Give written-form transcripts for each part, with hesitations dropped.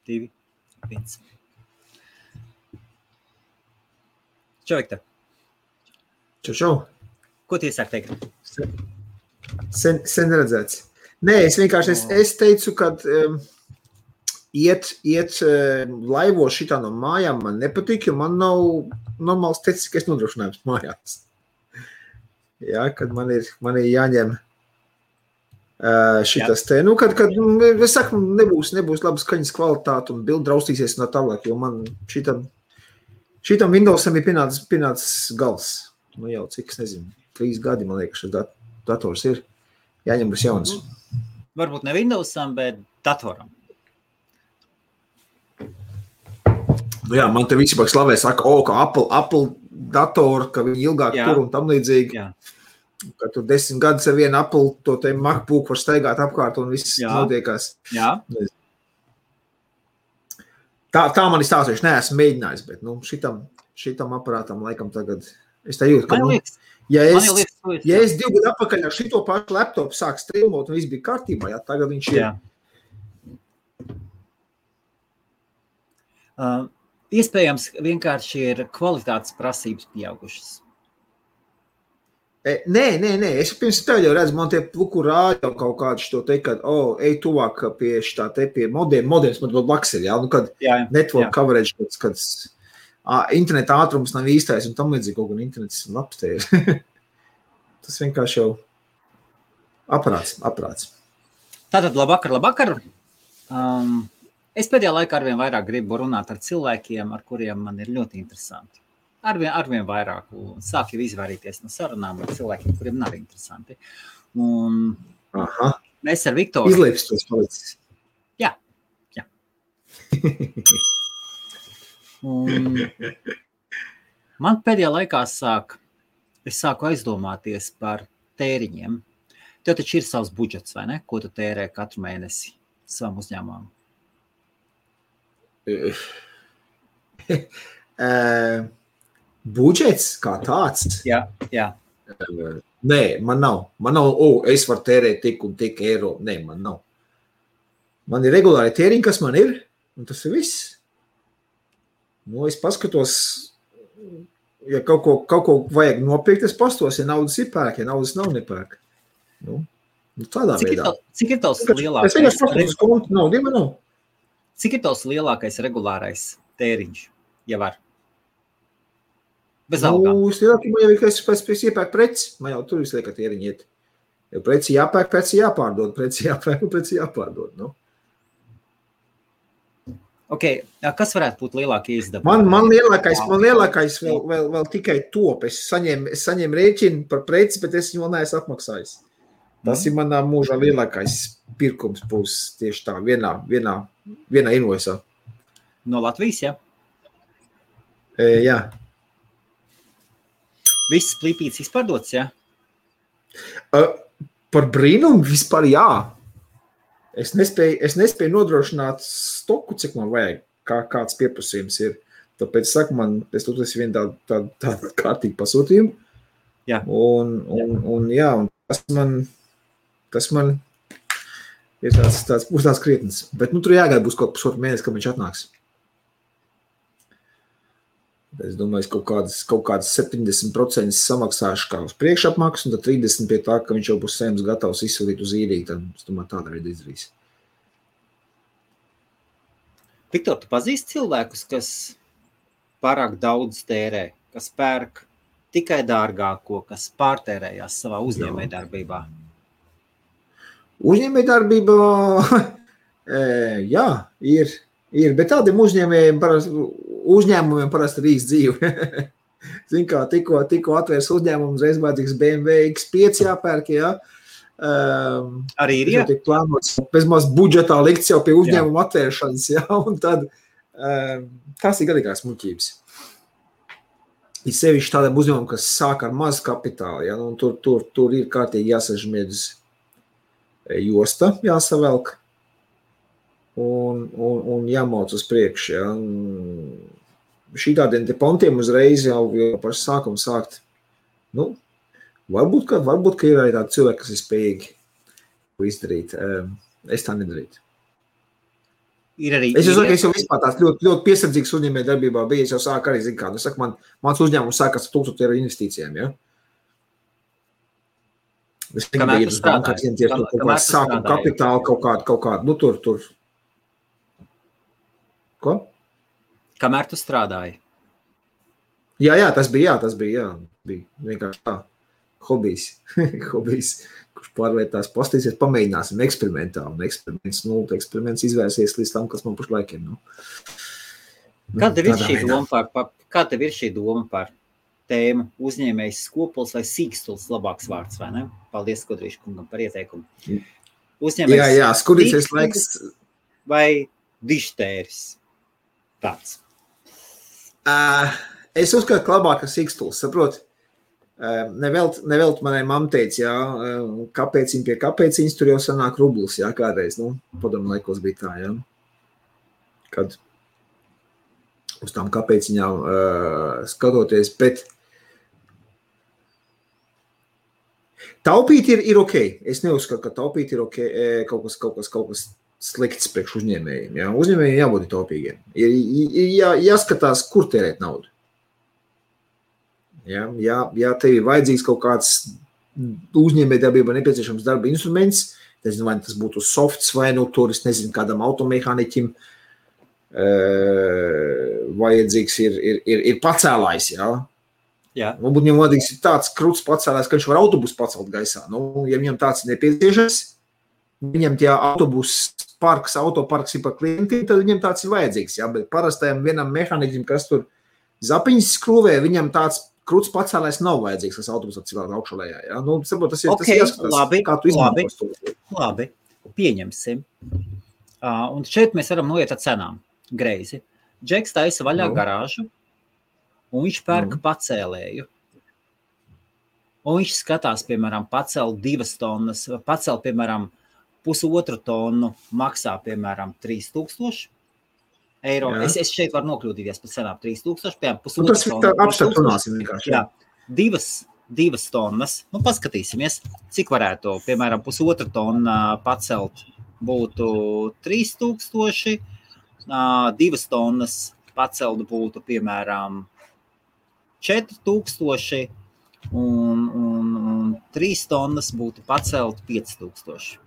2, 1. Čau, Viktor. Čau. Ko tu iesāk teikt? Sen redzēts. Nē, es vienkārši es teicu, ka iet laivos šitā no mājām man nepatīk, jo man nav normāls tehniskais nodrošinājums mājās. Jā, kad man ir jāņem šitas te, kad es saku, nebūs labas skaņas kvalitāte un bildi draustīsies no tālāk, jo man šitam Windowsam ir pienācis gals. Nu jau, cik es nezinu, 3 gadi, man liekas, šis dators ir. Jāņem būs jauns. Varbūt ne Windowsam, bet datoram. Nu jā, man te visi pak slavē saka, ka Apple datoru, ka viņi ilgāk tur un tam līdzīgi. Jā. Ka tur 10 gadus ar vienu Apple, to te MacBook var staigāt apkārt un viss notiekās. Jā. Tā man ir stāstoši, neesmu mēģinājis, bet šitam aparātam laikam tagad, es tā jūtu, ka, ja es 2 gadu atpakaļ ar šito pašu laptopu sāk streamot un viss bija kārtībā, jā, tagad viņš ir. Iespējams, vienkārši ir kvalitātes prasības pieaugušas. Nē, es pirms tev jau redzu, man tie pluku rāļa kaut kādu šo teikt, kad, ej tuvāk pie šitā te pie modems, man blakus ir, jā, nu, kad network coverage, kad interneta ātrums nav īstais un tam līdzīgi kaut gan internets labs te ir. Tas vienkārši jau aparāts. Tātad, labvakar. Es pēdējā laikā arvien vairāk gribu runāt ar cilvēkiem, ar kuriem man ir ļoti interesanti. Arvien vairāk un sāk jau izvairīties no sarunām ar cilvēkiem, kuriem nav interesanti. Un mēs ar Viktoru... Izliepst tos palicis. Jā. Un man pēdējā laikā es sāku aizdomāties par tēriņiem. Tev taču ir savs budžets, vai ne? Ko tu tērē katru mēnesi savam uzņēmumam? Budžets kā tāds? Jā. Nē, man nav. Es varu tērēt tik un tik eiro. Nē, man nav. Man ir regulāri tēriņi, kas man ir, un tas ir viss. Nu, es paskatos, ja kaut ko vajag nopirkt, es pastos, ja naudas ir pērk, ja naudas nav nepērk. Nu, tādā veidā. Cik ir tavs lielākais? Es vienkārši paskatos kontu, naudu nav. Cik ir tavs lielākais regulārais tēriņš, ja var? Bez algām. Es lielākajā jau ir, ka es pēc iepērk preci. Man jau tur visu liek, ka tēriņi iet. Jo preci jāpērk, preci jāpārdod, preci jāpērk un preci jāpārdod. Nu. Ok, kas varētu būt lielākie izdevumi? Man lielākais vēl tikai top. Es saņēmu rēķinu par preci, bet es viņu vēl neesmu apmaksājis. Tas ir manā mūžā lielākais pirkums būs tieši tā vienā invoisā. No Latvijas, ja? Jā. Viss plīpīts izpārdots, ja? Par brīnumu vispār jā. Es nespēju nodrošināt stoku, cik man vajag, kāds pieprasījums ir. Tāpēc saku man, es vienu tādu kārtīgu pasūtījumu. Jā. Un tas man ir tāds krietnes. Bet tur jāgaida būs kaut pusotru mēnesi, kad viņš atnāks. Es domāju, es kaut kādas 70% samaksāšu kā uz priekšapmaksu, un tad 30% pie tā, ka viņš jau būs saimnes gatavs izsūtīt uz īriju, tad es domāju, tāda veida izdarīs. Viktor, tu pazīsti cilvēkus, kas pārāk daudz tērē, kas pērk tikai dārgāko, kas pārtērējās savā uzņēmējdarbībā? Uzņēmējdarbībā, jā, ir, bet tādiem uzņēmumiem parasti ir īsts dzīve. Zin kā, tikko atvērs uzņēmumu, uzreiz vajadzīgs BMW X5 jāpērk, jā. Arī ir, jā? Tiek plānots, bezmaz budžetā likts jau pie uzņēmuma atvēršanas, jā, un tad tās ir galīgās muļķības. Ir sevišķi tādiem uzņēmumiem, kas sāk ar mazu kapitālu, jā, un tur ir kārtīgi jāsažmiedz josta, jāsavelk. Un jāmauc uz priekšu. Ja. Šī tādiem te pontiem uzreiz jau pašu sākumu sākt. Nu, varbūt, ka ir arī tādi cilvēki, kas ir spējīgi izdarīt. Es tā nedarītu. Ir arī Es jau vispār tāds ļoti piesardzīgs uzņēmē darbībā bija. Es jau sāku arī, zinu kā, saku, mans uzņēmums sākas ar 1000 eiro investīcijām, ja? Es Kamēr tu strādāji? Kaut kādu sākumu kapitālu, kaut kādu, nu tur. Ko? Kamēr tu strādāji? Jā, tas bija. Bija vienkārši tā. Hobijs, kurš pārvērtās postīsies, pamēģināsim eksperimentāli. Un eksperiments izvērsies līdz tam, kas man pašlaik ir. Kāda tev ir šī doma par tēmu uzņēmējs skopuls vai sīkstuls labāks vārds, vai ne? Paldies, Kodrīša kungam, par ieteikumu. Uzņēmējs jā, skurīsies laiks. Vai dištēris? Tāds. Es uzskatu, ka labāk ir sīkstuls, saproti? Nevelt manai mamma teica, jā, kāpēciņ pie kāpēciņas tur jau sanāk rublis, jā, kādreiz, padomu laikos bija tā, jā. Kad uz tām kāpēciņām skatoties, bet taupīt ir ok. Es neuzskatu, ka taupīt ir ok, kaut kas slikts priekš uzņēmējiem, jā. Uzņēmējiem jābūt taupīgiem. Ir jāskatās, kur tērēt naudu. Ja tev ir vajadzīgs kaut kāds uzņēmējdarbībā nepieciešams darba instruments, nezinu, vai tas būtu softs vai tur, es nezinu, kādam automehāniķim vajadzīgs ir pacēlājs, jā. Jā. Varbūt viņam vajadzīgs ir tāds kruts pacēlājs, ka viņš var autobusu pacelt gaisā. Ja viņam tāds ir nepieciešams, viņam tie autoparks ir par klientiem, tad viņam tāds ir vajadzīgs, jā. Bet parastajam vienam mehāniķim, kas tur zapiņas skrūvē, viņam tāds kruts pacēlājs nav vajadzīgs, kas autobusu atcilāk augšalējā. Ja? Saprot, tas jāskatās, kā tu izmantos to. Labi, pieņemsim. Un šeit mēs varam noiet ar cenām. Greizi. Džeks taisa vaļā garāžu, un viņš pērk pacēlēju. Un viņš skatās, piemēram, pacel 2 tonnas, pacel, piemēram, 1,5 tonu, maksā, piemēram, 3000 eiro. Es šeit varu nokļūdīties par cenām 3000, piemēram, 1,5 tonu. Apstāt runāsim vienkārši. Jā, 2 tonnas. Paskatīsimies, cik varētu, piemēram, 1,5 tonu pacelt būtu 3000, 2 tonnas pacelt būtu, piemēram, 4000 un 3 tonnas būtu pacelt 5000.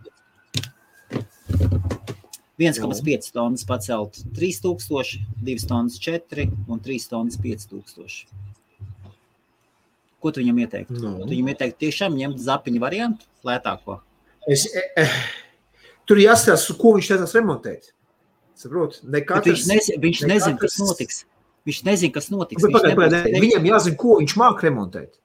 1,5 tonnas pacelt 3000, 2 tonnas 4 un 3 tonnas 5000. Ko tu viņam ieteiktu? Tu viņam ieteiktu tiešām ņemt zapiņu variantu, lētāko? Tur jāstāsta, ko viņš taisās remontēt. Saprot? Viņš nezin, kas notiks. Viņš nezin, kas notiks. Viņam jāzina, ko viņš māk remontēt.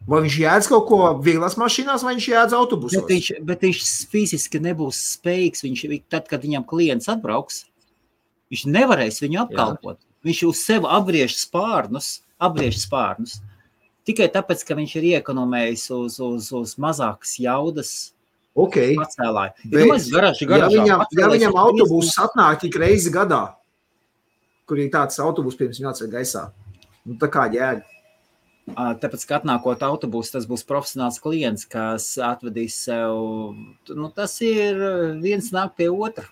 Vai viņš jēdz kaut ko vieglās mašīnās, vai viņš jēdz autobusos? Bet viņš fiziski nebūs spējīgs. Tad, kad viņam klients atbrauks, viņš nevarēs viņu apkalpot. Viņš uz sevi apgriež spārnus. Tikai tāpēc, ka viņš ir iekonomējis uz mazākas jaudas pacēlāju. Ja viņam autobuss atnāk tik reizi gadā, kur ir tāds autobus, pirms viņu atsver gaisā, tā kā jēga. Tāpēc, ka atnākot autobusu, tas būs profesionāls klients, kas atvedīs sev, tas ir viens nāk pie otra.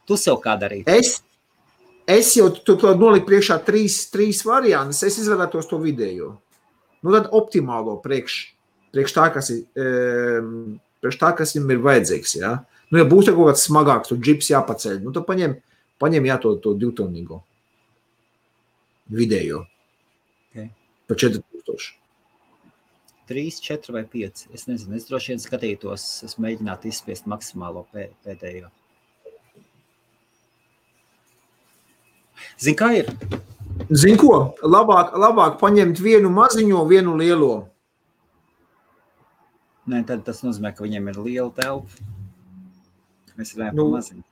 Tu sev kā darīt? Es jau tu noliku priekšā trīs variantus, es izvēlētos to vidējo. Tad optimālo priekš tā, kas viņam ir vajadzīgs, jā. Ja būs kaut kāds smagāks, tu džips jāpaceļ, tad paņem to 2-tonnīgo vidējo. Par 4000. 3, 4 vai 5. Es nezinu, es droši vien skatītos, es mēģinātu izspiest maksimālo pēdējo. Zini, kā ir? Zini ko? Labāk paņemt vienu maziņo, vienu lielo. Nē, tad tas nozīmē, ka viņiem ir liela telpa. Mēs runājam par maziņu.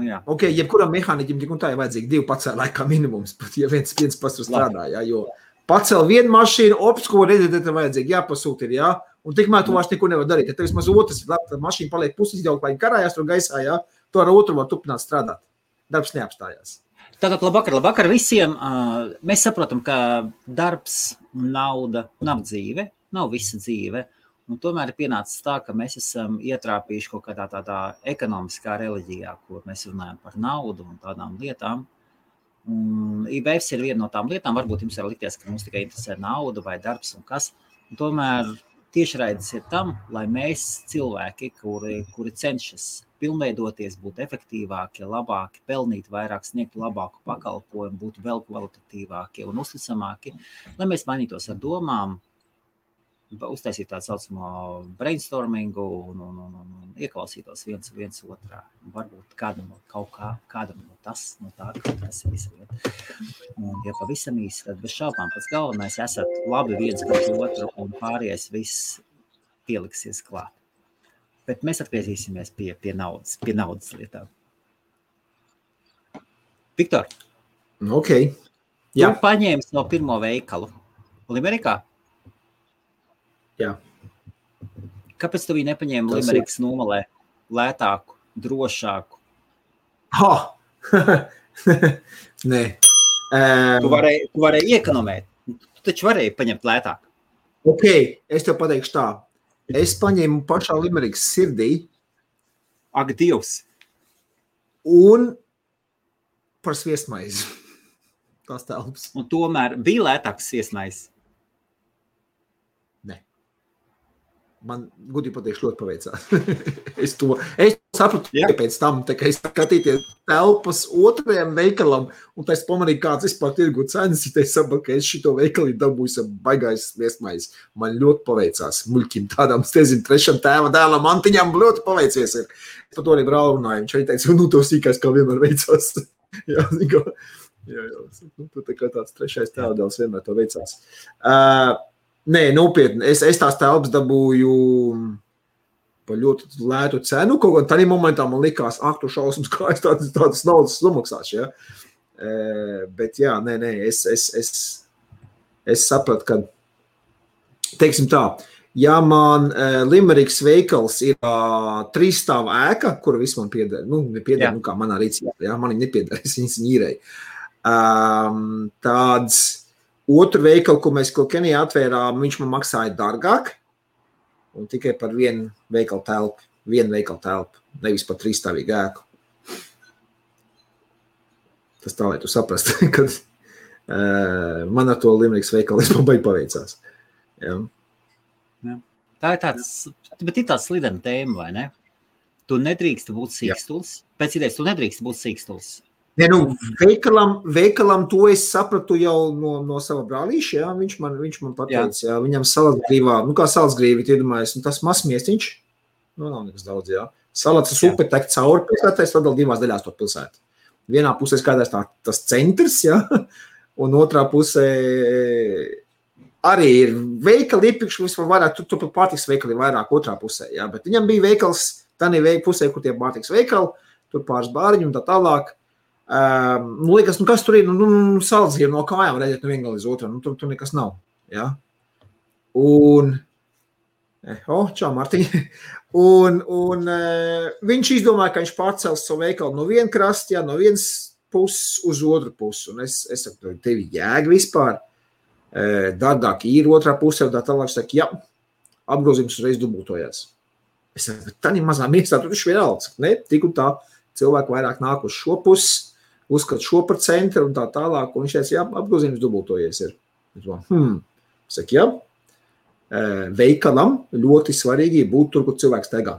Jā. Jebkuram mehāniķim tik un tā ir vajadzīgi 2 pacēlāji kā minimums, pat ja viens pats tur strādā, jā, jo pacēl vienu mašīnu, ko redzēt, tad vajadzīgi jāpasūt ir, jā, un tikmēr tu vairs neko nevar darīt. Ja tev vismaz otrs ir labi, tad mašīna paliek puses izjaukt, lai karājās tur gaisā, jā, tu ar otru var turpināt strādāt. Darbs neapstājās. Tātad labvakar visiem. Mēs saprotam, ka darbs un nauda nav dzīve, nav visa dzīve. Un tomēr ir pienācis tā, ka mēs esam ietrāpījuši kaut kādā tādā ekonomiskā reliģijā, kur mēs runājam par naudu un tādām lietām. Un IBFs ir viena no tām lietām, varbūt jums var likties, ka mums tikai interesē nauda vai darbs un kas. Un tomēr tiešraides ir tam, lai mēs cilvēki, kuri cenšas pilnveidoties, būt efektīvāki, labāki, pelnīt vairāk, sniegt labāku pakalpojumu, būt vēl kvalitatīvāki un uzticamāki, lai mēs mainītos ar domām, uztaisīt tādu saucamo brainstormingu un ieklausītos viens otrā. Varbūt kādam no tā, tas ir visa lieta. Un, ja pavisam īsi, tad bez šaubām pats galvenais esat labi viens pret otru un pārējais viss pieliksies klāt. Bet mēs atgriezīsimies pie naudas lietām. Viktor, Ok. Jā. Tu paņēmi no pirmo veikalu Limerikā? Jā. Kāpēc tu viņu nepaņēmi Limerikas nomalē lētāku, drošāku? Nē. Tu varēji iekonomēt. Tu taču varēji paņemt lētāk. Ok, es tev pateikšu tā. Es paņēmu pašā Limerikas sirdī. Ak, Dievs! Un par sviestmaizi. Tās telpas. Un tomēr bija lētāks sviestmaizi. Nē. Man, gudīgi pateikšu, ļoti paveicās. es sapratu, pēc tam, tā kā es skatīties telpas otrajam veikalam, un tā es pamanīju, kāds vispār tirgu cenas, ja es sapratu, ka es šito veikali dabūju baigais sviestmaizi. Man ļoti paveicās. Muļķim tādām, trešam tēva dēlam Antiņam ļoti paveicies ir. Es par to arī brāli runāju. Viņš arī teica, to sīkais kā vienmēr veicās. Jā. Tā kā tāds trešais tēva dēls vienmēr to veicās. Nē, nopietni. Es tās telpas dabūju par ļoti lētu cenu. Kaut kā tādā momentā man likās, tu šausmas, kā es tādas naudas samaksāšu. Ja? Bet jā, nē, es sapratu, ka, teiksim tā, ja man Limerikas veikals ir 3 stāvu ēka, kura viss man pieder, nepieder, kā manā rīcībā, ja? Man viņa nepieder, es viņas ņīrēju. Tāds otru veikalu, ko mēs Kenijā atvērām, viņš man maksāja dārgāk un tikai par vienu veikalu telpu, nevis par 3-stāvīgu ēku. Tas tā, lai tu saprast, kad man ar to Limerikas veikalu es man baigi paveicās. Jā. Tā ir tāds slidena tēma, vai ne? Tu nedrīkst būt sīkstuls. Pēc idejas, tu nedrīkst būt sīkstuls. Nē, veikalam to es sapratu jau no sava brālīša, jā, viņš man pateica, jā, viņam salatgrīvā, kā salatgrīvi, iedomājies, tas mazmiestiņš, nav nekas daudz, jā. Salats upe tek cauri pilsētā, es sadal 2 daļās to pilsētu. Vienā pusē skatās tas centrs, jā, un otrā pusē arī ir veikali iepirkš, vispār vairāk, tur pārtiks veikali vairāk otrā pusē, jā, bet viņam bija veikals, tā pusē, kur tie pārtiks veikali, tur pāris bāriņi un tā tālāk. Liekas, kas tur ir, saldzgrieva no kājām redzēt no viena līdz otram, tur nekas nav, jā. Un, čau, Martiņ. Un viņš izdomāja, ka viņš pārcels savu veikalu no viena krasta, jā, no vienas puses uz otru pusi. Un es saku, tevi jēga vispār, dārgāk ir otrā pusē, un tā tālāk, saku, jā, apgrozījums uzreiz dubultojās. Es saku, tā ir mazā miestā, tur taču vienalga, ne, tik un tā, cilvēki vairāk nāk uz šo pusi, uzskat šo par centru un tā tālāk, un viņš teica, jā, apgrozījums dubultojies ir. Saka, jā, veikalam ļoti svarīgi būt tur, kur cilvēks steigā.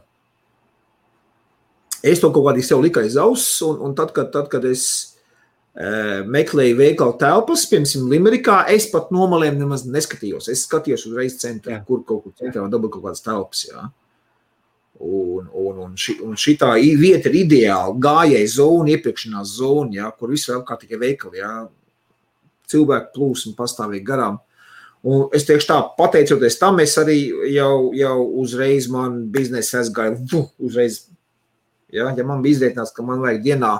Es to kaut kādī sev liku aiz auss, un tad, kad es meklēju veikalu telpas, piemēram, Limerikā, es pat nomalēm nemaz neskatījos. Es skatījos uzreiz centrā, kur kaut kur centrā dabūt kaut kādas telpas, jā. Un šitā vieta ir ideāla gājēja zona, iepirkšanās zona, ja, kur viss vēl kā tikai veikali, ja, cilvēku plūsmu pastāvīgi garām. Un es teikšu tā, pateicoties tam, es arī jau uzreiz man biznesa aizgāju, uzreiz, ja man bija izrēķināts, ka man vajag dienā,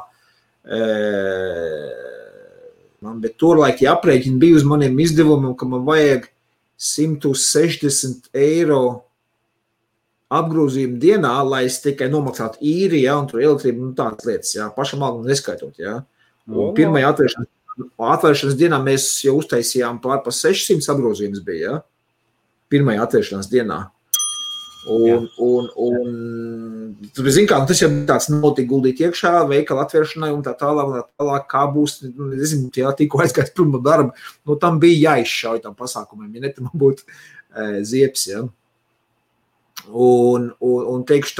bet turlaik aprēķini bija uz maniem izdevumiem, ka man vajag 160 eiro apgrozījumu dienā, lai es tikai nomaksātu īri, ja, un tur elektrību, tādas lietas, ja, pašam algu neskaitot, ja. Un pirmajā atvēršanas dienā mēs jau uztaisījām pār pa 600 apgrozījumus bija, ja, pirmajā atvēršanās dienā. Tas jau tāds nav tik guldīt iekšā, veikala atvēršanai un tā tālāk, kā būs, nezinu, tikko aizgājis prom no darba, tam bija jāizšauj tam pasākumiem, ja ne, tam būtu zieps, ja. Un teikšu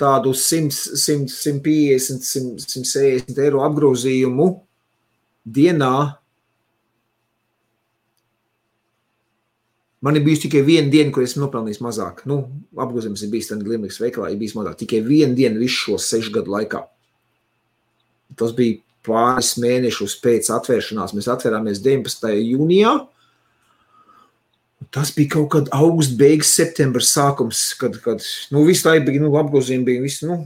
tādu 150, 160 eiro apgrozījumu dienā. Man ir bijusi tikai viena diena, kur esmu nopelnījis mazāk. Apgrozījums ir bijis tādā Glimliks veikalā, ir bijis mazāk. Tikai viena diena visu šo 6 gadu laikā. Tas bija pāris mēnešus pēc atvēršanās. Mēs atvērāmies 19. jūnijā. Tas bija kaut kad augusts, beigas, septembra sākums, kad visu laiku bija, apgrozījumi bija visu,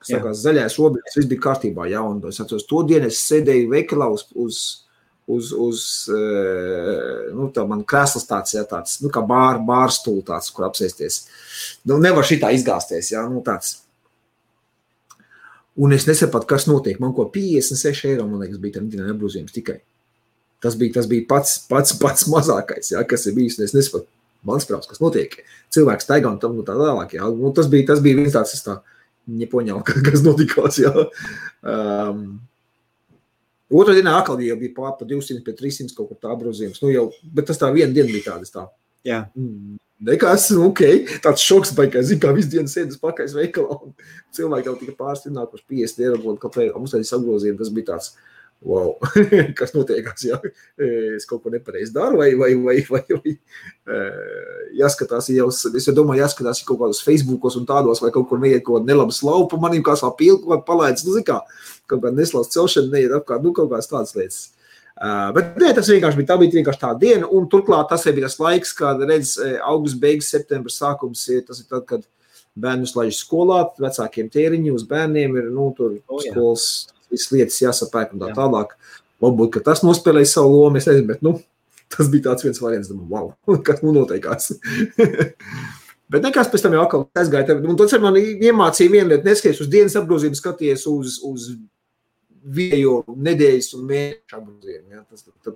sakās, zaļais robežas, viss bija kārtībā, jā, un es atceros, to dienu es sēdēju veikalā tā man krēsls tāds, jā, tāds, kā bārstūli tāds, kur apsēsties. Nevar šitā izgāsties, jā, tāds. Un es nesapratu, kas notiek. Man ko 56 eiro, man liekas, bija tam dienā apgrozījums tikai. Tas bija pats mazākais, jā, kas ir bijis. Es nesapratu, mans prāvs, kas notiek. Cilvēks taigā un tam tā tālāk, jā. Tas bija viens tāds, es tā nepoņēmu, kas notikās, jā. Otrā dienā atkal jau bija pār pa 200, pie 300 kaut kur tā apgrozījums. Bet tas tā viena diena bija tādas tā. Jā. Nekas, tāds šoks baigās, zin, kā visu dienu sēdas pakaļ veikalā. Un cilvēki jau tika pārstināt, 50 eiro, kāpēc mums tādas apgrozījumi, tas bija tāds, wow, kas notiekās, jā. Es kaut ko nepareizi daru, vai jāskatās, es jau domāju, jāskatās kaut kādos Facebookos un tādos, vai kaut kur neiet kaut kāda nelaba slavu pa manim, kā sā pilku, vai palaidz, zin kā, kaut kāda neslauts celšana neiet apkārt, kaut kādas tādas lietas. Bet nē, tas vienkārši bija, tā bija vienkārši tā diena, un turklāt tas bija tas laiks, kad redz augusts, beigas, septembra sākums, tas ir tad, kad bērnus laiž skolā, vecākiem tēriņi uz bērniem ir, tur skolas, visas lietas jāsapērk un tā tālāk. Varbūt, ka tas nospēlēja savu lomu, es nezinu, bet, tas bija tāds viens variants, wow, kas noteikās. Bet nekas pēc tam jau atkal aizgāja, un tas ar mani iemācīja vienu lietu, neskaties uz dienas apgrozījumu, skaties uz viejo nedēļas un mēnešu apgrozījumu, ja?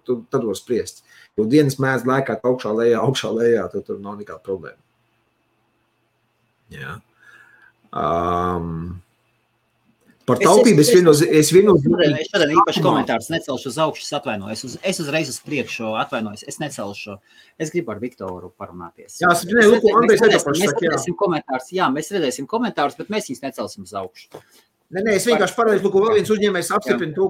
Tad var spriest. Jo dienas mēdz lēkāt augšā lejā, tur nav nekāda problēma. Jā. Par taupību es šodien īpaši komentārus necelšu uz augšu, atvainojos. Es uzreiz uz priekšu atvainojos, es necelšu. Es gribu ar Viktoru parunāties. Jā, mēs redzēsim komentārus, bet mēs viņus necelsim uz augšu. Nē, es vienkārši pareizi, vēl viens uzņēmējs apstiprina to,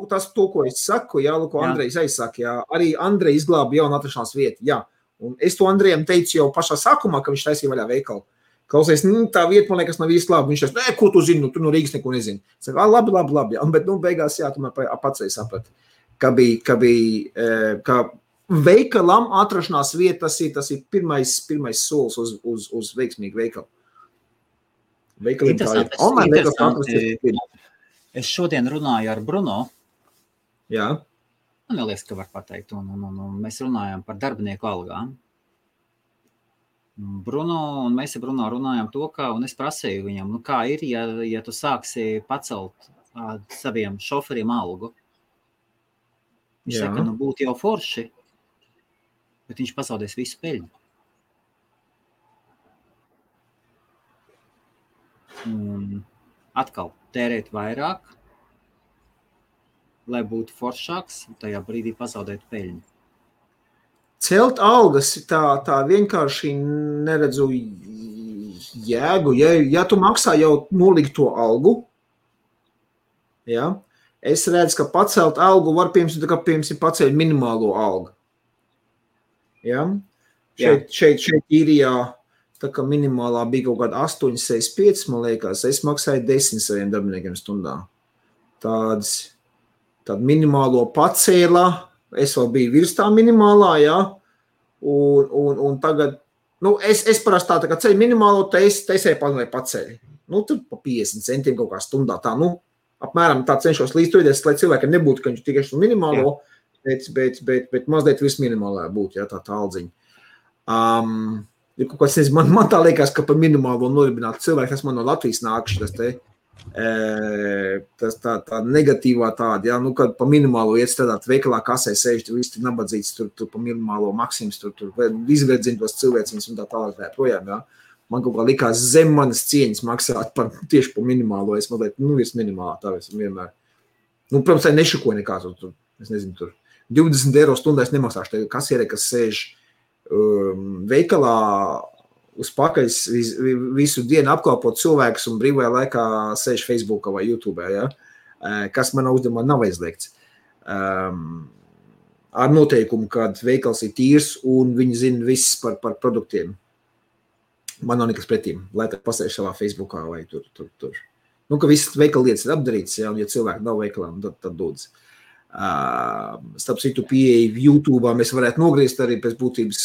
ko es saku, jā, Andrejs aizsaka, jā. Arī Andrej izglāba jaunu atrašanās vietu, jā. Un es to Andrejam teicu jau pašā sākumā, ka viņš taisīja vaļā veikalu. Klausies, tā vieta, man liekas, nav īsti labi. Viņš teica, ko tu zini, tu no Rīgas neko nezini. Es saku, labi, jā. Bet, beigās, jā, tomēr pats saprati, ka veikalam atrašanās vieta, tas ir pirmais solis uz veiksmīgu veikalu. Interesanti. Es šodien runāju ar Bruno. Jā. Man liekas, ka var pateikt. Un mēs runājām par darbinieku algām. Bruno un mēs ar Bruno runājām to, un es prasīju viņam, kā ir, ja tu sāksi pacelt saviem šoferiem algu. Viņš saka, būtu jau forši, bet viņš pazaudēs visu peļņu. Un atkal tērēt vairāk, lai būtu foršāks, un tajā brīdī pazaudēt peļņu. Celt algas tā vienkārši neredzu jēgu. Ja tu maksā jau nolikto algu, ja, es redzu, ka pacelt algu var piemēram pacelt minimālo algu. Ja? Šeit īrijā tā kā minimālā bija kaut kāda 8,65, man liekas, es maksāju 10 saviem darbiniekiem stundā. Tādu minimālo pacēlā, es vēl biju virs tā minimālā, jā, un tagad, es parasti tā kā ceļu minimālo, taisēju pacēļi. Tur pa 50 centiem kaut kā stundā, apmēram tā cenšos līdztoties, lai cilvēkiem nebūtu, ka viņš tikai šo minimālo, bet mazliet virs minimālā būtu, jā, tā aldziņa. Ja kaut kāds, man tā liekas, ka par minimālo noribinātu cilvēku, tas man no Latvijas nākuši, tas te Tas tā negatīvā tāda, ja, nu, kad pa minimālo iet strādāt veikalā, kasē sēž, visi tur nabadzīts, tur pa minimālo Maksims, tur izverdzina tos cilvēciņus un tā tālāk tā projām, ja. Man kaut kā likās zem manas cieņas maksāt tieši pa minimālo, es mazliet, virs minimālā, tā es vienmēr. Nu, protams, tā nešukoja nekā, tur, es nezinu, tur 20 eiro stundā es nemaksāšu, tā kasiere, kas sēž veikalā uz pakaļ visu dienu apkalpot cilvēkus un brīvajā laikā sēž Facebookā vai YouTube, ja? Kas manā uzdevumā nav aizliegts. Ar noteikumu, kad veikals ir tīrs un viņi zina viss par produktiem. Man nav nekas pretīm, lai tā pasēž savā Facebookā vai tur. Nu, ka visas veikala lietas ir apdarītas, ja, un ja cilvēki nav veikalā, tad dodz. Starp citu pieeja YouTube'ā mēs varētu nogriezt arī pēc būtības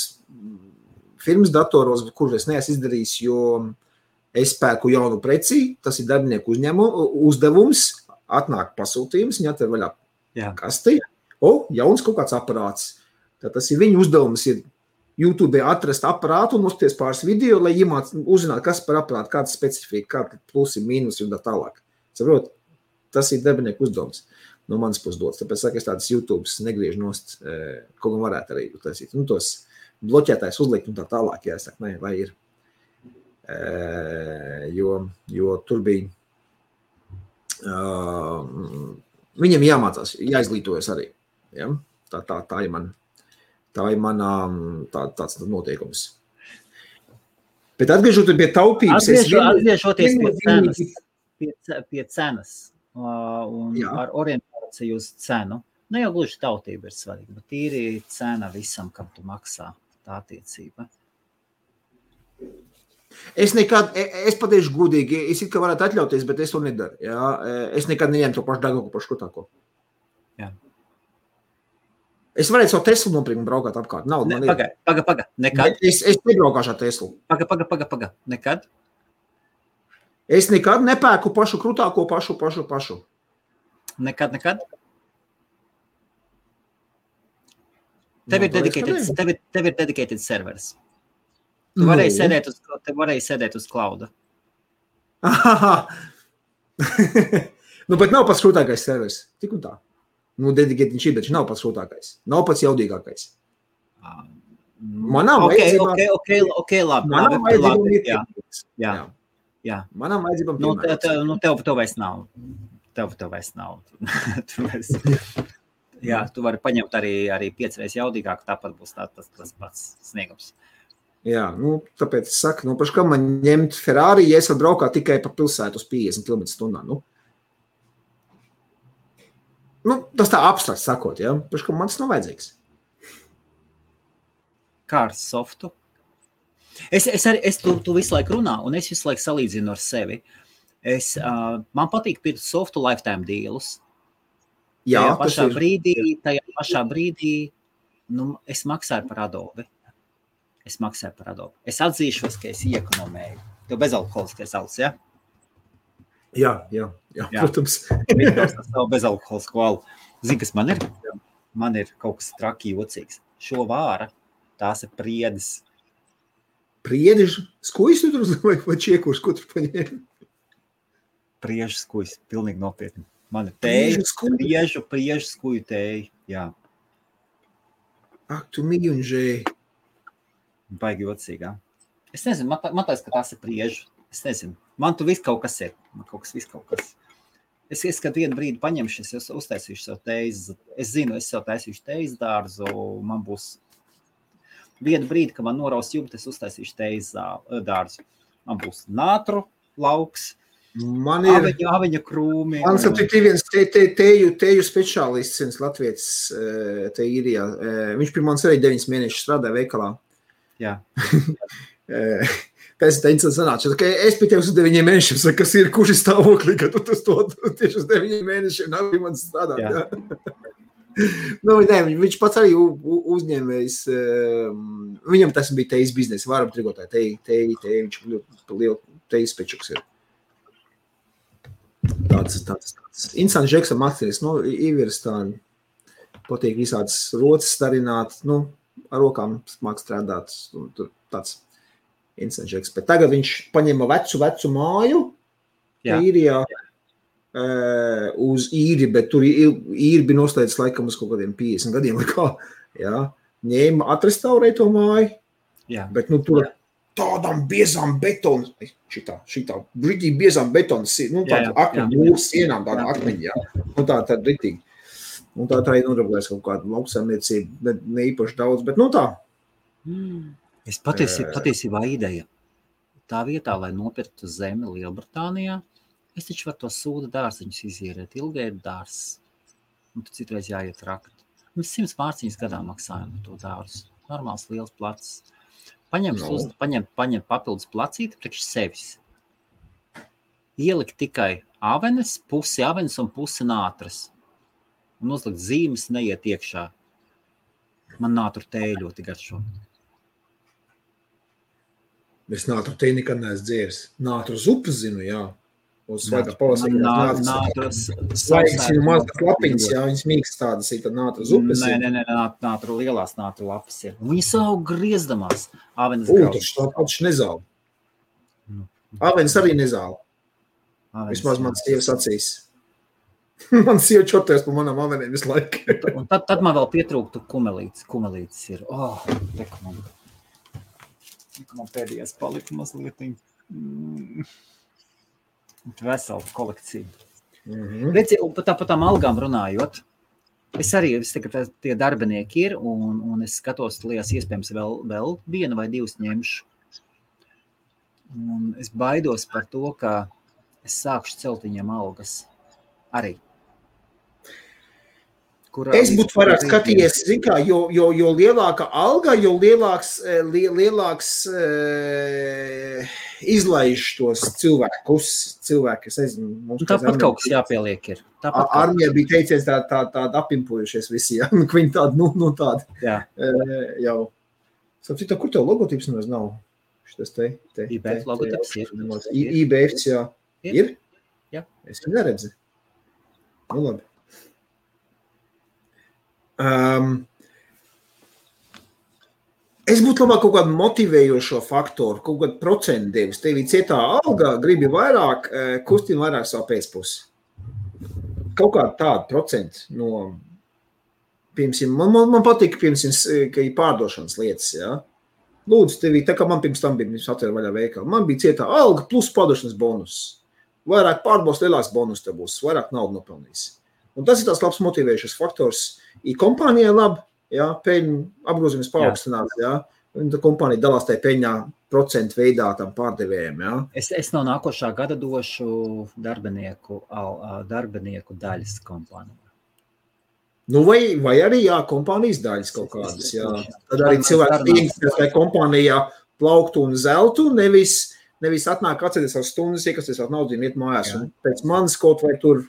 firmas datoros, kur es neesmu izdarījis, jo es pērku jaunu preci, tas ir darbinieku uzdevums, atnāk pasūtījums, viņi atver vaļā kasti, jauns kaut kāds aparāts. Tad tas ir viņu uzdevums, ir YouTube atrast aparātu un uzties pāris video, lai uzzināt, kas par aparātu, kāda specifika, kāda plusi, mīnusi un tā tālāk. Saprot, tas ir darbinieku uzdevums no manas puses dots. Tāpēc saka, es tādas YouTubes negriežu nost, kaut gan varētu arī taisīt. Nu, tos bloķētājs uzlikt un tā tālāk, jāsaka, ne, vai ir. Jo tur bija, viņam jāmācās, jāizglītojas arī. Ja? Tā ir man. Tā ir tāds noteikums. Bet atgriežoties pie taupības... Atgriežoties pie cenas un ar orientāciju uz cenu. Ne jau gluži tautība ir svarīga, bet tīri cena visam, kam tu maksā tā attiecība. Es pateikšu godīgi, es it kā varētu atļauties, bet es to nedaru. Ja? Es nekad neņemu to pašu dārgāko, pašu škotāko. Jā. Es varētu savu Teslu nopirkt un braukāt apkārt. Paga. Nekad? Es nebraukāšu ar Teslu. Paga. Nekad? Es nekad nepērku pašu krutāko, pašu. Nekad? Tev ir dedicated servers. Tu varēji sēdēt uz clouda. Nu, bet nav pats krutākais servers. Tik un tā. Nu, dedicated viņš ir, bet viņš nav pats sūtākais. Nav pats jaudīgākais. Man nav vajadzībām. Ok, labi. Man nav vajadzībām. Jā. Man nav vajadzībām. Tev vairs nav. Jā, tu vari paņemt arī 5 reizes jaudīgāku, tāpat būs tas pats sniegums. Jā, nu, tāpēc es saku, paši kā man ņemt Ferrari, ja es varu braukāt tikai pa pilsētu uz 50 km/h, Nu, tas tā abstrakts sakot, ja? Paši, ka man tas nav vajadzīgs. Kā ar softu? Tu visu laiku runā, un es visu laiku salīdzinu ar sevi. Man patīk pirkt softu lifetime dealus. Jā, tajā pašā brīdī es maksāju par Adobe. Es atzīšos, ka es iekonomēju. Tev bezalkoholiskais alus, ja? Jā, protams. Tas nav bezalkoholisku alu. Zini, kas man ir? Man ir kaut kas traki jocīgs. Šo vāra, tās ir priedes. Priedes? Skujs tu tur vai čiekurs, ko tu paņēmi? Priežu skujs, pilnīgi nopietni. Man ir tēja, priežu skuju tēja, jā. Ak, tu mīļunžēji. Baigi jocīgā. Es nezinu, man tās, ka tās ir priežu. Es nezinu. Man tu viss kaut kas ir. Man kaut kas. Es kad vienu brīdi paņemšu, es uztaisīšu savu teizi. Es zinu, es sev taisīšu teizi dārzu. Man būs vienu brīdi, kad man noraus jumti, es uztaisīšu teizi dārzu. Man būs nātru lauks, aviņa krūmi. Man ir viens teju speciālists, viens latvietis te īrijā. Viņš pie manis arī 9 mēnešus strādāja veikalā. Jā. Pēc tā interesanti sanāca, ka es pie tev uz 9 mēnešiem saku, kas ir, kurš ir stāvoklī, ka tu to tieši uz 9 mēnešiem nav man strādāt. Jā. Nu, ne, viņš pats arī uzņēmējs, viņam tas bija tejas biznesa, varam trigotāji, viņš lielu tejas pečuks ir. Tāds. Interesants žeks ar mākslinieks, ievirs tā, patīk visādas roces starināt, ar rokām māk strādāt, tur tāds. Bet tagad viņš paņēma vecu māju, īrijā uz īri, bet tur īri bija noslēdzis laikam uz kaut kādiem 50 gadiem, jā, ņēma, atrestaurēja to māju, bet, tur tādām biezām betonu, šitā, brīdī biezām betonas, tāda akmeņu mūras sienām, tāda akmeņi, tāda ritīgi. Un tā ir nodarbojas kaut kāda lauksaimniecība, bet ne īpaši daudz, bet tā. Es patiesībā ideja. Tā vietā, lai nopirktu zemi Lielbritānijā, es taču varu to sūda dārziņus izierēt, ilgai dārs. Un tu citreiz jāiet rakt. Mēs 100 mārciņas gadā maksājam to dārzu. Normāls liels placis. Paņem papildus placīti priekš sevis. Ielikt tikai avenes, pusi avenes un pusi nātras. Un uzlikt zīmes, neiet iekšā. Man nātru tēja ļoti garšo. Es nātru tēju nekad neesmu dzēris. Nātru zupas zinu, jā. Uz svaigā pavasarī. Svaigas mazas lapiņas, jā, viņas mīkst tādas, ir tad nātru zupas. Nē, nātru lielās nātru lapas ir. Viņas aug griezdamās. Avenes taču nezāla. Avenes arī nezāla. Vismaz man sievas acīs. Man sieva čoties pa manām aveniem visu laiku. Un tad man vēl pietrūktu kumelītes. Kumelītes ir, man pēdējās palika mazliet. Vesela kolekcija. Redzi, un par tām algām runājot, es tagad tie darbinieki ir, un es skatos, liekas, iespējams vēl vienu vai divas ņemšu. Un es baidos par to, ka es sākšu celt viņiem algas arī. Es būtu vairāk skatījies, zin kā, jo lielāka alga, jo lielāks izlaiž tos cilvēkus, es nezinu. Tāpat kaut kas jāpieliek ir. Armija bija teicies tāda apimpojušies visi, jā, viņi tādi, tādi. Jā. Jau. Sapcīt, kur tev logotips nemaz nav? Šitas te. IBF logotips ir. IBF, jā. Ir? Jā. Es viņu neredzi. Nu, labi. Es būtu labāk kaut kādu motivējošo faktoru, kaut kādu procentu devis. Tev ir cietā alga, gribi vairāk, kustina vairāk savu pēcpusi. Kaut kādu tādu procentu no, piemēram, man patīk, piemēram, ka ir pārdošanas lietas, jā. Lūdzu, tev tā kā man pirms tam bija atvēr vaļā veikala. Man bija cietā alga plus pārdošanas bonus. Vairāk pārbaus, lielāks bonus tev būs, vairāk naudu nopelnīs. Un tas ir tās labs motivējušas faktors. I kompānijai labi, jā, peļņu apgrozījums paaugstināt, jā. Un tā kompānija dalās tajā peļņā procentu veidā tam pārdevējiem, jā. Es no nākošā gada došu darbinieku daļas kompānijā. Nu, vai arī, jā, kompānijas daļas kaut kādas, jā. Tad arī cilvēki tīņas, lai kompānijā plauktu un zeltu, nevis atnāk atceries ar stundas, iekasties ar naudu un iet mājās. Un pēc manis kaut vai tur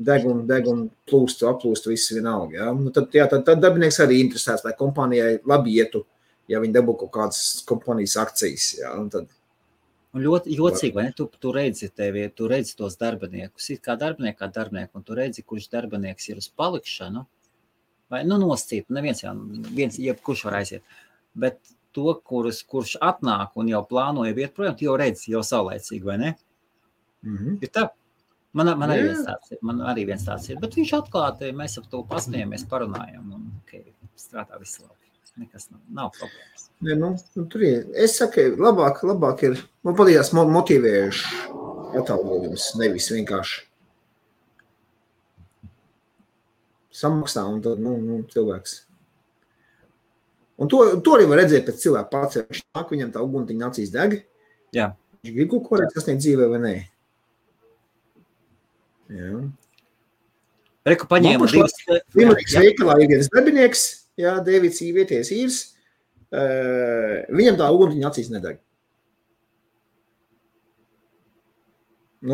deg un aplūst viss vienalga. Ja? Nu, tad darbinieks arī interesēts, lai kompānijai labi ietu, ja viņi dabū kaut kādas kompānijas akcijas. Ja? Un ļoti jocīgi, vai ne? Tu redzi tos darbiniekus, it kā darbinieku, un tu redzi, kurš darbinieks ir uz palikšanu, vai noscīt, jebkurš var aiziet, bet to, kurš atnāk un jau plānoja iet projām, tu jau redzi, jau saulēcīgi, vai ne? Ir tā. Man arī viens tāds ir, bet viņš atklāti, mēs ap to pasmējamies, parunājam, un strādā viss labi. Nekas nav problēmas. Ne, tur ir. Es saku, labāk ir, man patīkās motivējuši atalgojums, nevis vienkārši samaksā, un tad, cilvēks. Un to arī var redzēt pēc cilvēka pats, viņš nāk, viņam tā uguntiņa acīs deg. Jā. Viņš grib kaut ko redz, kas sniedz dzīvē vai nē. Jā. Reku paņēma divas. Limerīgas veikalā ir viens darbinieks, jā, Dēvids vieties īrs, viņam tā uguntiņa acīs nedeg.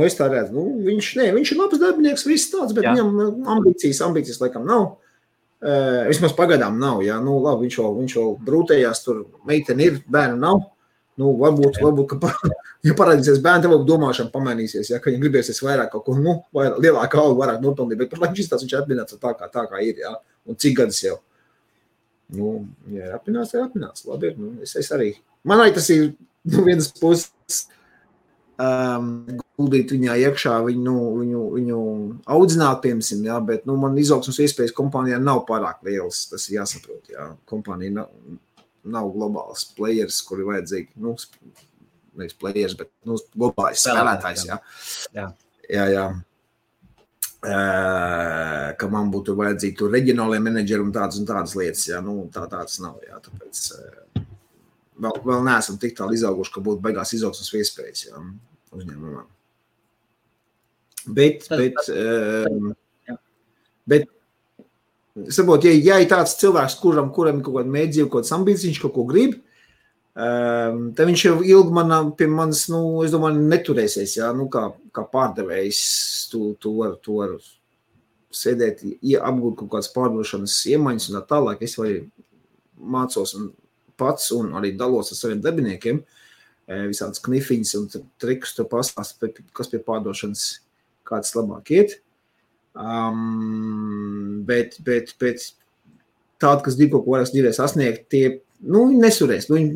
Es tā redzu, viņš ir labs darbinieks, viss tāds, bet viņam ambīcijas laikam nav. Vismaz pagaidām nav, jā, labi, viņš vēl brūtējās, tur meiteni ir, bērnu nav. Varbūt, ka ja parādīsies bērni, tev domāšana pamainīsies, ja, ka viņam gribēsies vairāk kaut ko, lielāka alga, vairāk nopelnīt, bet par laiku šis viņš ir apmināts tā kā ir, jā, un cik gadus jau. Ja ir apmināts, labi ir, es arī. Man arī tas ir, vienas puses, guldīt viņā iekšā, viņu audzināt, piemēram, jā, bet man izaugsmas iespējas kompanijā nav pārāk lielas, tas ir jāsaprot, jā. Kompanija nav globāls players, kuri vajadzīgi, nevis players, bet globāls spēlētājs, jā. Jā. Ka man būtu vajadzīgi tur reģionālie menedžeri un tādas lietas, jā, tāds nav, jā, tāpēc vēl neesam tik tālu izauguši, ka būtu baigās izaugsmas iespējas, jā, uzņēmumam. Bet saprot, ja ir tāds cilvēks, kuram ir kaut kāda mēdzība, kaut kāds ambīcijas, viņš kaut ko grib, tad viņš jau ilgi pie manis, es domāju, neturēsies, jā, kā pārdevējs, tu var sēdēt, apgūt kaut kādas pārdošanas iemaņas un tā tālāk, es vai mācos pats un arī dalos ar saviem darbiniekiem, visādas knifiņas un trikus tur pastāst, kas pie pārdošanas kāds labāk iet, bet tādi, kas grib kaut ko vairāk dzīvē sasniegt, tie viņi nesurēs. Viņi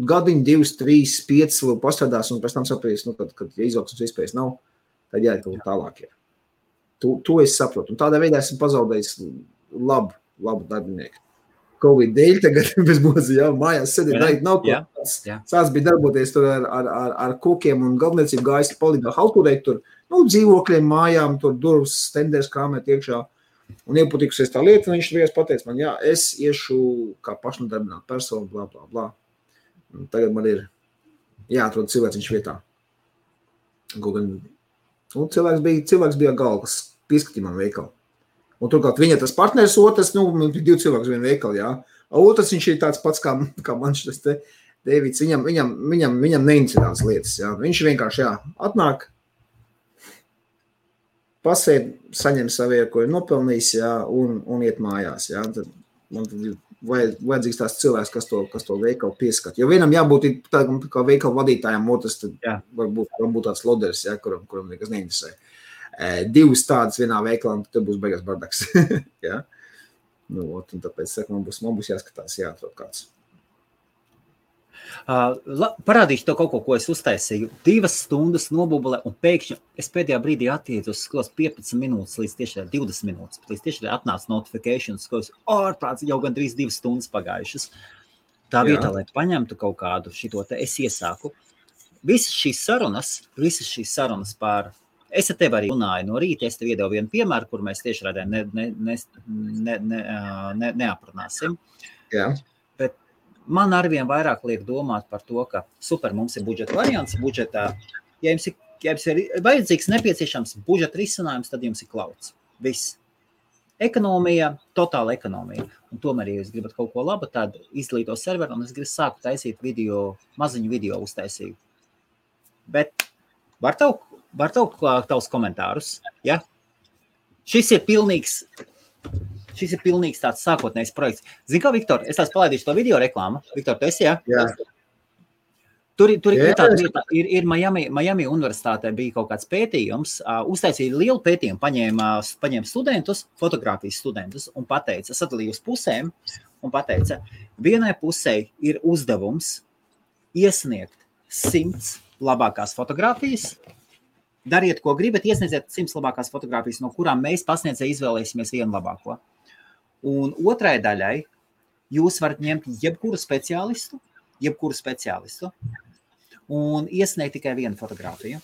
gadiņu, 2, 3, 5 vēl pastrādās un pēc tam sapratīs, kad izaugsmas iespējas nav, tad jāiet kaut tālāk. Jā. To es saprotu. Un tādā veidā esmu pazaudējis labu darbinieku. Covid dēļ tagad bez mūsu, jā, mājās sēdēt, darīt nav ko. Sāc bija darboties tur ar kokiem un galvniecību gājis palīdā halturēt tur, dzīvokļiem, mājām, tur durvs, stenders krāmēt iekšā. Un iepatikusies tā lieta, un viņš vienkārši pateica man, jā, es iešu kā pašnodarbināta persona, blā, blā, blā. Un tagad man ir jāatrod cilvēks vietā. Cilvēks bija galvas, pieskatīja man veikalu. Un turklāt viņa tas partners, otrs, man bija 2 cilvēks vien veikali, jā. Otrs viņš ir tāds pats kā man šis te Dēvids, viņam neinteresē tās lietas, jā. Viņš vienkārši, jā, atnāk, pasēd, saņem savu, ko ir nopelnījis, jā, un iet mājās, jā. Tad man tad ir vajadzīgs tās cilvēks, kas to veikalu pieskat. Jo vienam jābūt tādam kā veikalu vadītājam, otrs tad varbūt tāds loders, jā, kuram nekas neinteresē. 2 tādas vienā veikalā, tad būs beigās bardaks. Jā. Un tāpēc saku, man būs jāskatās, jāatrod kāds. Parādīšu to kaut ko es uztaisīju. 2 stundas nobubulē un pēkšņi es pēdējā brīdī attītu uz skos 15 minūtes līdz tieši 20 minūtes. Līdz tieši atnāca notifications, skos ārprāts jau gandrīz 2 stundas pagājušas. Tā vietā, lai paņemtu kaut kādu šito te, es iesāku. Visas šīs sarunas par... Es ar tevi arī runāju no rīta, es tev iedevu vienu piemēru, kur mēs tieši rādē neaprunāsim. Jā. Bet man arvien vairāk liek domāt par to, ka super, mums ir budžeta variants, budžetā, ja jums ir vajadzīgs nepieciešams budžeta risinājums, tad jums ir klauds. Viss. Ekonomija, totāla ekonomija. Un tomēr, ja jūs gribat kaut ko labu, tad izglīto serveru, un es gribu sākt taisīt maziņu video uztaisīju. Bet var tavs komentārus, ja? Šis ir pilnīgs tāds sākotnējs projekts. Zini kā, Viktor, es tās palaidīšu to video reklāmu. Viktor, tu esi, ja? Jā. Tur ir tāda vieta, ir Miami universitātē bija kaut kāds pētījums, uztaisīja lielu pētījumu, paņēma studentus, fotogrāfijas studentus un pateica, sadalīja uz pusēm un pateica, vienai pusē ir uzdevums iesniegt 100 labākās fotogrāfijas, dariet, ko gribat, iesniedziet 100 labākās fotogrāfijas, no kurām mēs pasniedzēji izvēlēsimies vienu labāko. Un otrai daļai jūs varat ņemt jebkuru speciālistu un iesniegt tikai vienu fotogrāfiju.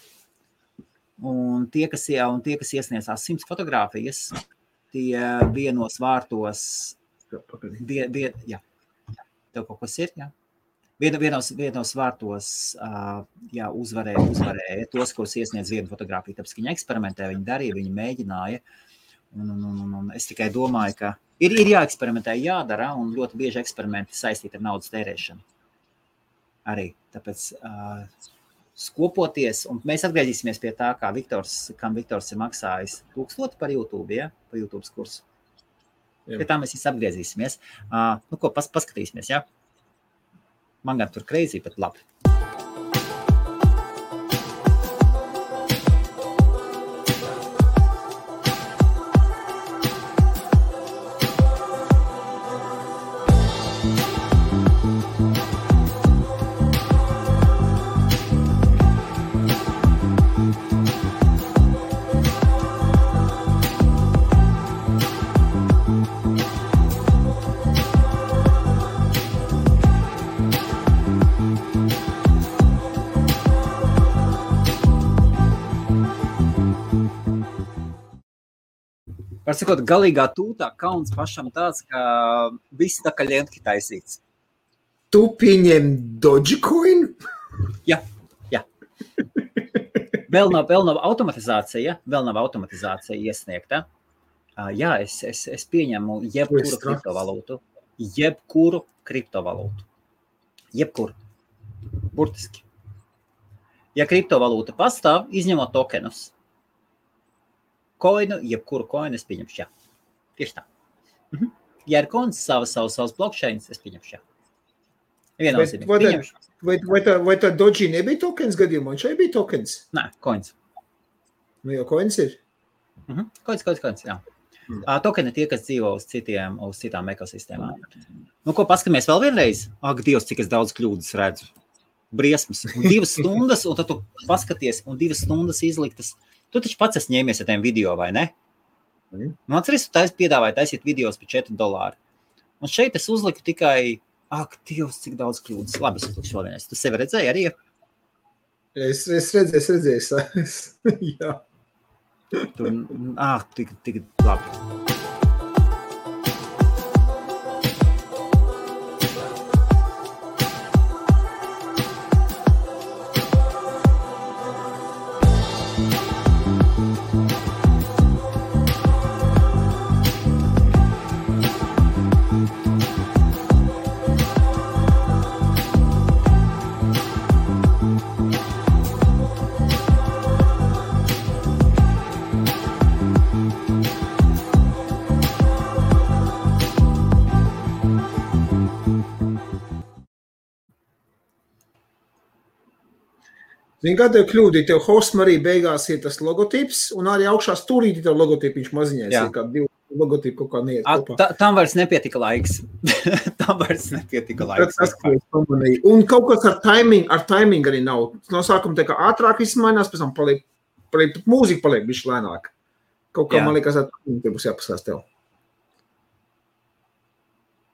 Un tie, kas iesniedzās 100 fotogrāfijas, tie vienos vārtos... Jā. Tev kaut kas ir, jā? Vienos vārtos uzvarēja tos, kurus iesniedz vienu fotogrāfiju, tāpēc, ka viņi eksperimentē, viņi darīja, viņi mēģināja. Un es tikai domāju, ka ir jāeksperimentē, jādara, un ļoti bieži eksperimenti saistīti ar naudas tērēšanu. Arī, tāpēc skopoties, un mēs atgriezīsimies pie tā, kam Viktors ir maksājis 1000 par YouTube, ja? Par YouTube kursu. Pie tā mēs atgriezīsimies. Paskatīsimies, ja? Man gan tur crazy, bet labi. Var sakot, galīgā tūtā kauns pašam tāds, ka viss tā kā ļentki taisīts. Tu pieņem Dogecoin? Jā. Vēl nav automatizācija, iesniegta. Jā, es pieņemu jebkuru kriptovalūtu. Jebkuru. Burtiski. Ja kriptovalūta pastāv, izņemot tokenus. Jebkuru koinu es pieņemšu, jā. Tieši tā. Ja ir koins savas blockchains, es pieņemšu, jā. Vai tā Doji nebija tokens gadījumā? Šeit bija tokens? Nē, koins. Nu jau koins ir? Koins, jā. Tokeni tie, kas dzīvo uz citām ekosistēmām. Nu, ko paskamies vēl vienreiz? Ak, Dievs, cik es daudz kļūdas redzu. Briesmas. Un 2 stundas, un tad tu paskaties, un 2 stundas izliktas. Tu taču pats esi ņēmies ar tiem video, vai ne? Nu, atceries, tu piedāvāji taisīt videos par $4. Un šeit es uzliku tikai, ak, Dievs, cik daudz kļūdas. Labi, es uzlikšu vēl vienreiz. Tu sevi redzēji arī? Es redzēju. Jā. Tik labi. Zini, kā tev kļūdi, tev hostam arī beigās ir tas logotips, un arī augšā stūrīti tev logotipiņš maziņais, ir kā 2 logotipi kaut kā neiet kopā. Tam vairs nepietika laiks. Tas, ko es pamanīju. Un kaut kas ar timing arī nav. No sākuma tā kā ātrāk izmainās, pēc tam paliek mūzika paliek bišķi lēnāk. Kaut kā man liekas, ar timing te būs jāpasās tev.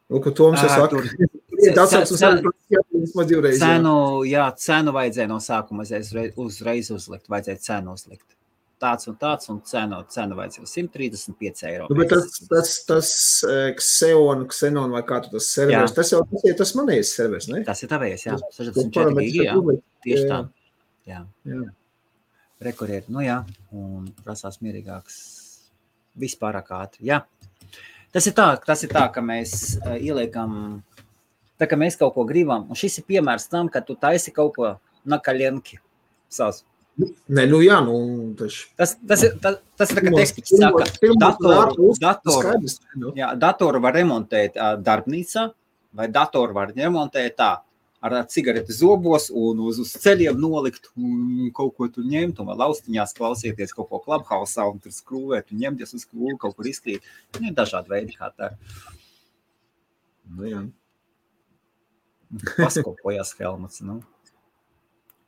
Nu, ko Toms saka? Cenu vajadzēja no sākuma uzreiz uzlikt, vajadzēja cenu uzlikt. Tāds un cenu vajadzēja 135 eiro. Nu, bet tas Xenon vai kā tu tas serveris, tas jau tas manējais serveris, ne? Tas ir tavējais, jā. 64 gigi, jā. Tieši tā. Jā. Rekurieri, nu jā, un prasās mierīgāks vispārāk ātri, jā. Tas ir tā, ka mēs ieliekam, tā kā mēs kaut ko gribam, un šis ir piemērs tam, ka tu taisi kaut ko na kaļenki savs. Nē, nu jā, nu taču. Tas ir tā, ka tekstiks saka, datoru var remontēt darbnīcā, vai datoru var remontēt tā, ar cigareti zobos un uz ceļiem nolikt un kaut ko tur ņemt, un laustiņās klausieties kaut ko Clubhouse'ā un tur skrūvēt un ņemties uz skrūvi, kaut kur izkrīt. Ir dažādi veidi, kā tā. Nu jā. Paskopojās Helmuts, nu.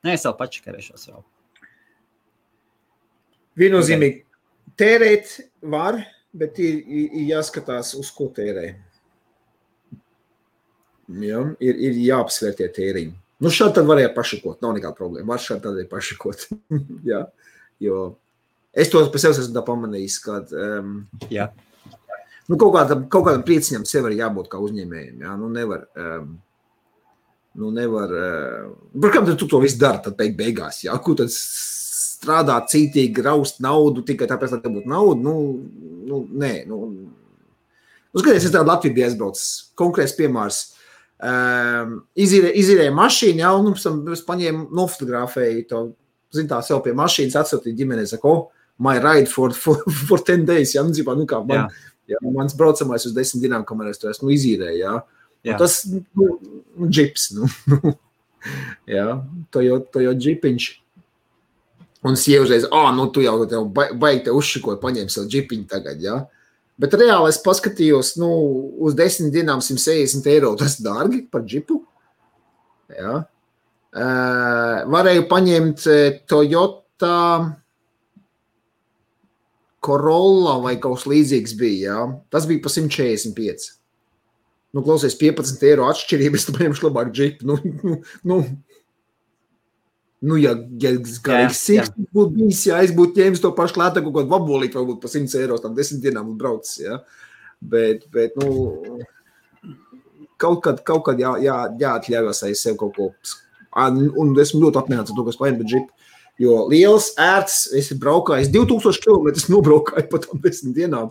Nē, es vēl pačakarēšos vēl. Viennozīmīgi tērēt var, bet ir jāskatās, uz ko tērē. Ja, ir jāapsvēr tie tēriņi. Nu, šādi tad varēja pašakot, nav nekāda problēma. Var šādi tad pašakot. Ja, jo es to par sevi esmu tā pamanījis, kad nu, kaut kādam prieciņam sev arī jābūt kā uzņēmējiem. Ja? Nu, nevar par kam tu to visu dari tad beigās? Ja? Ko tad strādāt cītīgi, raust naudu tikai tāpēc, lai te būtu naudu? Nē. Skaties, es tādu Latviju bija aizbraucis. Konkrēts piemērs. Izīrēja mašīnu, ja, un es paņēmu, nofotografēju to, zin tā, sev pie mašīnas, atsūtīju ģimenei, saku, my ride for 10 days, ja, nu kā mans braucamais uz 10 dienām, kamēr es to esmu izīrēju, ja. Un tas, džips, ja, to jau džipiņš. Un sievžreiz, tu jau baigi te uzšikot, paņēmi sev džipiņu tagad, ja. Bet reāli es paskatījos, uz 10 dienām 160 eiro, tas dārgi par džipu. Jā. Varēju paņemt Toyota Corolla vai kaut kas līdzīgs bija, jā. Tas bija pa 145. Klausies, 15 eiro atšķirība, es tu paņemšu labāk džipu. Nu, ja garīgs siksnis būtu bijis, ja es būtu ņēmis to pašu klātā, kaut kādu vabolīt, varbūt pa 100 €, tam 10 dienām būtu braucis, ja. Bet, nu, kaut kad jāatļaujas aiz sev kaut ko. Un esmu ļoti apmierināts ar to, kas paņem bet džipu. Jo liels, ērts, es braukāju, 2000 km nobraukāju pa tam 10 dienām.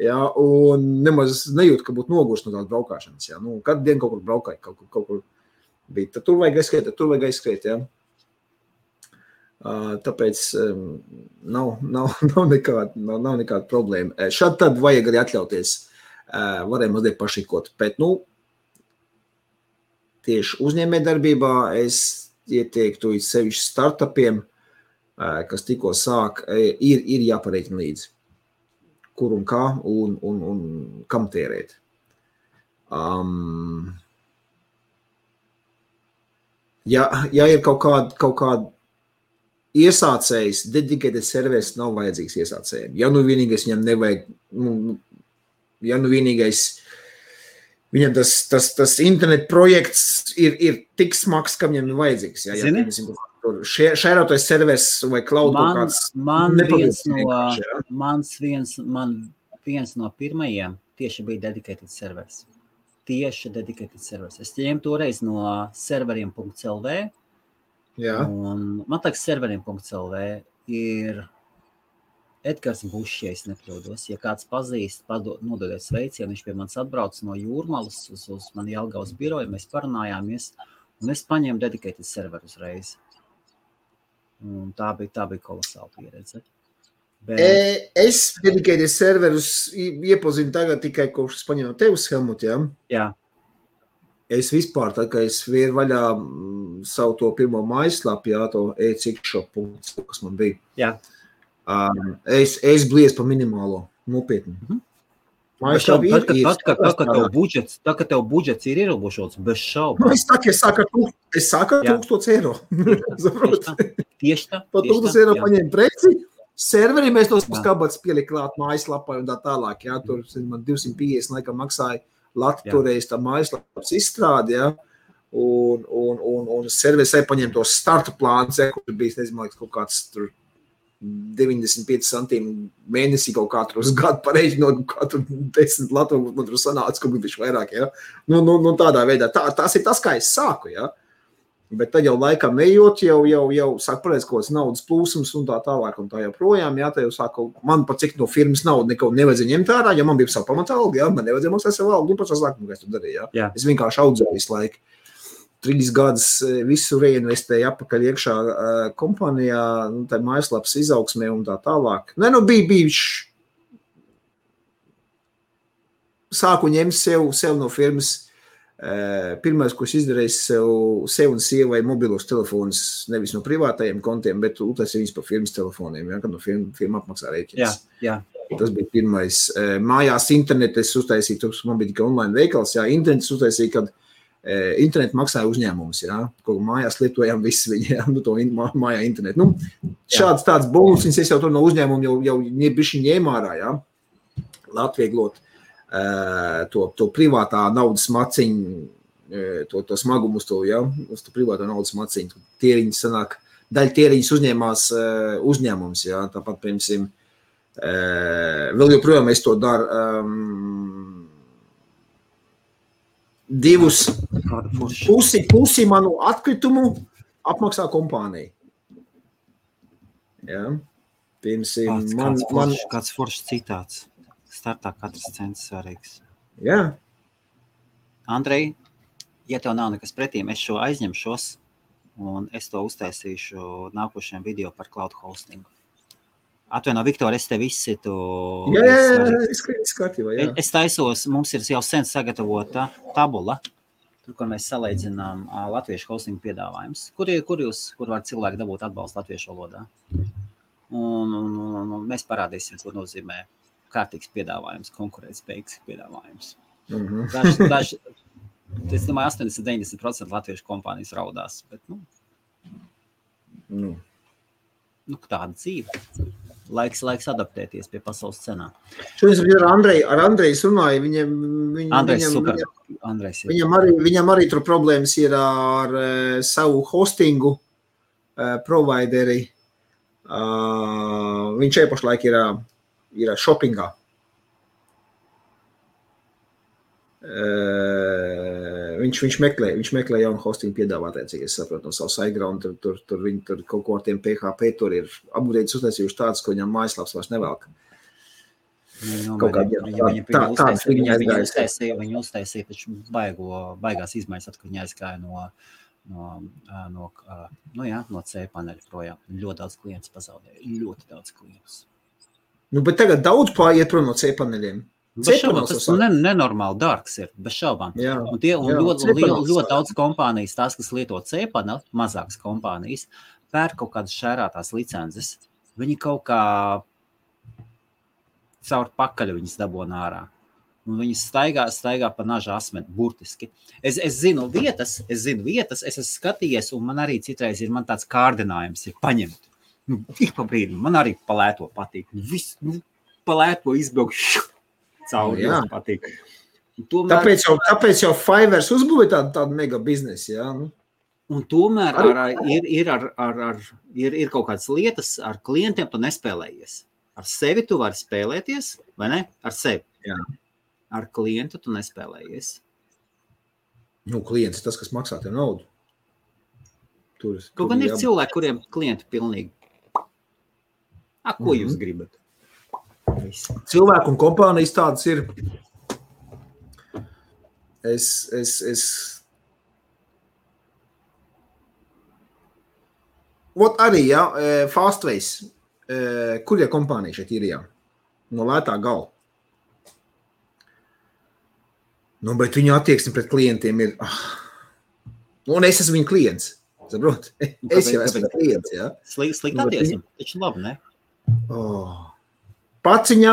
Ja, un nemaz nejūtu, ka būtu nogurs no tādas braukāšanas. Ja. Nu, katru dienu kaut kur braukāju, kaut kur bija. Tad tur vajag aizskriet, ja. Tāpēc nav nekāda problēma. Šad tad vajag arī atļauties. Varēja mazliet pašikot. Bet, nu, tieši uzņēmējdarbībā es ieteiktu sevišķi startupiem, kas tikko sāk, ir jāpareiķina līdzi. Kur un kā un kam tērēt. Ja ir kaut kāda iesācējs, dedicated servers nav vajadzīgs iesācējiem. Ja nu vienīgais viņam nevajag, viņam tas internet projekts ir tik smags, ka viņam vajadzīgs. Ja, Zini? Šērotais servers vai cloud kaut kāds. Man viens no pirmajiem tieši bija dedicated servers. Es ņēmu toreiz no serveriem.lv. Jā. Un man liekas, serveriem.lv ir Edgars Bušs, ja es nekļūdos. Ja kāds pazīst, nododiet sveicienu, viņš pie manis atbrauc no Jūrmalas uz mani Jelgavas biroju, mēs parunājāmies, un es paņēmu dedicated serveru uzreiz. Un tā bija kolosāla pieredze. Es dedicated serverus iepazinu tagad tikai kopš es paņēmu tevis, Helmut, ja? Jā. Es vispār, tā kā es vēru vaļā savu to pirmo mājaslapu, jā, to e-cikshop.com, kas man bija. Jā. Es blies pa minimālo, nopietni. Mājaslapa Tā, ka tev budžets ir ierobežots, bez šaubu. Es sāku ar 1000 €. Tieši tā. Pa 1000 € paņēmu preci, serveri mēs tos skabats pielikt klāt mājaslapai un tā tālāk, jā, tur man 250 laikam maksāja toreiz tā mājaslapas izstrādi, ja, un serveris paņem tos starta plāns, ja, kur bija, nezinu, kaut kāds tur 95 centīmi mēnesī kaut kā tur uz gadu pareiķinot, kā tur 10 Latvijas, man tur sanāca, ka bija vairāk, ja. Nu, tādā veidā, tas ir tas, kā es sāku, ja. Bet tad jau laikam ejot, jau sāk pareiz kaut kāds naudas plūsums un tā tālāk un tā joprojām, jā, tā jau sāku, man pat cik no firmas naudu neko nevajadzēja ņemt ārā, ja man bija savu pamatalgu, jā, man nevajadzēja maksāt savu algu, un pats sākumu, kā es tur darīju, jā. Es vienkārši audzēju visu laiku. 3 gadus visu reinvestēju apakaļ iekšā kompānijā, tā mājaslapas izaugsmē un tā tālāk. Bija sāku ņemt sev no firmas. Pirmais, ko es izdarīju, sev un sievai mobilos telefonus, nevis no privātajiem kontiem, bet uztaisīju viņus pa firmas telefoniem, ja, kad no firma apmaksā rēķins. Jā. Tas bija pirmais. Mājās internetu es uztaisīju, man bija tikai online veikals, jā, internetu uztaisīju, kad internetu maksāja uzņēmums, jā, ko mājās lietojām visi viņi, jā, to mājā internetu. Šāds tāds bonus, es jau tur no uzņēmumu jau bišķi ņēmā ārā, jā, atvieglot. To privātā naudas maciņu, to smagumu uz to, ja, uz to privātā naudas maciņu. Tieriņas sanāk, daļa tieriņas uzņēmās uzņēmums, ja, tāpat, piemēram, vēl joprojām es to daru, pusi manu atkritumu apmaksā kompānija. Ja, piemēram, kāds foršs citāts. Startā katrs cents svarīgs. Jā. Andrej, ja tev nav nekas pretīm, es šo aizņemšos un es to uztaisīšu nākošajam video par cloud hostingu. Atvaino, Viktor, es tev izsitu. Jā, kārtībā, jā. Es taisos, mums ir jau sen sagatavota tabula, tur, kur mēs salīdzinām latviešu hostingu piedāvājums. Kur var cilvēki dabūt atbalstu latviešu valodā? Un mēs parādīsim, ko nozīmē kārtīgs piedāvājums, konkurētspējīgs piedāvājums. Es domāju, 80-90% latviešu kompānijas raudās, bet, tāda dzīve. Laiks adaptēties pie pasaules cenām. Šodien ar Andreju runāju, viņam arī tur problēmas ir ar savu hostingu, provideri. Viņš pašlaik ir shoppingā. Viņš meklē jaunu hostingu piedāvātāju, cik es saprotu no savu SiteGround, tur kaut ko ar tiem PHP, tur ir upgrades uztaisījuši tāds, ko viņam mājaslaps vairs nevelk. Viņi uztaisīja taču baigās izmaiņas, kad viņi aizgāja no C paneļa projām. Ļoti daudz klientus pazaudēja, ļoti daudz klientus. Nu, bet tagad daudz pāriet prom no C paneļiem. Tas nenormāli dārgs ir, bez šaubām. Ļoti daudz kompānijas, tās, kas lieto C-paneli, mazākas kompānijas, pērk kaut kādas šērātās licences. Viņi kaut kā caur pakaļu viņas dabona ārā. Un viņi staigā pa naža asmeni, burtiski. Es zinu vietas, es esmu skatījies, un man arī citreiz ir tāds kārdinājums ir paņemt. Ik pa brīdim, man arī palēto patīk. Viss, palēto izbraukšu. Cauri, patīk. Tomēr, tāpēc jau Fiverr uzbūvē tādu mega biznesu, jā? Un tomēr ir kaut kādas lietas ar klientiem tu nespēlējies. Ar sevi tu vari spēlēties, vai ne? Ar sevi. Jā. Ar klientu tu nespēlējies. Nu, klients tas, kas maksā tev naudu. Kaut gan ir cilvēki, kuriem klienti pilnīgi. Ko jūs gribat? Cilvēku un kompānijas tādas ir. Arī, Fastways, kur kompānija šeit ir, no lētā gala. Nu, bet viņu attieksme pret klientiem ir, un es esmu viņa klients, saprot? Es jau esmu klients, jā. Slikti attieksme, taču labi, ne? Paciņa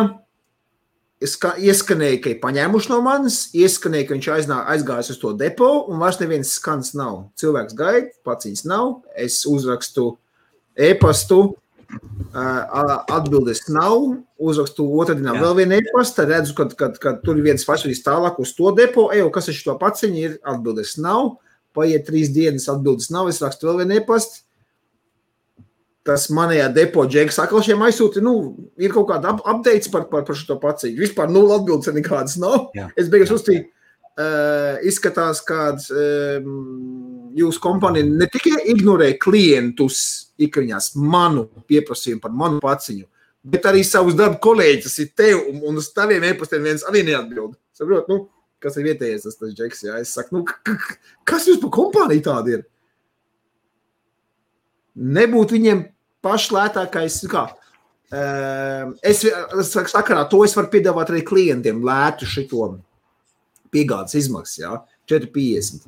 ieskanēja, ka ir paņēmuši no manis, ieskanēja, ka viņš aizgājis uz to depo, un vairs neviens skans nav. Cilvēks gaida, paciņas nav, es uzrakstu e-pastu, atbildes nav, uzrakstu otrdienā vēl vienu e-pastu, redzu, kad tur ir viens fašadīs tālāk uz to depo, kas ir šo paciņu, ir atbildes nav, paiet 3 dienas, atbildes nav, es rakstu vēl vienu e-pastu. Tas manējā depo džeks atkal šiem aizsūti, ir kaut kāda updates par šo paciņu. Vispār 0 atbildes nekādas nav. Jā. Es beigās uzstīju, izskatās, kāds jūsu kompānija ne tikai ignorē klientus ikriņās manu pieprasījumu par manu paciņu, bet arī savus darba kolēģis ir tev, un uz taviem e-pastiem viens arī neatbild. Saprot, kas ir vietējais tas džeks, jā. Es saku, kas jūs par kompāniju tāda ir? Nebūtu viņiem pašlētākais, es sakarā to es varu piedāvāt arī klientiem lētu šito piegādes izmaksas, jā, 4,50,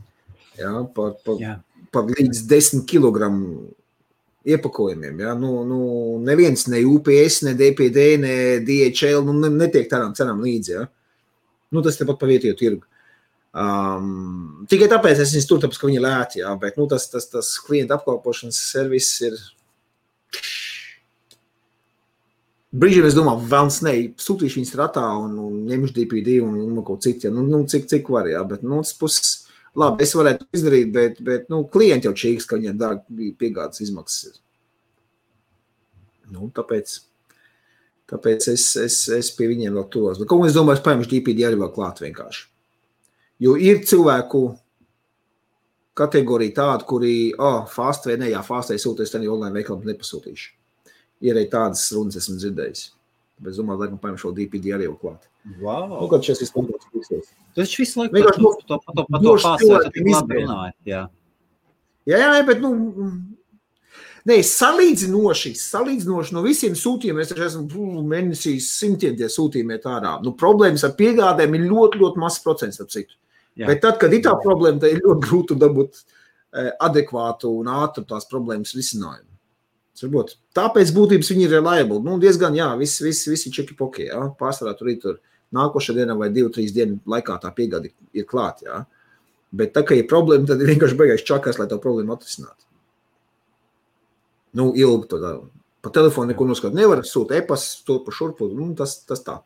jā, par līdz 10 kilogramu iepakojumiem, jā, neviens, ne UPS, ne DPD, ne DHL, netiek tādām cenām līdzi, jā, tas tepat pa vietējo tirgu. Tikai tāpēc es viņus tur, tāpēc, ka viņi lēti, jā, bet tas klienta apkalpošanas servis ir brīžiem es domāju, vēlns sūtīšu viņus ratā un ņemšu DPD un kaut cik, jā, cik var, jā, bet, tas puses, labi, es varētu izdarīt, bet klienti jau čīgs, ka viņiem dārgi piegādes izmaksas ir. Tāpēc es pie viņiem vēl turos. Bet, ko es domāju, es paņemšu DPD arī vēl klāt vienkārši. Jo ir cilvēku kategorija tāda, kuri, Fastway sūties, tad online veikalam nepasūtīšu. Ir arī tādas runas esmu dzirdējis. Bet es domāju, laikam paņemšu šo DPD arī jau klāt. Wow. Kad šis izpildās pīksies. Tas visu laiku pa to Fastway tik labi runāja, jā. Jā, bet, salīdzinoši no visiem sūtījumiem, es esmu mēnesīs 100 tie sūtījumi iet ārā. Problēmas ar piegādēm ir ļoti, ļoti mazs procents, ap citu. Jā. Bet tad, kad ir tā problēma, tad ir ļoti grūti dabūt adekvātu un ātru tās problēmas risinājumu. Tāpēc būtības viņi ir reliable. Diezgan, jā, visi čeki-poki, jā. Pārsvarā tur nākošā dienā vai 2-3 dienu laikā tā piegāde ir klāt, jā. Bet tā, ka ir problēma, tad ir vienkārši beigās čakās, lai tā problēma atrisinātu. Ilgi to tā. Pa telefonu neko noskatīt nevar, sūt e-pas, to pa šurpu, tas tā.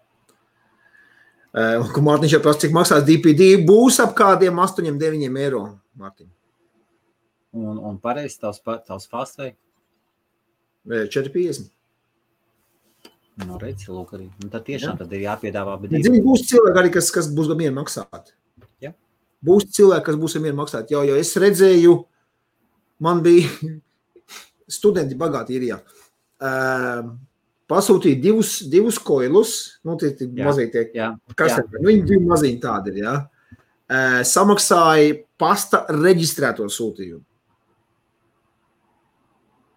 Ko Mārtiņš jau prasa, cik maksās DPD, būs ap kādiem 8-9 eiro, Mārtiņ. Un pareizi tavs fast vai? 4,50. Nu, redzi, lūk arī. Un tad tiešām tad ir jāpiedāvā. Zini, būs cilvēki arī, kas būs gamien maksāt. Ja. Būs cilvēki, kas būs gamien maksāt. Jo es redzēju, man bija studenti bagāti ir, pasūtīja divus koilus, nu, tie mazie tie, kas ir, viņi divi maziņi tādi ir, samaksāja pasta reģistrēto sūtījumu.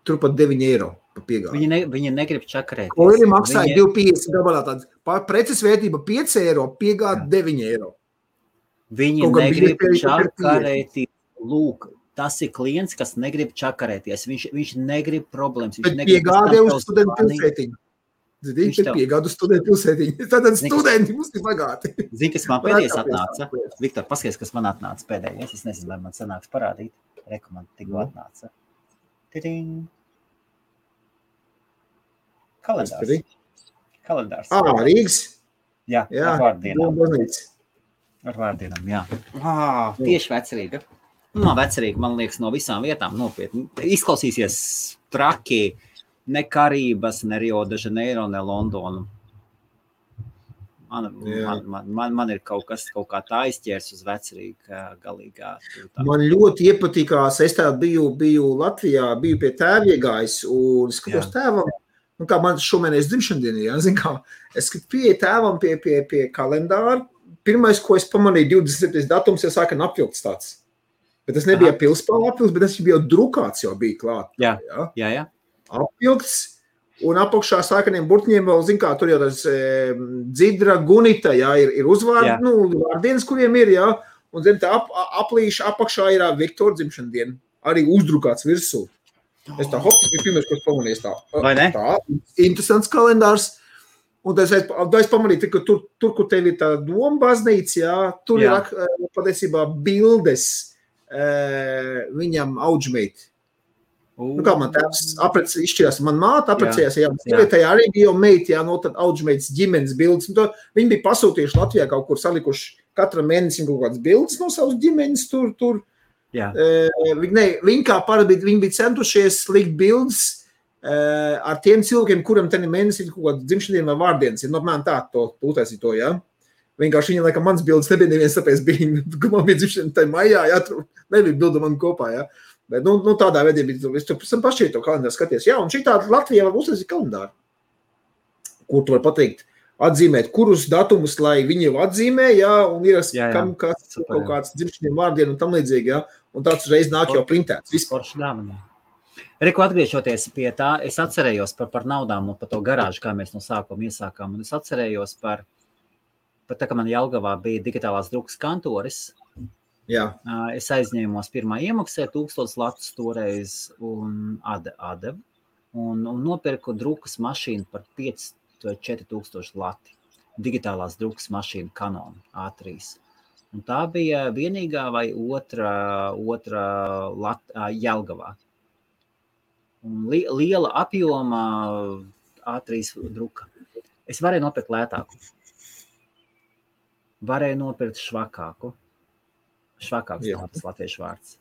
Turpat 9 eiro pa piegādi. Viņi negrib čakarēties. Koili maksāja 2,50 gabalā tāds. Preces vērtība 5 eiro, piegādi 9 eiro. Viņi negrib čakarēties. Lūk, tas ir klients, kas negrib čakarēties. Viņš negrib problēmas. Bet piegādē uz studentu pilsētiņu. Zini, piegādu studentu pilsētiņu. Tātad studenti mums ir bagāti. Zini, kas man pēdējais atnāca? Viktor, paskaties, kas man atnāca pēdējais. Es nezinu, vai man sanāks parādīt. Reku man tikko atnāca. Tiding. Kalendārs. Rīgas? Jā, ar vārdienām. Ar vārdienām, jā. Tieši vecerīga. Vecerīga, man liekas, no visām vietām nopietni. Izklausīsies traki, ne Karības, ne Rio de Janeiro, ne Londonu. Man ir kaut kā tā izķērs uz vecerīgu galīgā. Man ļoti iepatikās, es tā biju Latvijā, biju pie tēva iegājis un skatos tēvam. Nu, kā man šomēnes dzimšandienī, zin kā, es pieeju tēvam pie kalendāra. Pirmais, ko es pamanīju, 27. datums, jau sāka apvilkts tāds. Bet tas nebija pilspāla apvilkts, bet tas bija drukāts, jau bija klāt. Jā. Apvilkts, un apakšā sākaniem burtiņiem vēl, zin kā, tur jau tas dzidra, gunita, ir uzvārdi, vārdienas, kuriem ir, un zin, tā aplīša apakšā ir Viktora dzimšandiena, arī uzdrukāts virsū. Es tā bija pirmais, ko es pamanīju. Tā, interesants kalendārs. Un es pamanīju, ka tur, kur tev ir tā doma baznīca, tur ir patiesībā bildes viņam audžmeiti. Nu, kā man tēvs izšķirās, man māte aprecējās, sievietējā arī bija jau meiti, no tad audžmeitas ģimenes bildes. Viņi bija pasūtījuši Latvijā kaut kur salikuši katram mēnesim kaut kādas bildes no savas ģimenes tur. Viņi kā parasti bija centušies likt bildes ar tiem cilvēkiem, kuram tenī mēnesī ir kaut kāda dzimšandiena vai vārdienas. Ir normāli tā, to utaisīt to, Vienkārši viņa, laikam, mans bildes nebija neviens, tāpēc bija, ka man bija dzimšandiena tai maijā, nebija bilda man kopā, Bet, tādā veidā bija, es tur pašķiet to kalendāru skaties. Un šī tāda Latvijā var uztaisīt kalendāru, kur tu var pateikt, atzīmēt, kurus datumus, lai viņi jau atzīmē, un ir kam kāds kaut kāds dzimšaniem vārdien un tam līdzīgi, un tāds uzreiz nāk jau printēts. Reku, atgriežoties pie tā, es atcerējos par naudām un par to garāžu, kā mēs no sākuma iesākām, un es atcerējos par tā, ka man Jelgavā bija digitālās drukas kantoris. Es aizņēmos pirmā iemaksē 1000 latus toreiz un atdevu, un nopirku drukas mašīnu par 4000 lati. Digitālās drukas mašīna Canon A3. Un tā bija vienīgā vai otra Jelgavā. Un liela apjoma A3 druka. Es varēju nopirkt lētāku. Varēju nopirkt švakāku. Švakāks tas latviešu vārds.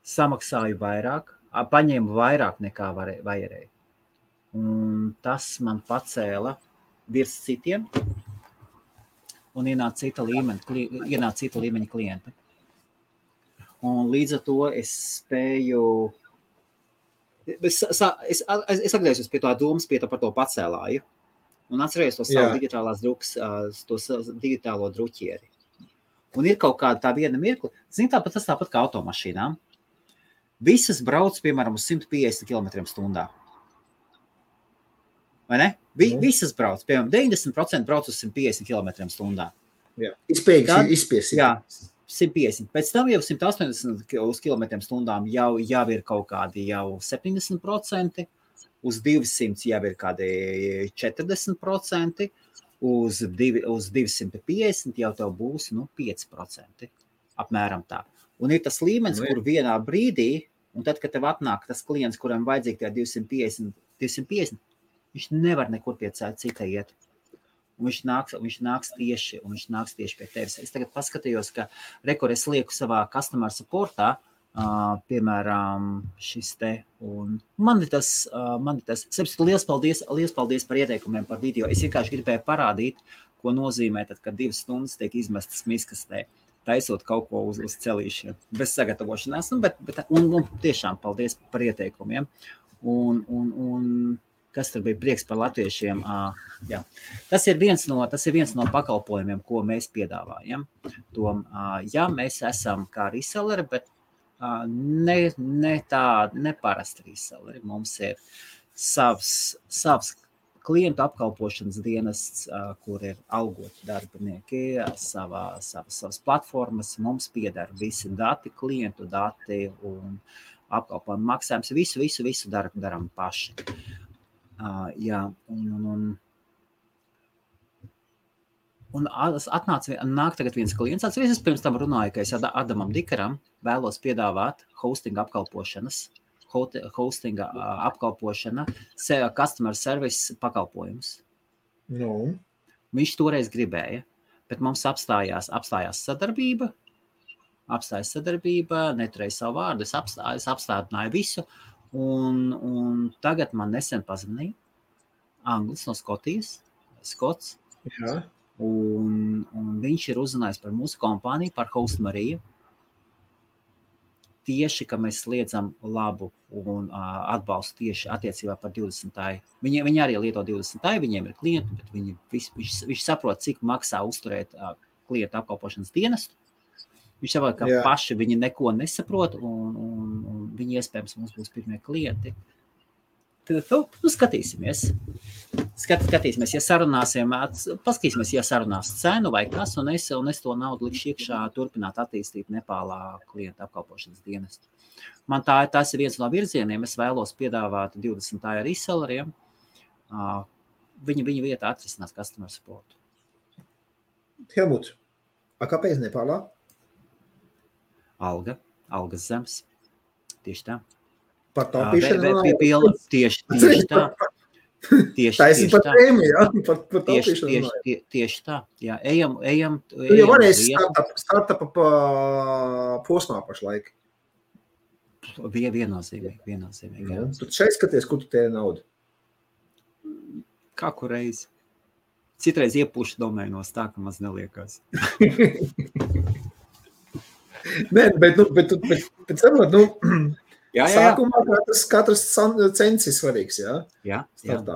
Samaksāju vairāk, paņēmu vairāk nekā vajadzēja. Un tas man pacēla virs citiem un ienāca cita līmeņa klienta. Un līdz ar to es spēju... Es atgriezos pie tā domas, par to pacēlāju. Un atcerējos to savu digitālās drukas, to digitālo druķieri. Un ir kaut kāda tā viena mirkli. Zini, tas tāpat kā automašīnām. Visas brauc, piemēram, uz 150 km/h. Vai ne? Visas brauc, piemēram, 90% brauc uz 150 km/h. Izspies. Jā, 150. Pēc tam jau 180 km/h jau ir kaut kādi jau 70%, uz 200 jau ir kādi 40%, uz 250 jau tev būs 5%, apmēram tā. Un ir tas līmenis, kur vienā brīdī, un tad, kad tev atnāk tas klients, kuram vajadzīgi tie 250, viņš nevar nekur pie cita iet. Un viņš nāks tieši pie tevis. Es tagad paskatījos, ka es lieku savā customer supportā piemēram, šis te, un man ir tas, liels paldies par ieteikumiem par video. Es vienkārši gribēju parādīt, ko nozīmē tad, kad 2 stundas tiek izmestas miskastē, taisot kaut ko uz celīšiem, bez sagatavošanās, un tiešām paldies par ieteikumiem, un kas tur bija prieks par latviešiem, jā. Tas ir viens no pakalpojumiem, ko mēs piedāvājam. Ja mēs esam kā reselleri, bet ne parasti reselleri. Mums ir savs klientu apkalpošanas dienests, kur ir algoti darbinieki, savas platformas. Mums pieder visi dati, klientu dati un apkalpojumu maksājums. Visu daram paši. Jā, un nāk tagad viens klients. Es pirms tam runāju, ka es Adamam Dikaram vēlos piedāvāt hostinga apkalpošana, customer service pakalpojumus. No. Viņš toreiz gribēja, bet mums apstājās sadarbība, neturēja savu vārdu, es apstādināju visu, un tagad man nesen pazvanīja Anglis no Skotijas, Skots. Jā. Un viņš ir uzrunājis par mūsu kompāniju, par Host Mariju. Tieši, ka mēs sliedzam labu un atbalstu tieši attiecībā par 20. Viņi arī lieto 20. Viņiem ir klienti, bet viņš saprot, cik maksā uzturēt klientu apkalpošanas dienestu. Viņš saprot, ka paši viņi neko nesaprot, un viņi iespējams mums būs pirmie klienti. Skatīsimies. Paskatīsimies, ja sarunās cenu vai kas, un es to naudu likšu iekšā turpināt attīstīt Nepālā klienta apkalpošanas dienestu. Man tas ir viens no virzieniem. Es vēlos piedāvāt 20. reselleriem. Viņa vietā atrisinās customer support. Helmut, kāpēc Nepālā? Algas zemes. Tieši tā. Par taupīšanu? Tieši tā. Taisni par tēmi, jā? Par taupīšanu. Tieši tā. Jā, ejam. Tu jau varēsi startupa posmā pašlaik. Viennozīmīgi. Jā. Tu šeit skaties, kur tu tēri naudu? Kā kur reizi. Citreiz iepūšu domēnos tā, ka maz neliekās. Nē, bet saprot, Jā. Sākumā katrs cents ir svarīgs, jā? Jā. Startā,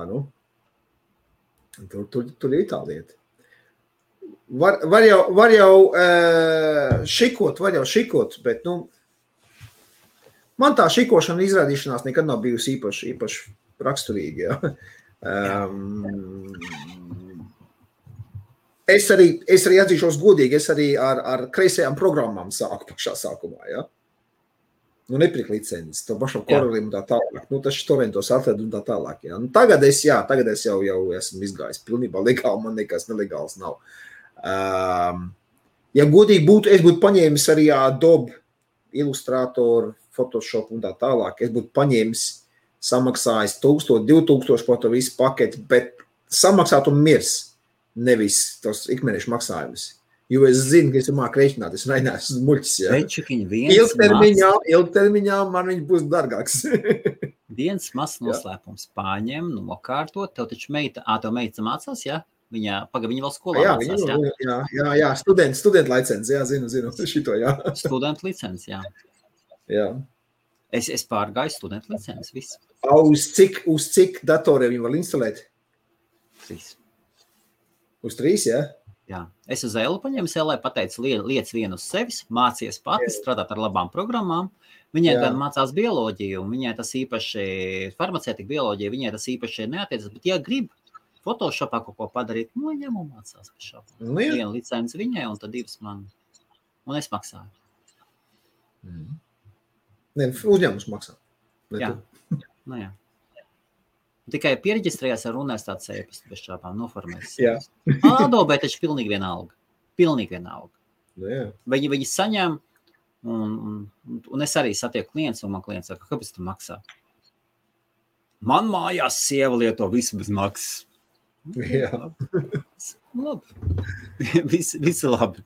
Tur ir tā lieta. Var jau šikot, bet, man tā šikošana izrādīšanās nekad nav bijusi īpaši raksturīga, jā. Es arī atzīšos godīgi, es arī ar kreisajām programmām sāku pašā sākumā, jā. Nepirkt licences, to pašam korolim un tā tālāk. Tas torrentos atled un tā tālāk. Jā. Tagad es jau esmu izgājis pilnībā legāli, man nekas nelegāls nav. Ja godīgi būtu, es būtu paņēmis arī Adobe, Illustrator, Photoshop un tā tālāk. Es būtu paņēmis, samaksājis 1000, 2000 par to visu paketi, bet samaksāt un mirs, nevis tos ikmēnešu maksājumus. Jo es zinu, ka es māku rēķināt, es neesmu muļķis, jā. Ilgtermiņā man viņš būs dargāks. Viens mazs noslēpums pārņem, nokārtot, tev taču meita mācās, jā? Viņa vēl skolā mācās, jā? Jā, studenta licenci, jā, zinu, šito, jā. Studenta licenci, jā. Jā. Es pārgāju studenta licenci, viss. Uz cik datoriem viņi var instalēt? 3. Uz 3, jā? Jā. Es uz Elu paņēmu Elai, pateicu, liec vienu uz sevis, mācies pati, strādāt ar labām programmām. Viņai gan mācās bioloģiju, un viņai tas īpaši, farmacētika bioloģija, viņai tas īpaši neatiecas, bet ja grib Photoshopā kaut ko padarīt, ņem un mācās pašā. Vienu licenci viņai, un tad 2 man. Un es maksāju. Ne, uzņēmums maksā. Jā. Jā. Tikai piereģistrējās ar universitātes e-pastu bez šāpām, noformēs. Jā. Adobe taču pilnīgi vienalga. Jā. Viņi saņem, un es arī satieku klients, un man klients saka, kāpēc tu maksā? Man mājās sieva lieto visu bez maksas. Jā. Labi. Visi labi.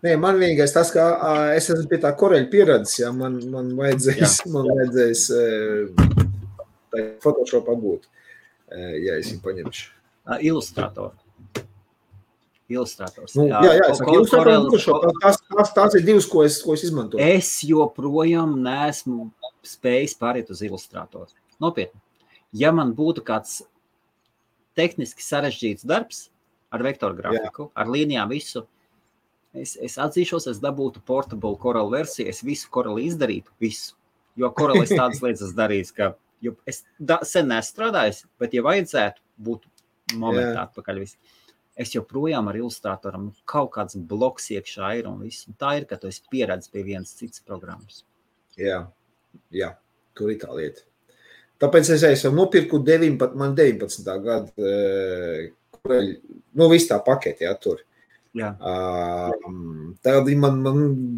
Nē, man vienīgais tas, ka es esmu pie tā koreļa pieredzes, ja man vajadzēs Photoshop apgūt, ja es viņu paņemšu. Ilustrators. Nu, jā, es saku, tās ir divas, ko es izmantoju. Es joprojām neesmu spējis pāriet uz Illustratoru. Nopietni. Ja man būtu kāds tehniski sarežģīts darbs ar vektoru grafiku, ar līnijām visu, es atzīšos, es dabūtu portable Corel versiju, es visu Corel izdarītu, visu. Jo Corel es tādas lietas darījis, ka es sen nestrādājis, bet ja vajadzētu, būtu momentā atpakaļ visu. Es joprojām ar Illustratoram kaut kāds bloks iekšā ir un viss. Un tā ir, ka tu esi pieredzis pie vienas citas programmas. Jā, tur ir tā lieta. Tāpēc es jau nopirku 19. gadu, visu tā paketi, tur. Jā. Tad man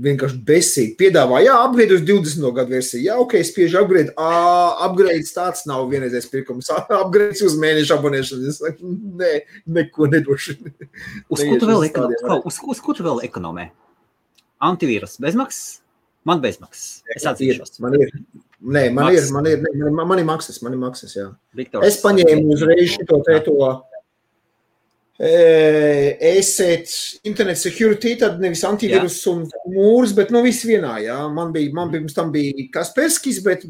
vienkārši besīgi piedāvā, upgrade uz 20. gadu versiju. Jā, ok, spiežu upgrade. Upgrades tāds nav vienreizējs pirkums. Upgrades uz mēnešu abonēšanu. Es saku, neko nedošu. Uz ko tu vēl ekonomē? Antivīrus bezmaksas? Man bezmaksas. Es atzīšos. Man ir maksas, jā. Viktors, es paņēmu uzreiz šito Internet security, tad nevis antivirus un mūrs, bet viss vienā, jā. Man pirms tam bija Kasperskis, bet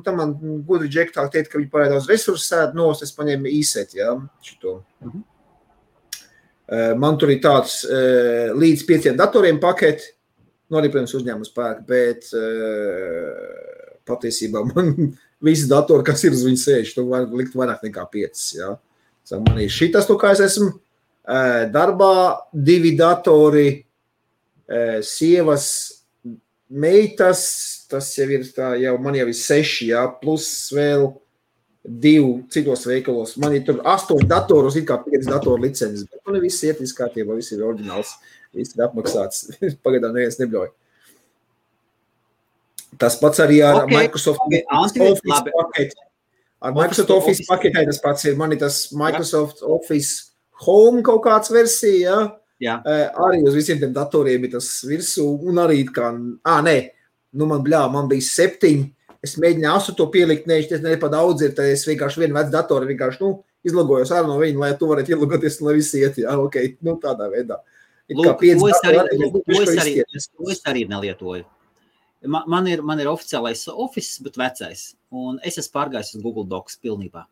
tam man gudri džektāk teikt, ka viņi pārēj daudz resursu sēd nost, es paņēmu ESET, jā, šito. Man tur ir tāds līdz 5 datoriem paketi, arī, protams, uzņēmums pērk, bet patiesībā man visi datori, kas ir uz viņu sēž, tu var likt vairāk nekā 5, jā. Man ir šitas, kā es esmu darbā, 2 datori, sievas, meitas, tas jau ir tā, man jau ir 6, jā, plus vēl 2 citos veikalos. Man ir tur 8 datoros, it kā 5 datoru licences, bet man viss iet, viss kārtībā, viss ir oriģināls, viss ir apmaksāts, pagaidām neviens nebļauj. Tas pats arī ar Microsoft Office paketi. Ar Microsoft Office paketē tas pats ir, man ir tas Microsoft Office Home kaut kāds versija, jā. Arī uz visiem tiem datoriem ir tas virsū, un arī kā, man bija 7, es mēģināju 8 pielikt, es nepa daudz ir, tad es vienkārši vienu vecu datoru, vienkārši, izlogojos ārā no viņa, lai tu varētu ielogoties, lai visi iet, jā, ok, tādā veidā. Lūk, to es arī nelietoju. Man ir oficiālais Office, bet vecais, un es esmu pārgājis uz Google Docs pilnībā.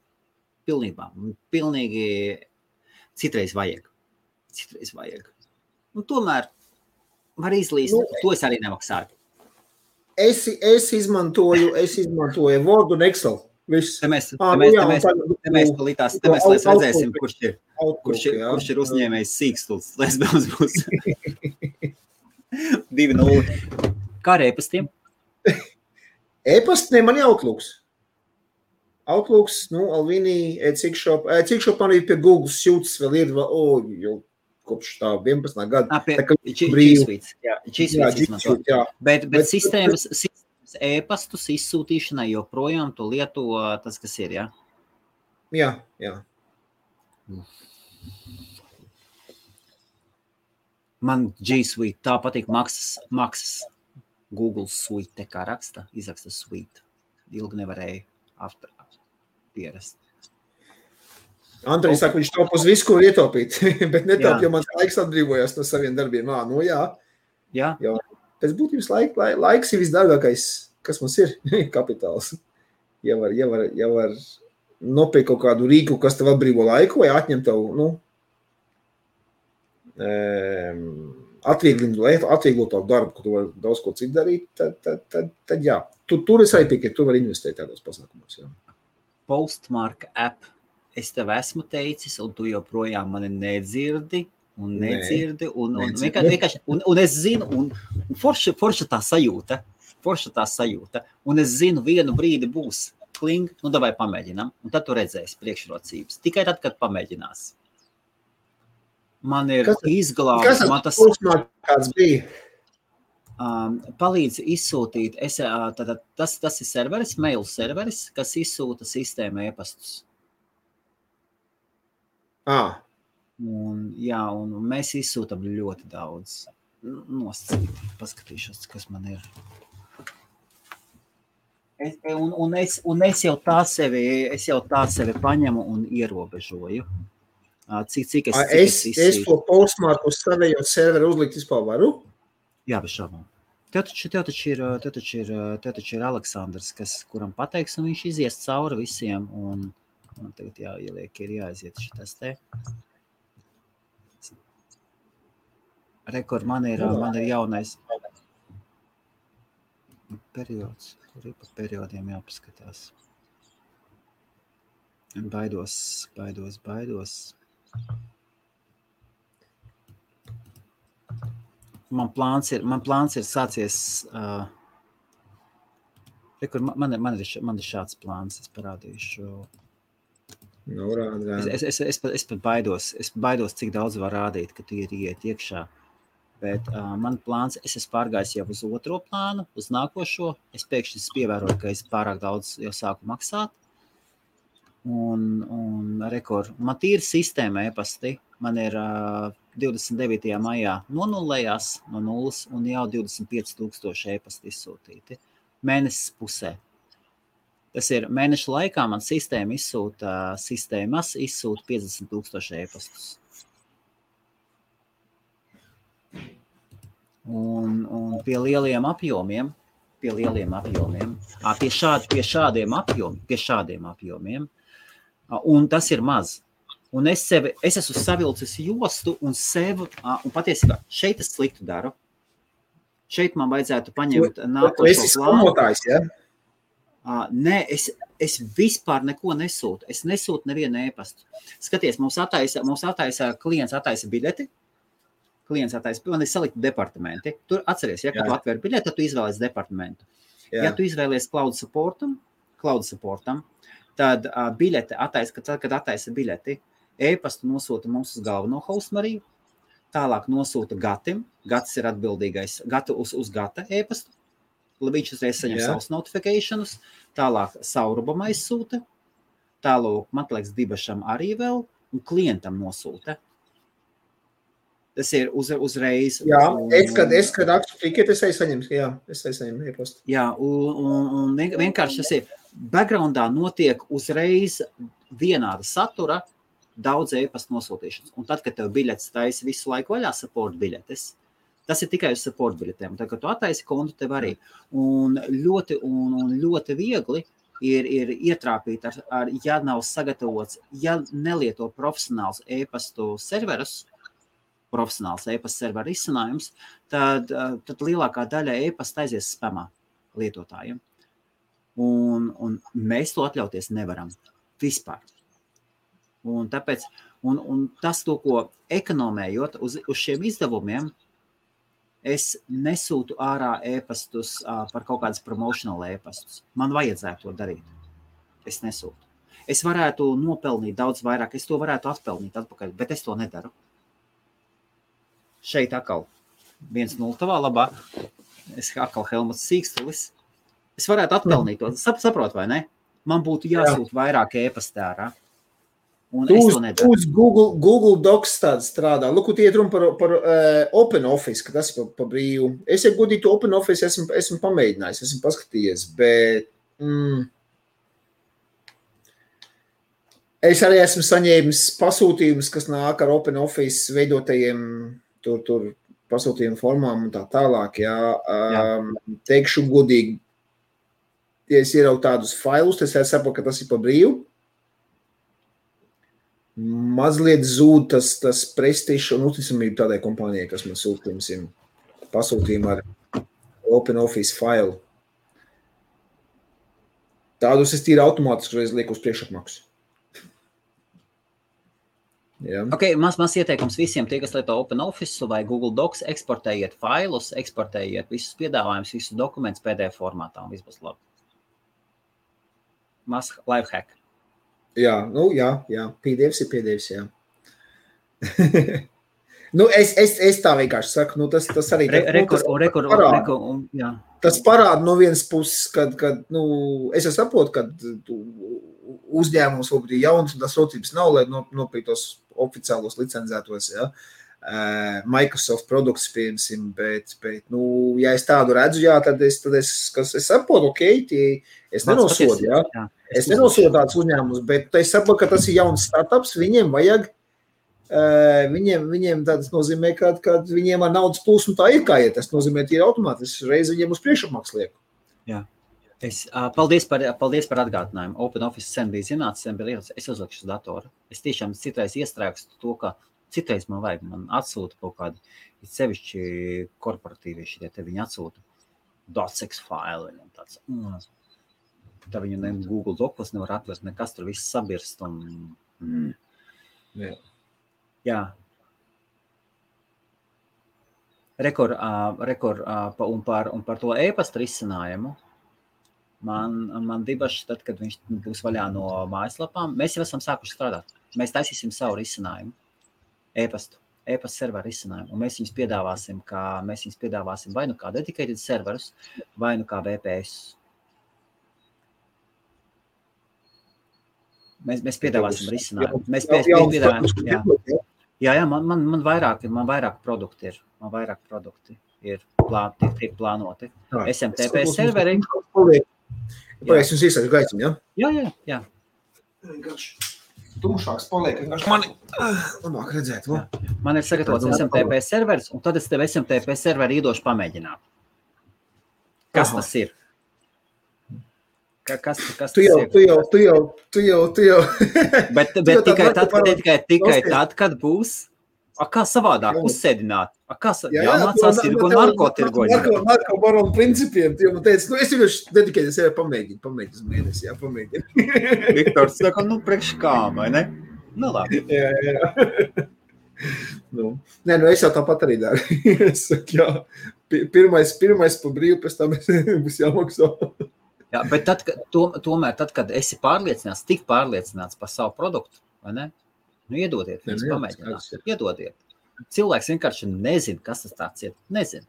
Pilnīgi citreiz vajag. Un tomēr var izlīst, to es arī nemaksāju. Es izmantoju Word un Excel. Viss. Te mēs redzēsim, kurš ir uzņēmējs sīkstuls. Lesbēns būs 2-0. Kā ar e-pastiem? E-pasti, man Outlooks. Outlooks, Alvini, Cikshop man ir pie Google Suits vēl ir, jau kopš tā 11. gada. G Suite izmanto. Bet sistēmas e-pastus izsūtīšanai joprojām tu lieto tas, kas ir, jā? Jā. Man G Suite tā patīk maksas. Google Suite, kā izraksta Suite. Ilgi nevarēja pierast. Andrejs saka, viņš taup uz visu, ko ietaupīt, bet netaup, jo mans laiks atbrīvojās no saviem darbiem. Jā. Pēc būtības laiks ir visdārgākais, kas mums ir, kapitāls. Ja var nopirkt kaut kādu rīku, kas tev atbrīvo laiku, vai atņem tev, atvieglot tavu darbu, ka tu vari daudz ko citu darīt, tad jā. Tur es arī piekrītu, tu vari investēt tādos pasākumos. Jā. Postmark app, es tev esmu teicis, un tu joprojām mani nedzirdi, un es zinu, un forša tā sajūta, un es zinu, vienu brīdi būs kling, davai pamēģinām, un tad tu redzēsi priekšrocības. Tikai tad, kad pamēģinās. Man ir izglābts. Kas kāds bija? Palīdz izsūtīt. Tas ir serveris, mail serveris, kas izsūta sistēma e-pastus. Un mēs izsūtam ļoti daudz. nosacīt. Paskatīšos, kas man ir. Es jau tā sevi paņemu un ierobežoju. Cik es to postmarku uz savējot serveru uzlikt vispār varu? Jā, bez šaubām. Tev taču ir Aleksandrs, kuram pateiks, un viņš izies cauri visiem, un man tagad jāieliek, ir jāaiziet šitas te. Rekord, man ir jaunais periods, kur ir pa periodiem jāpaskatās. Baidos. Man plāns ir sācies, man ir šāds plāns, es parādīšu. Es pat baidos, cik daudz var rādīt, ka tu ir iet iekšā. Bet man plāns, es esmu pārgājis jau uz otro plānu, uz nākošo. Es pēkšņi pievēroju, ka es pārāk daudz jau sāku maksāt. Un rekord, man tīri sistēma e-pasti. Man ir 29. maijā nonullējās no nulles un jau 25,000 e-pasti izsūtīti. Mēnesis pusē. Tas ir mēneša laikā man sistēmas izsūta 50,000 e-pastus. Un pie lieliem apjomiem, pie šādiem apjomiem, un tas ir maz. Un es esmu savilcis jostu un sev, un patiesībā šeit es sliktu daru. Šeit man vajadzētu paņemt nākošo plānu. Ja? Nē, es vispār neko nesūtu. Es nesūtu nevienu e-pastu. Skaties, mums attaisa klients attaisa biļeti. Man ir salikti departamenti. Tur atceries, ja, kad tu atver biļeti, tad tu izvēlies departamentu. Jā. Ja tu izvēlies cloud supportam, tad biļete kad attaisa biļeti, e-pastu nosūta mums uz galveno hostmariju, tālāk nosūta Gatim. Gats ir atbildīgais uz Gata e-pastu. Viņš uzreiz saņem savus notificationus, tālāk Saurubam aizsūta, tālāk Matlēks Dibašam arī vēl, un klientam nosūta. Tas ir uzreiz. Jā, kad aktu tiket, es saņemu e-pastu. Jā, un vienkārši tas ir, backgroundā notiek uzreiz vienāda satura, daudz e-pastu nosūtīšanas. Un tad, kad tev biļetes taisa visu laiku vaļā support biļetes, tas ir tikai uz support biļetēm. Tad, kad tu attaisi kontu, tev arī. Un ļoti viegli ir ietrāpīt, ja nav sagatavots, ja nelieto profesionāls e-pastu serverus, profesionāls e-pasta serveru izcinājums, tad lielākā daļa e-pasta aizies spamā lietotājiem. Un mēs to atļauties nevaram. Vispār. Un tāpēc, un tas to, ko ekonomējot uz šiem izdevumiem, es nesūtu ārā e-pastus par kaut kādas promotional e-pastus. Man vajadzētu to darīt. Es nesūtu. Es varētu nopelnīt daudz vairāk, es to varētu atpelnīt atpakaļ, bet es to nedaru. Šeit atkal 1-0 tavā labā. Es atkal Helmuts Sīkstulis. Es varētu atpelnīt to. Saprot, vai ne? Man būtu jāsūt vairāk e-pasta ārā. Un es to nedaru. Uz Google Docs tāds strādā. Lūk, iet runa par Open Office, ka tas ir pa brīvu. Es, ja godīgi to Open Office esmu pamēģinājis, esmu paskatījies, bet es arī esmu saņēmis pasūtījumus, kas nāk ar Open Office veidotajiem tur pasūtījumu formām un tā tālāk. Jā. Teikšu godīgi, ja es ieraugu tādus failus, tad es saprotu, ka tas ir pa brīvu. Mazliet zūd tas prestižs un uzticamība tādai kompānijai, kas man pasūtījumu ar Open Office failu. Tādus es tīri automātiski reiz lieku uz priekšapmaksu. Ja. Ok, maz ieteikums visiem, tie, kas lieto Open Office vai Google Docs, eksportējiet failus, eksportējiet visus piedāvājumus, visus dokumentus PDF formātā un viss būs labi. Mas lifehack. Jā, PDFs ir PDFs, jā. Es tā vienkārši saku, tas arī tas parāda no vienas puses, kad es saprotu, kad uzņēmums varbūt ir jauns un tas rocības nav, lai nopirktos oficiālos licencētos, jā. Microsoft produkts, piemēram, bet, nu, ja es tādu redzu, jā, tad es saprotu, ok, es nenosodu, jā. Es nenosodu tādus uzņēmumus, bet es saprotu, ka tas ir jauns startups, viņiem vajag, viņiem tas nozīmē, ka viņiem ar naudas plūsmu tā ir kā iet, tas nozīmē, ka ir automātiski reiz viņiem uz priekšapmaks lieku. Jā. Paldies par atgādinājumu. OpenOffice sen bija zināts, sen bija lietas, es uzlikšu uz datoru. Es tiešām citreiz iestrēgstu to, ka citreiz man atsūta kaut kādi, sevišķi korporatīvie šitie, te viņi atsūta docx failu, viņam tāds, tā viņu Google Docs nevar atvērt, nekas tur viss sabirst un, jā. Un par to e-pasta risinājumu, man dibaši tad, kad viņš būs vaļā no mājaslapām, mēs jau esam sākuši strādāt. Mēs taisīsim savu risinājumu. E-pasta serveru risinājumu, un mēs viņus piedāvāsim vai nu kā dedicated serverus, vai nu kā VPS. Mēs piedāvāsim risinājumu. Mēs piedāvājam, jā, man vairāk produkti ir. Man vairāk produkti ir tiek plānoti. SMTP serveri. Es jums iesaku gaismu, ja? Jā. Tumšāks paliek, vienkārši mani labāk redzēt. Man ir sagatavots SMTP serveris, un tad es tev SMTP serveri iedošu pamēģināt. Kas tas ir? Kas tu jau. Bet tikai tad, kad būs. Kā savādāk uzsēdināt? Jāmācās tirgo un narkotirgoņi. Narko baronu principiem. Man teica, es vienkārši dedikēju sevi pamēģinu uz mēnesi, pamēģinu. Viktors saka, priekš kā, vai ne? Labi. Jā. Es jau tāpat arī daru. Es saku, pirmais pa brīvu, pēc tam būs jāmaksā. Jā, bet tomēr, kad esi tik pārliecināts par savu produktu, vai ne? Iedodiet, viņus pamēģināt. Iedodiet. Cilvēks vienkārši nezina, kas tas tāds ir. Nezina.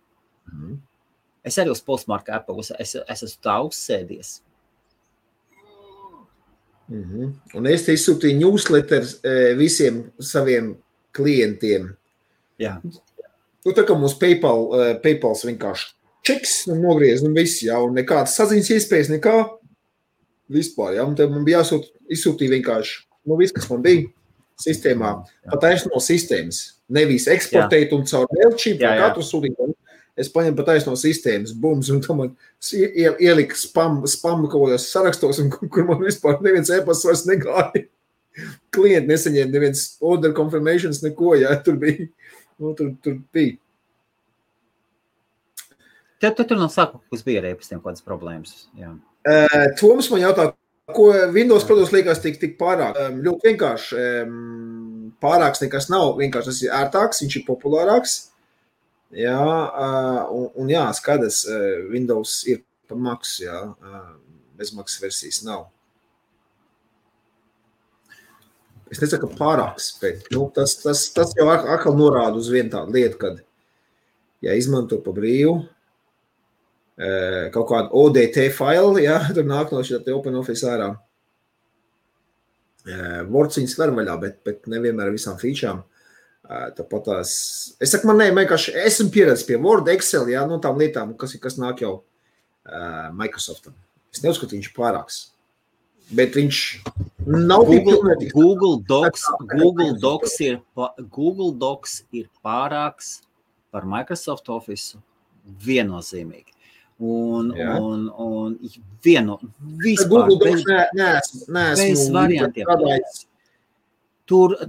Es arī uz Postmark Apple, es esmu tā uzsēdies. Un es te izsūtīju newsletters visiem saviem klientiem. Jā. Tā kā mums PayPals vienkārši čeks nogriez, viss, un nekādas saziņas iespējas, nekā vispār, un te man bija izsūtīja vienkārši, viss, kas man bija sistēmā, pataisno no sistēmas. Nevis eksportēt un caur Mailchimp, katru sūtīju. Es paņemu pataisno no sistēmas, bums, un tam man ielika spam kaut kādos sarakstos, un kur man vispār neviens e-pasts vairs negāja. Klienti nesaņēma neviens order confirmations, neko, tur bija. Tur bija. Tur no sākuma bija ar e-pastiem kādas problēmas. Jā. Toms man jautā, ko Windows produkts liekas tik pārāk. Ļoti vienkārši pārāks nekas nav, vienkārši tas ir ērtāks, viņš ir populārāks. Jā, un skaidrs, Windows ir par maksu, bezmaksas versijas nav. Es nesaku, ka pārāks, bet tas jau atkal norāda uz vienu tādu lietu, kad, izmanto pa brīvu, kaut kādu ODT failu, tur nāk no šī OpenOffice ārā. Words viņas var vaļā, bet nevienmēr ar visām featurām. Tāpat tās, es saku, man vienkārši esmu pieredzis pie Word, Excel, no tām lietām, kas nāk jau Microsoftam. Es neuzskatu, viņš ir pārāks. Bet viņš nav Google Docs ir pārāks par Microsoft Office viennozīmīgi. Un vispār Google Docs neesmu bez variantiem. Tās ir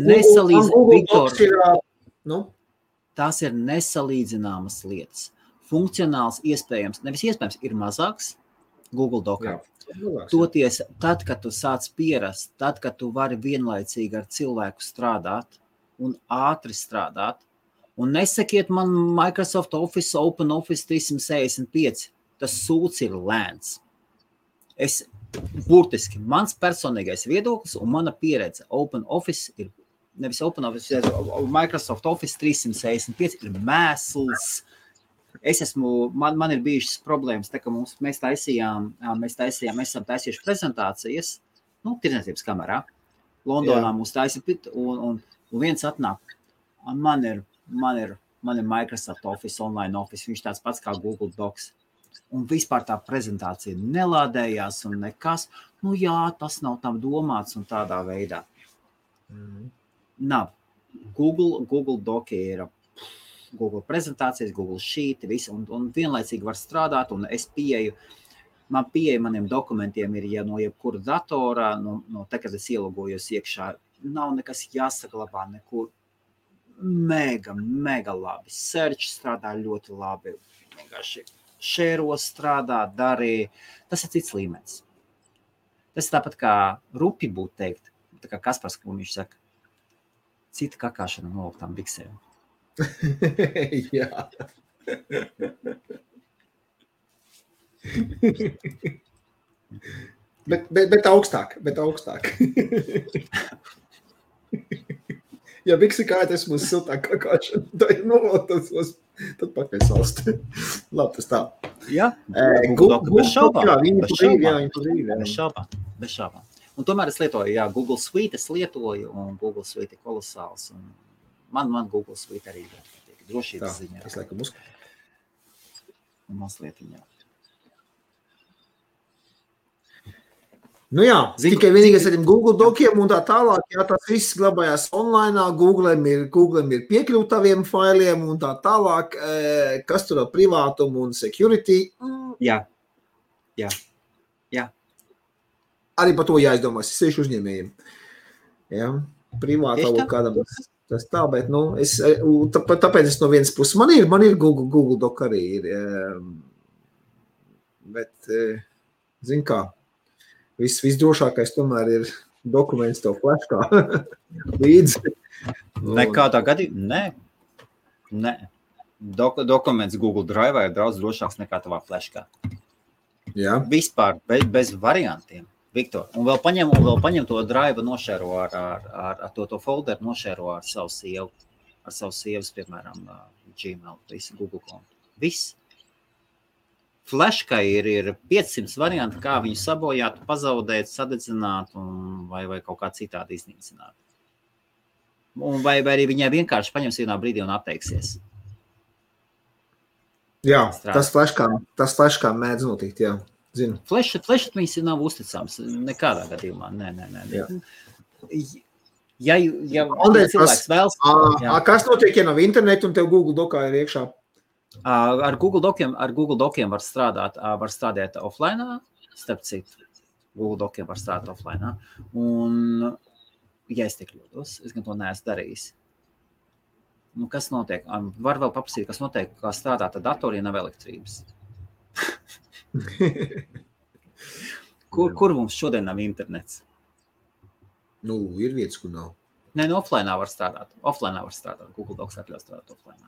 nesalīdzināmas, tās ir nesalīdzināmas lietas. Funkcionāls iespējams, nevis iespējams, ir mazāks Google Docā. Toties, tad, kad tu sāc pierast, tad, kad tu vari vienlaicīgi ar cilvēku strādāt un ātri strādāt, un nesakiet man Microsoft Office, OpenOffice 365, tas sūds ir lēns. Burtiski, mans personīgais viedoklis un mana pieredze OpenOffice ir, nevis OpenOffice, Microsoft Office 365 ir mēsls. Man ir bijušas problēmas, tā ka mēs esam taisījuši prezentācijas, tirdzniecības kamerā. Londonā mums taisa, un viens atnāk, Man ir Microsoft Office, Online Office, viņš tāds pats kā Google Docs. Un vispār tā prezentācija nelādējās un nekas. Nu jā, tas nav tam domāts un tādā veidā. Nav. Google Doc ir Google prezentācijas, Google Sheet, visu, un vienlaicīgi var strādāt, un es man pieeja maniem dokumentiem ir, ja no jebkura datorā, no te, kad es ielogojos iekšā, nav nekas jāsaglabā nekur. Mega labi. Search strādā ļoti labi. Vienkārši šēros strādā, darīja. Tas ir cits līmenis. Tas tāpat kā rupi būtu teikt. Tā kā Kaspars, ko viņš saka. Cita kakāšana noliktām biksēm. Jā. bet augstāk. Ja biksi kājas mums siltāk kakāšana, tad pakaļ salst. Labi, tas tā. Jā, bez šaubām. Un tomēr es lietoju, Google Suite es lietoju, un Google Suite ir kolosāls. Un man Google Suite arī ir drošības ziņā. Es laikam Mazliet viņā. Nu jā, tikai vienīgais ar tiem Google dokiem un tā tālāk, tas viss glabājās online, Googlem ir piekļūt taviem failiem un tā tālāk, kas tur ar privātumu un security. Jā. Arī par to jāizdomās, es sešu uzņēmējiem. Jā, privātavu kādam tas tā, bet, tāpēc es no vienas puses, man ir Google Doc arī ir, bet, zin kā, visdrošākais tomēr ir dokuments tev flashkā līdzi. Nekādā gadījumā? Nē. Dokuments Google Drive ir daudz drošāks nekā tavā flashkā. Jā. Vispār, bez variantiem, Viktor. Un vēl paņem to Drive nošēro ar to folderu nošēro ar savu sievu. Ar savu sievas, piemēram, Gmail, visu Google kontu. Viss. Flashkai ir 500 varianti, kā viņu sabojāt, pazaudēt, sadedzināt vai kaut kā citādi iznīcināt. Vai arī viņai vienkārši paņems vienā brīdī un atteiksies. Jā, tas flashkā mēdz notikt, jā. Zinu. Flashatmiņas nav uzticams. Nekādā gadījumā. Nē. Ja cilvēks vēlas... Kas notiek, ja nav internetu un tev Google Docā ir iekšā? Ar Google Dociem var strādāt offline, starp citu. Google Dociem var strādāt offline. Un, ja es tik kļūdos, es gan to neesmu darījis. Kas notiek? Var vēl paprasīt, kas notiek, kā strādāt ar datoriem, nav elektrības. Kur mums šodien nav internets? Ir vietas, kur nav. Nē, offline var strādāt. Google Docs atļauj strādāt offline.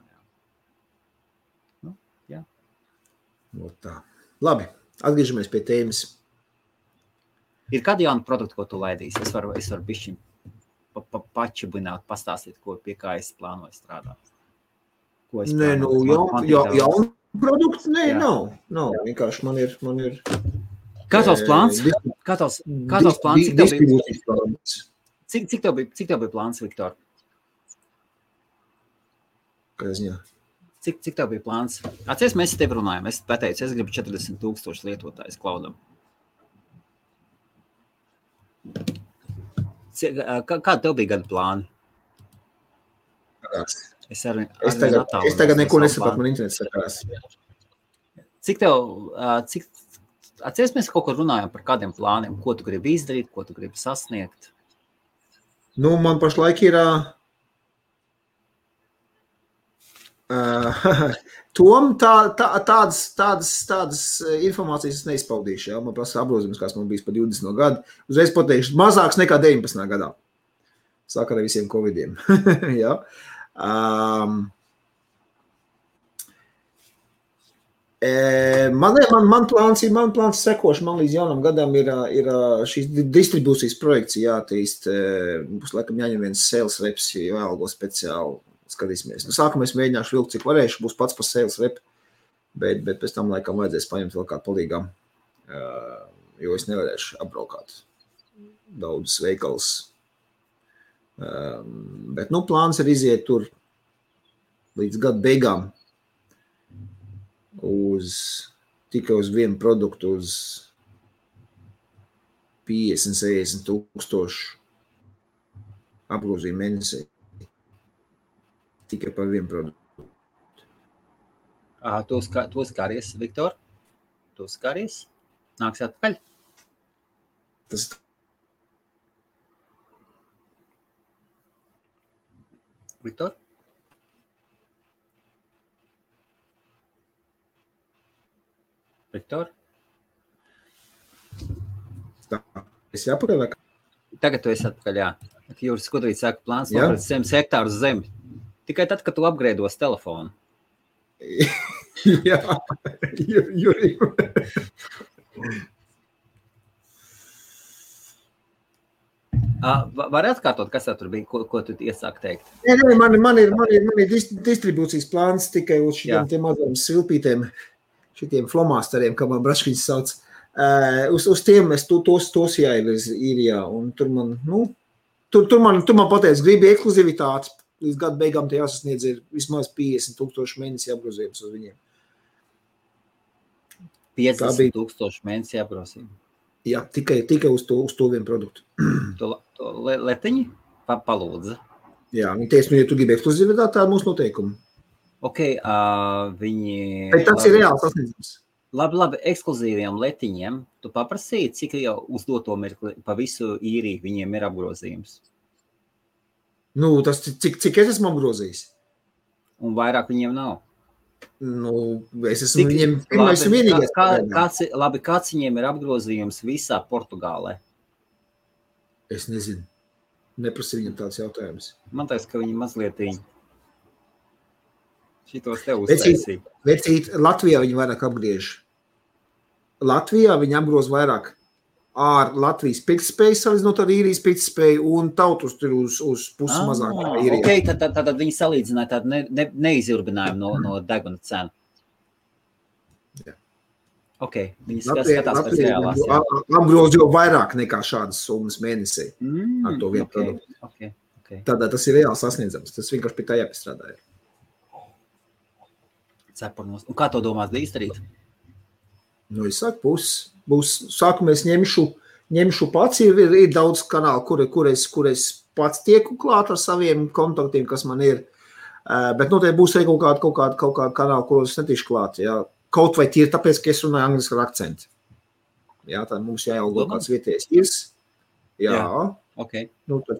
Jā. Tā. Labi, atgriežamies pie tēmas. Ir kādi jauni produkti, ko tu laidīsi? Es varu bišķiņ pačibināt, pastāstīt, pie kā es plānoju strādāt. Jauni produkti? Nē, nav. Vienkārši man ir... Kā tavs plāns? Cik tev bija plāns, Viktor? Kā ziņā? Cik tev bija plāns? Atceries, mēs tev runājam. Es pateicu, es gribu 40,000 lietotājus cloudam. Kāda tev bija gada plāni? Es tagad neko nesapratu, man internets sakās. Cik tev... Atceries, mēs kaut ko runājam par kādiem plāniem, ko tu gribi izdarīt, ko tu gribi sasniegt? Man pašlaik ir... Tom tādas informācijas neizpaudīšu, jā. Man prasa apgrozījums, kāds man bijis par 20 gadu. Uzreiz pateikšu, mazāks nekā 19. gadā. Sāk ar visiem covidiem. Jā. Man plāns sekoši, man līdz jaunam gadam ir šīs distribūcijas projekts jātīst. Būs laikam jāņem viens sales reps, jāalgo speciāli. Skatīsimies. Sākumā es mēģināšu vilkt, cik varēšu, būs pats par sales rep, bet pēc tam laikam vajadzēs paņemt vēl kādu palīgām, jo es nevarēšu apbraukāt daudzus veikals. Bet, plāns ir iziet tur līdz gada beigām tikai uz vienu produktu uz 50-60 tūkstošu apgrozījumu mēnesī. Tikai par vienu produktu. Tu skaries, Viktor? Tu skaries? Nāks atpakaļ? Tas Viktor? Viktor? tā. Es jāpakaļ vai kā? Tagad tu esi atpakaļ, jā. Jūras Skudrīts saka, plāns nopirkt 100 hektārus zemi. Tikai tad, kad tu upgrados telefonu. Jā, Juri. Var atkārtot, kas tur bija, ko tu iesāk teikt? Nē, man ir distribūcijas plāns tikai uz šitiem maziem svilpītiem, šitiem flomasteriem, kā man braškiņas sauc. Uz tiem es tos jāievirz īrijā, un tur man pateic, gribi ekskluzivitāti, līdz gada beigām te jāsasniedz ir vismaz 50,000 mēnesi apgrozījums uz viņiem. 50,000 mēnesi apgrozījums? Jā, tikai uz to vienu produktu. To letiņi palūdza? Jā, viņi teica, ja tu gribi ekskluzivitāti, tā ir mūsu noteikumi. Ok, viņi... Bet tas ir reāls sasniedzums. Labi, ekskluzīviem letiņiem tu paprasīji, cik jau uz doto mirkli pa visu īriju viņiem ir apgrozījums? Nu, tas cik es esmu apgrozījis? Un vairāk viņiem nav? Nu, es esmu viņiem pirmais un vienīgais. Kāds viņiem ir apgrozījums visā Portugālē? Es nezinu. Neprasīju viņam tāds jautājums. Man teiks, ka viņi mazlietiņi šitos te uztaisīja. Vecīt, Latvijā viņi vairāk apgriež. Latvijā viņi apgroz vairāk ar Latvijas pirktspēju, salīdzinot ar īrijas pirktspēju, un tautus tur uz pusi mazāk. Ok, tad viņi salīdzināja tādu neizjurbinājumu no deguna cenu. Jā. Ok, viņi skatās pēc reālās. Apgroz jau vairāk nekā šādas summas mēnesī ar to vienu produktu. Okay. Tādā tas ir reāli sasniedzams. Tas vienkārši pie tā jāpiestrādāja. Cepurnos. Un kā to domās izdarīt? Nu, es saku, būs sākumā es ņemšu pats, ir daudz kanālu, kur es pats tieku klāt ar saviem kontaktiem, kas man ir, bet noteikti būs arī kaut kāda kanāla, kuros netīšu klāt, jā. Kaut vai tīri tāpēc, ka es runāju angliski ar akcentu. Jā, tā mums jāielgo kāds vietējais irs. Jā. Ok. Nu, tad.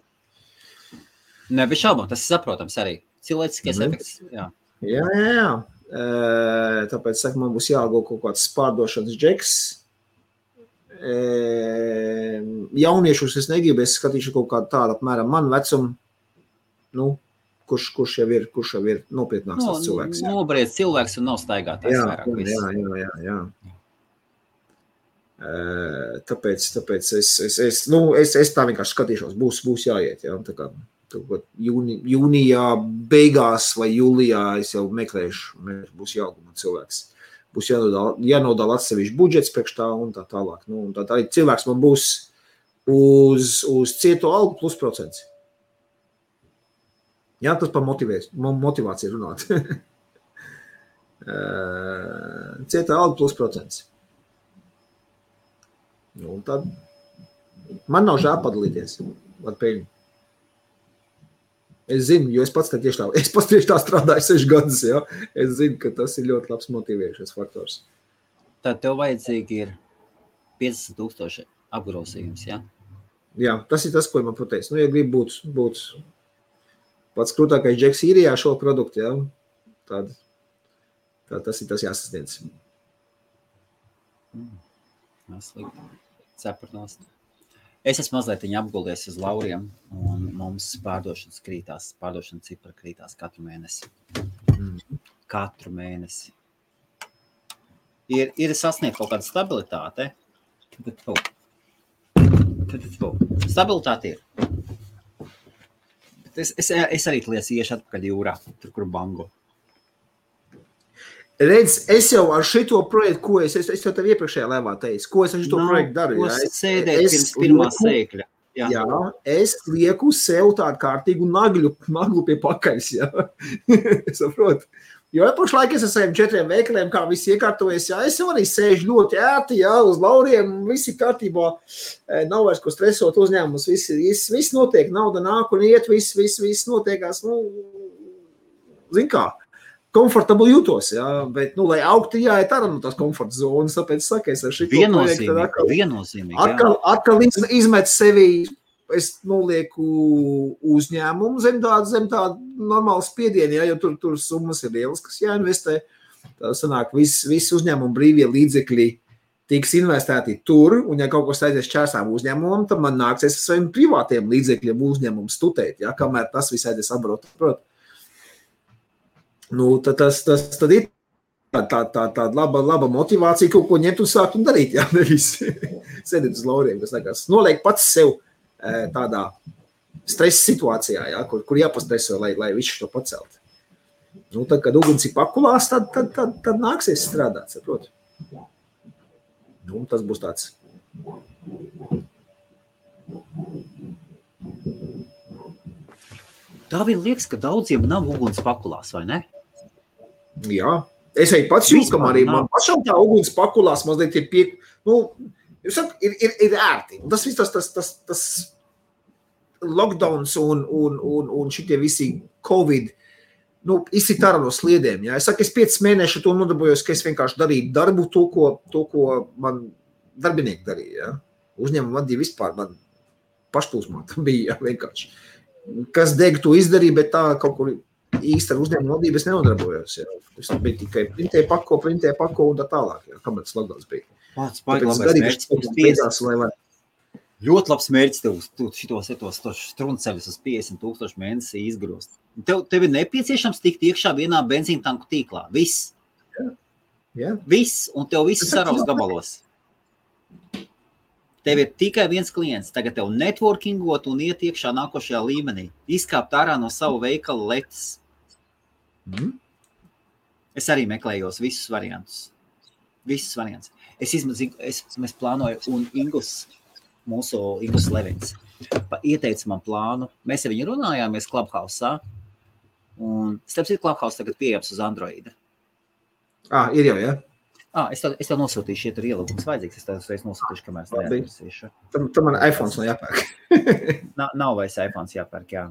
Ne, bez šaubām, tas ir saprotams arī. Cilvēciskais efekts, jā. Jā. Tāpēc, saka, man būs jāalgo kaut kāds pārdošanas džeks. Jauniešus es negribu, es skatīšu kaut kādu tādu apmēram man vecumu, nu, kurš jau ir nopietnāks tas cilvēks. Nobriedz cilvēks un nav staigātājs vairāk viss. Jā. Tāpēc es tā vienkārši skatīšos, būs jāiet, jā, tā kā jūnijā beigās vai jūlijā es jau meklēšu, būs jāguma cilvēks. Būs jānodala atsevišķi budžets priekš tā un tā tālāk. Nu, un tā arī cilvēks man būs uz cieto algu plus procents. Jā, tas par motivāciju runāt. Cietā alga plus procents. Nu, un tad man nav žēl padalīties ar peļņu. Es zinu, jo es pats tieši tā strādāju 6 gadus, jā. Es zinu, ka tas ir ļoti labs motivējušais faktors. Tad tev vajadzīgi ir 50,000 apgrozījums, jā? Jā, tas ir tas, ko man pateica. Nu, ja grib būt pats krūtākais džeks īrijā šo produktu, jā, tad tas ir tas jāsasniedz. Slikti. Cepurnos. Es esmu mazliet apgulies uz lauriem, un mums pārdošana cipra krītās katru mēnesi. Katru mēnesi. Ir sasniegt kaut kāda stabilitāte. Stabilitāte ir. Bet es arī iešu atpakaļ jūrā, tur, kur bango. Redz, es jau ar šito projektu, ko es jau tev iepriekšējā lēvā teicu, ko es ar šito projektu daru. Ko sēdēt pirms pirmā sēkļa? Jā, es lieku sev tādu kārtīgu naglu pie pakaļas, jā. Saprot? Jo pašlaik es ar saviem 4 veikaliem, kā viss iekārtojies, jā, es jau arī sēžu ļoti ērti, jā, uz lauriem, visi kārtībā, nav vairs ko stresot uzņēmumus, viss notiek, nauda nāk un iet, viss notiekās, zin kā, komfortabli jūtos, jā, bet, lai augtu jāiet arī no tās komforta zonas, tāpēc saku, es ar šito viennozīmīgi, atkal izmet sevi, es nolieku uzņēmumu zem tāda normāla spiediena, jo tur summas ir lielas, kas jāinvestē. Tā sanāk, visi uzņēmumu brīvie līdzekļi tiks investēti tur, un ja kaut kas aizies čērsām uzņēmumam, tad man nāksies ar saviem privātiem līdzekļiem uzņēmumu stutēt, ja, kamēr tas viss aizies abrot. Tad ir tāda laba motivācija kaut ko ņemt un sākt un darīt, ja, nevis sēdēt uz lauriem, kas nekās. Noliek pats sev tādā stresa situācijā, ja, kur jāpastreso, lai visu to pacelt. Tad, kad uguns ir pakulās, tad nāksies strādāt, saprot. Tas būs tāds. Tā vien liekas, ka daudziem nav uguns pakulās, vai ne? Jā. Es arī pats jūtu, ka arī man pašam tā uguns pakulās mazliet ir ir ērti. Un tas viss tas lockdowns un šitie visi Covid, izsit ārā no sliedēm. Ja? Es saku, es 5 mēneši to nodarbojos, ka es vienkārši darīju darbu to, ko man darbinieki darīja. Ja? Uzņēmumu vadīja vispār, man pašplūsmā bija vienkārši. Kas deg to izdarīja, bet tā kaut kur īsti ar uzņēmumu vadību es nenodarbojos. Ja? Es biju tikai printē pako un tā tālāk, ja? Kamēr tas lockdowns bija. Ļoti labs mērķis tev šitos strunceļus uz 50,000 mēnesī izgrost. Tev ir nepieciešams tikt iekšā vienā benzīna tanku tīklā. Viss. Jā. Viss, un tev viss saraus gabalos. Tev ir tikai viens klients. Tagad tev networkingot un iet iekšā nākošajā līmenī. Izkāpt ārā no savu veikalu letes. Es arī meklējos visus variantus. Mēs plānoju, un mūsu Ingus Levins, ieteica man plānu. Mēs ar viņu runājāmies Clubhouse-ā, un starp citu Clubhouse tagad pieejams uz Androida. Ir jau, jā? Es tev nosūtīšu, ja tur ielūgums vajadzīgs, es tev nosūtīšu, kamēr es neatversīšu. Tam man iPhones nav jāpērk. Nav vairs iPhones jāpērk, jā.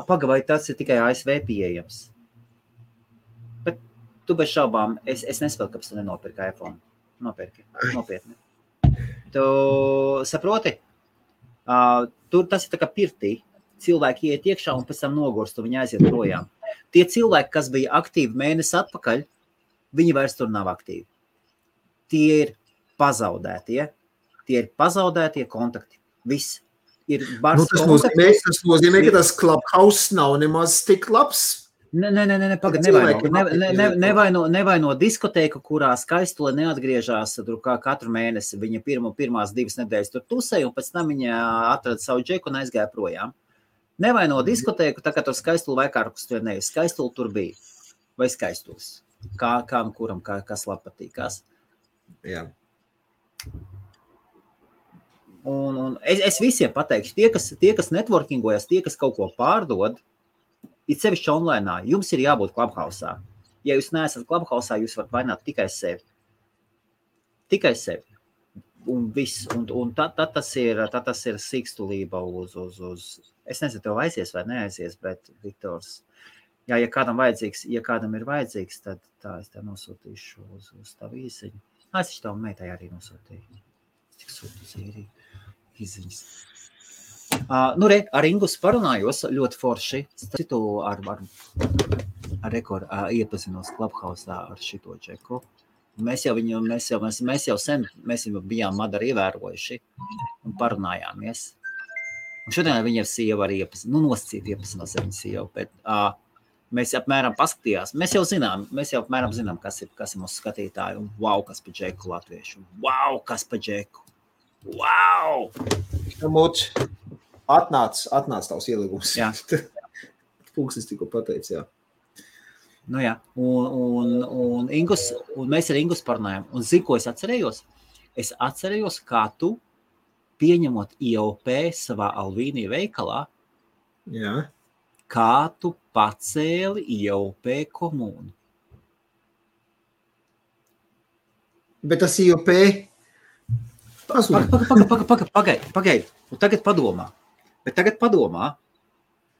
Pagavai, tas ir tikai ASV pieejams. Bet tu bez šaubām, es nespēju, kāpēc tu nenopirki iPhone. Nopirki, nopietni. Tu saproti? Tas ir tā kā pirtī. Cilvēki iet iekšā un pēc tam nogurst, un viņi aiziet projām. Tie cilvēki, kas bija aktīvi mēnesi atpakaļ, viņi vairs tur nav aktīvi. Tie ir pazaudētie kontakti. Viss. Ir bars kontakti. Tas nozīmē, ka tas Clubhouse nav nemaz tik labs. Pagad, nevaino diskotēku, kurā Skaistule neatgriežās tur kā katru mēnesi. Viņa pirmās 2 nedēļas tur tusēja, un pēc tam viņa atrada savu džeku un aizgāja projām. Nevaino diskotēku, tā kā tur Skaistule vai kārkus tur nevis. Skaistule tur bija. Vai Skaistules. Kām kuram, kas labi patīkās. Jā. Un es visiem pateikšu, tie, kas networkingojas, tie, kas kaut ko pārdod, ir sevišķi online, jums ir jābūt Clubhouse-ā. Ja jūs neesat Clubhouse-ā, jūs varat vainot tikai sevi. Tikai sevi. Un viss. Un tad tas ir sīkstulība uz... Es nezinu, tev aizies vai neaizies, bet Viktors... Ja kādam ir vajadzīgs, tad tā es tev nosūtīšu uz tavu īsiņu. Es tavu meitai arī nosūtīju. Tik sūtu īziņas. Ar Ingus parunājos ļoti forši. Citu iepazinos Clubhouse-ā ar šito čeku. Mēs jau sen bijām Madaru ievērojuši un parunājāmies. Un šodien viņa sieva arī nosacīt ar viņu sievu, bet mēs apmēram paskatījās. Mēs jau apmēram zinām, kas ir mūsu skatītāji. Un wow, kas pa džeku latviešu. Wow, kas pa džeku. Wow! Atnāc tavs ielīgums. Jā. Pūksis tikko pateicis, jā. Jā. Un mēs ar Ingus parunājām. Un zinu, ko es atcerējos? Es atcerējos, kā tu pieņemot IOP savā Alvīnī veikalā, Jā. kā tu pacēli IOP komūnu. Bet tas IOP Pagaid. Un tagad padomā.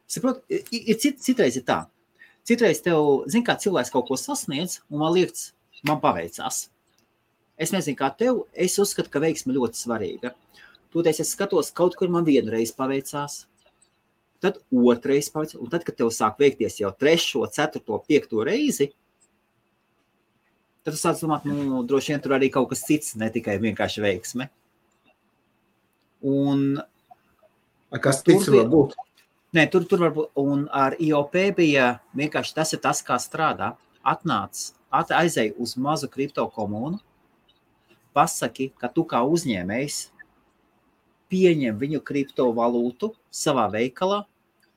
Saprot, citreiz ir tā. Citreiz tev, zin kā cilvēks kaut ko sasniedz, un man liekas, man paveicās. Es nezinu, kā tev, es uzskatu, ka veiksme ļoti svarīga. Tūties es skatos, kaut kur man vienreiz paveicās, tad otrreiz paveicās, un tad, kad tev sāk veikties jau 3., 4., 5. reizi, tad tu sāc domāt, droši vien tur arī kaut kas cits, ne tikai vienkārši veiksme. Un kas cits var būt? Nē, tur var būt, un ar IOP bija vienkārši tas ir tas, kā strādā. Aizej uz mazu kripto komūnu, pasaki, ka tu kā uzņēmējs pieņem viņu kriptovalūtu savā veikalā,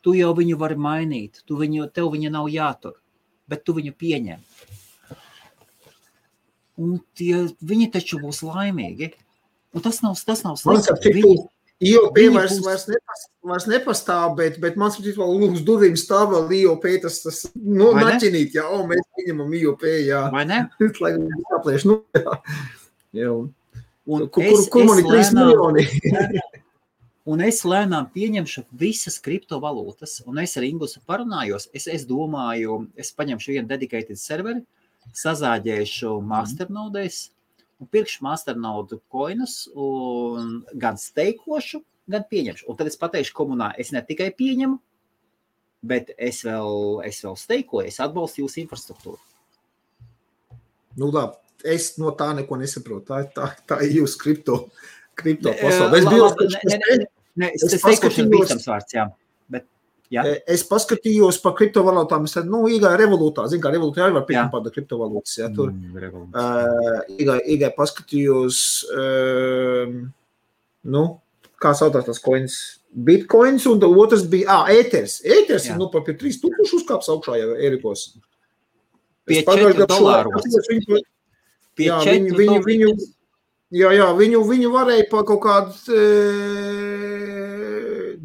tu jau viņu vari mainīt, tev viņa nav jātur, bet tu viņu pieņem. Un viņi taču būs laimīgi. Un tas nav slikti. IOP vairs nepastāv, bet man saprīt, vēl uz durvīm stāv vēl IOP, tas naķinīt, jā, mēs pieņemam IOP, jā. Vai ne? Lai saplēš, jā. Un kur man ir 3 miljoni? Un es lēnām pieņemšu visas kriptovalūtas, un es ar Ingusu parunājos, es domāju, es paņemšu vienu dedicated serveri, sazāģēšu masternodēs, un pirkšu masternode coinus, un gan steikošu, gan pieņemšu. Un tad es pateikšu komunā, es ne tikai pieņemu, bet es vēl steikoju, es atbalstu jūsu infrastruktūru. Labi, es no tā neko nesaprotu. Tā ir jūsu kripto pasaule. Es steikošu ir bīstams vārds, jā. Jā. Es paskatījos par kriptovalūtām, es iegāju revolūtā, zinu, kā revolūtā arī var pieņemt pārda kriptovalūtas, jā, tur iegāju paskatījos, kā sautās tās coins, bitcoins, un otrs bija, ēters ir par pie 3000 uzkāps augšā jau Erikos. Pie $4. Jā, viņu varēja pa kaut kādu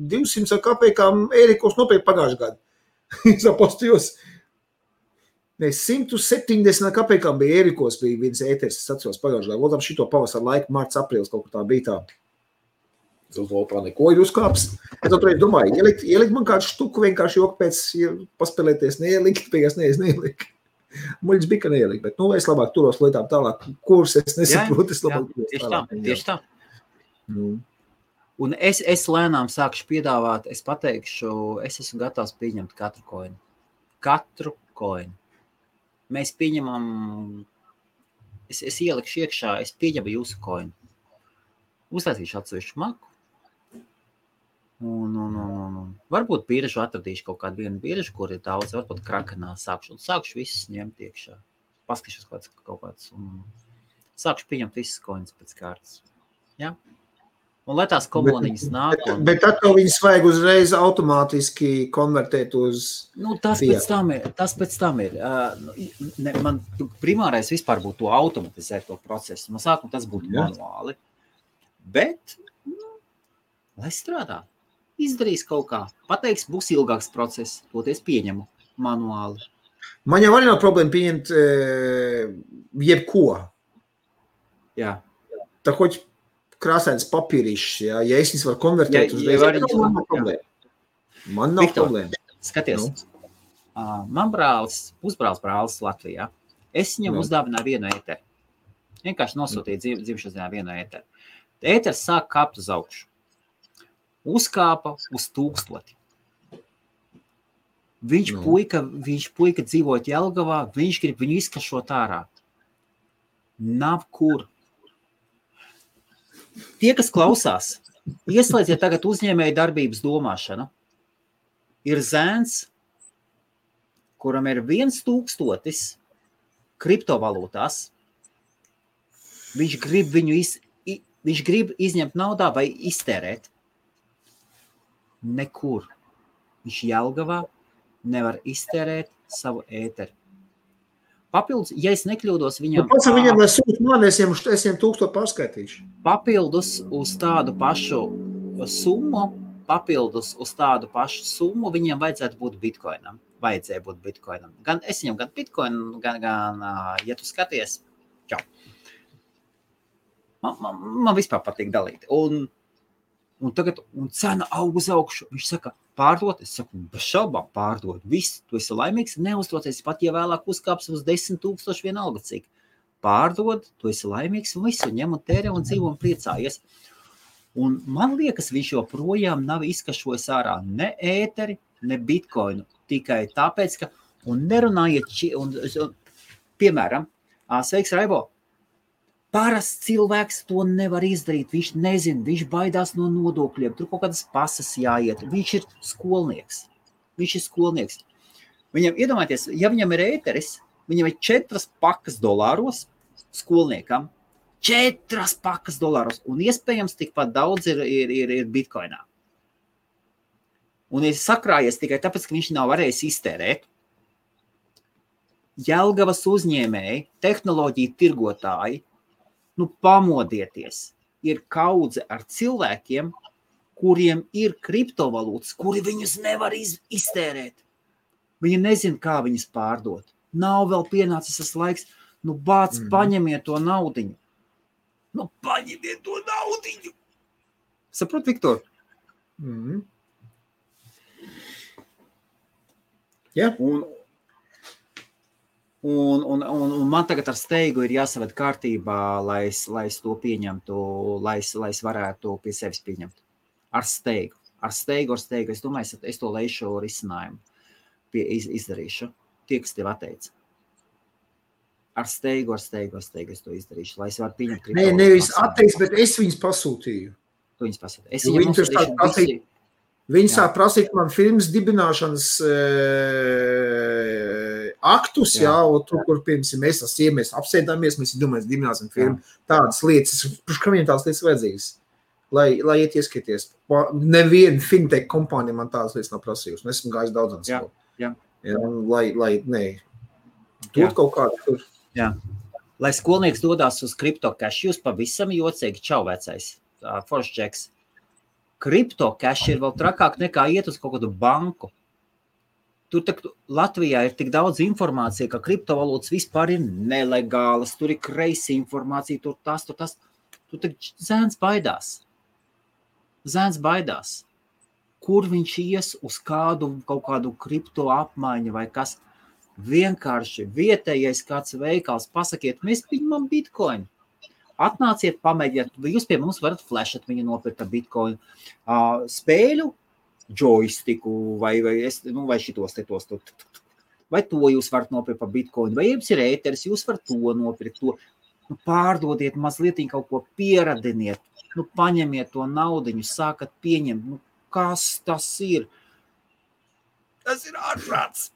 200 kapekām Ērikos nopērk pagājušajā gadā. Es apostījos. 170 kapekām bija Ērikos, bija viens ēters, es atceros pagājušajā gadā. Lūdām šito pavasaru laiku, marts, aprīlis, kaut kā tā bija tā. Zolpā neko ir uzkāps. Es toreiz domāju, ielikt man kādu štuku vienkārši joku pēc paspēlēties, neielikt, beigās neielikt. Muļģis bija, ka neielikt, bet es labāk turos lietām tālāk, kuras es nesaprotu, es labāk turos tālāk. Tieši tā. Un es lēnām sākšu piedāvāt, es pateikšu, es esmu gatavs pieņemt katru koinu. Katru koinu. Mēs pieņemam, es ielikšu iekšā, es pieņemu jūsu koinu. Uztaisīšu atsevišķu maku. Un varbūt biržu atradīšu kaut kādu vienu biržu, kur ir daudz, varbūt krakenā sākšu visus ņemt iekšā. Paskatīšos kaut kāds un sākšu pieņemt visas koinas pēc kārtas. Jā? Un lai tās komuniņas nāk. Bet tad viņas vajag uzreiz automātiski konvertēt uz tas pēc tam ir. Man primārais vispār būtu to automatizēt to procesu. No sākuma tas būtu manuāli. Bet, lai strādā. Izdarīs kaut kā. Pateiks, būs ilgāks process. Toties pieņemu manuāli. Man jau arī nav problēma pieņemt jebko. Jā. Tā hoķi krāsains papīrišs, ja es viņas varu konvertēt uzreiz, man nav problēma. Man nav problēma. Skaties, man pusbrālis brālis Latvijā. Es viņam uzdāvināju vienu ēteru. Vienkārši nosūtīju dzimšanas dienā vienu ēteru. Ēters sāk kāpt uz augšu. Uzkāpa uz 1000. Viņš puika dzīvot Jelgavā, viņš grib viņu izkašot ārā. Nav kur. Tie, kas klausās, ieslēdziet tagad uzņēmēju darbības domāšanu. Ir zēns, kuram ir 1000 kriptovalūtās. Viņš grib izņemt naudā vai iztērēt. Nekur. Viņš Jelgavā nevar iztērēt savu ēteru. Papildus, ja es nekļūdos, viņam... Pats viņam, lai sūt mani, es viņam 1000 pārskaitīšu. Papildus uz tādu pašu summu, viņam vajadzētu būt bitcoinam. Vajadzēja būt bitcoinam. Gan es viņam, gan bitcoinu, gan ja tu skaties, čau. Man vispār patīk dalīt. Un tagad cena aug uz augšu. Viņš saka, pārdot, es saku, bez šaubām pārdot. Viss, tu esi laimīgs, neuztroties, pat ja vēlāk uzkāps uz 10,000 vienalga cik. Pārdod, tu esi laimīgs un visu, ņem un tērē un dzīvo un priecājies. Un man liekas, viņš joprojām nav izkašojis ārā ne ēteri, ne bitcoinu. Tikai tāpēc, ka, un nerunājiet, piemēram, sveiks Raibo, parasts cilvēks to nevar izdarīt, viņš nezina, viņš baidās no nodokļiem, tur kaut kādas pasas jāiet, viņš ir skolnieks. Viņam, iedomājieties, ja viņam ir ēteris, viņam ir 4 pakas dolāros skolniekam, 4 pakas dolāros, un iespējams tikpat daudz ir bitcoinā. Un ir sakrājies tikai tāpēc, ka viņš nav varējis iztērēt. Jelgavas uzņēmēji, tehnoloģiju tirgotāji, pamodieties, ir kaudze ar cilvēkiem, kuriem ir kriptovalūtas, kuri viņus nevar iztērēt. Viņi nezina, kā viņas pārdot. Nav vēl pienācis tas laiks, paņemiet to naudiņu. Paņemiet to naudiņu. Saprot, Viktor? Ja. Un man tagad ar steigu ir jāsaved kārtībā, lai es to pieņemtu, lai es varētu pie sevis pieņemt. Ar steigu. Es domāju, es to leišu risinājumu izdarīšu. Tie, kas tev atteica. Ar steigu es to izdarīšu, lai es varu pieņemt. Nevis atteicis, bet es viņus pasūtīju. Tu viņus pasūtīju. Es viņam uzsūtīšu Viņi sāk prasīt man firmas dibināšanas aktus, un tur, kur pirms mēs apsēdāmies, mēs domājam, dibināsim firmu, tādas lietas, ka viņiem tādas lietas vajadzīgas, lai iet ieskaties. Neviena fintech kompānija man tādas lietas nav prasījusi, un esmu gājis daudzans. Tur kaut kādu tur. Jā. Lai skolnieks dodās uz CryptoCash, jūs pavisam jocīgi, čau vecais, foršs džeks. CryptoCash ir vēl trakāk nekā iet uz kaut kādu banku. Tur Latvijā ir tik daudz informācija, ka kriptovalūtas vispār ir nelegālas, tur ir kreisi informācija, tur tas. Tur zēns baidās. Kur viņš ies uz kaut kādu kripto apmaiņu vai kas? Vienkārši vietējais kāds veikals, pasakiet, mēs pieņemam bitcoinu. Atnāciet, pamēģiet, jūs pie mums varat flashot viņu nopirkt ar bitcoinu, spēļu, joystiku vai šitos. Vai to jūs varat nopirkt par bitcoinu, vai jums ir ēteris, jūs varat to nopirkt, to. Pārdodiet mazliet kaut ko pieradiniet, paņemiet to naudiņu, sākat pieņemt, kas tas ir? Tas ir ārprāts.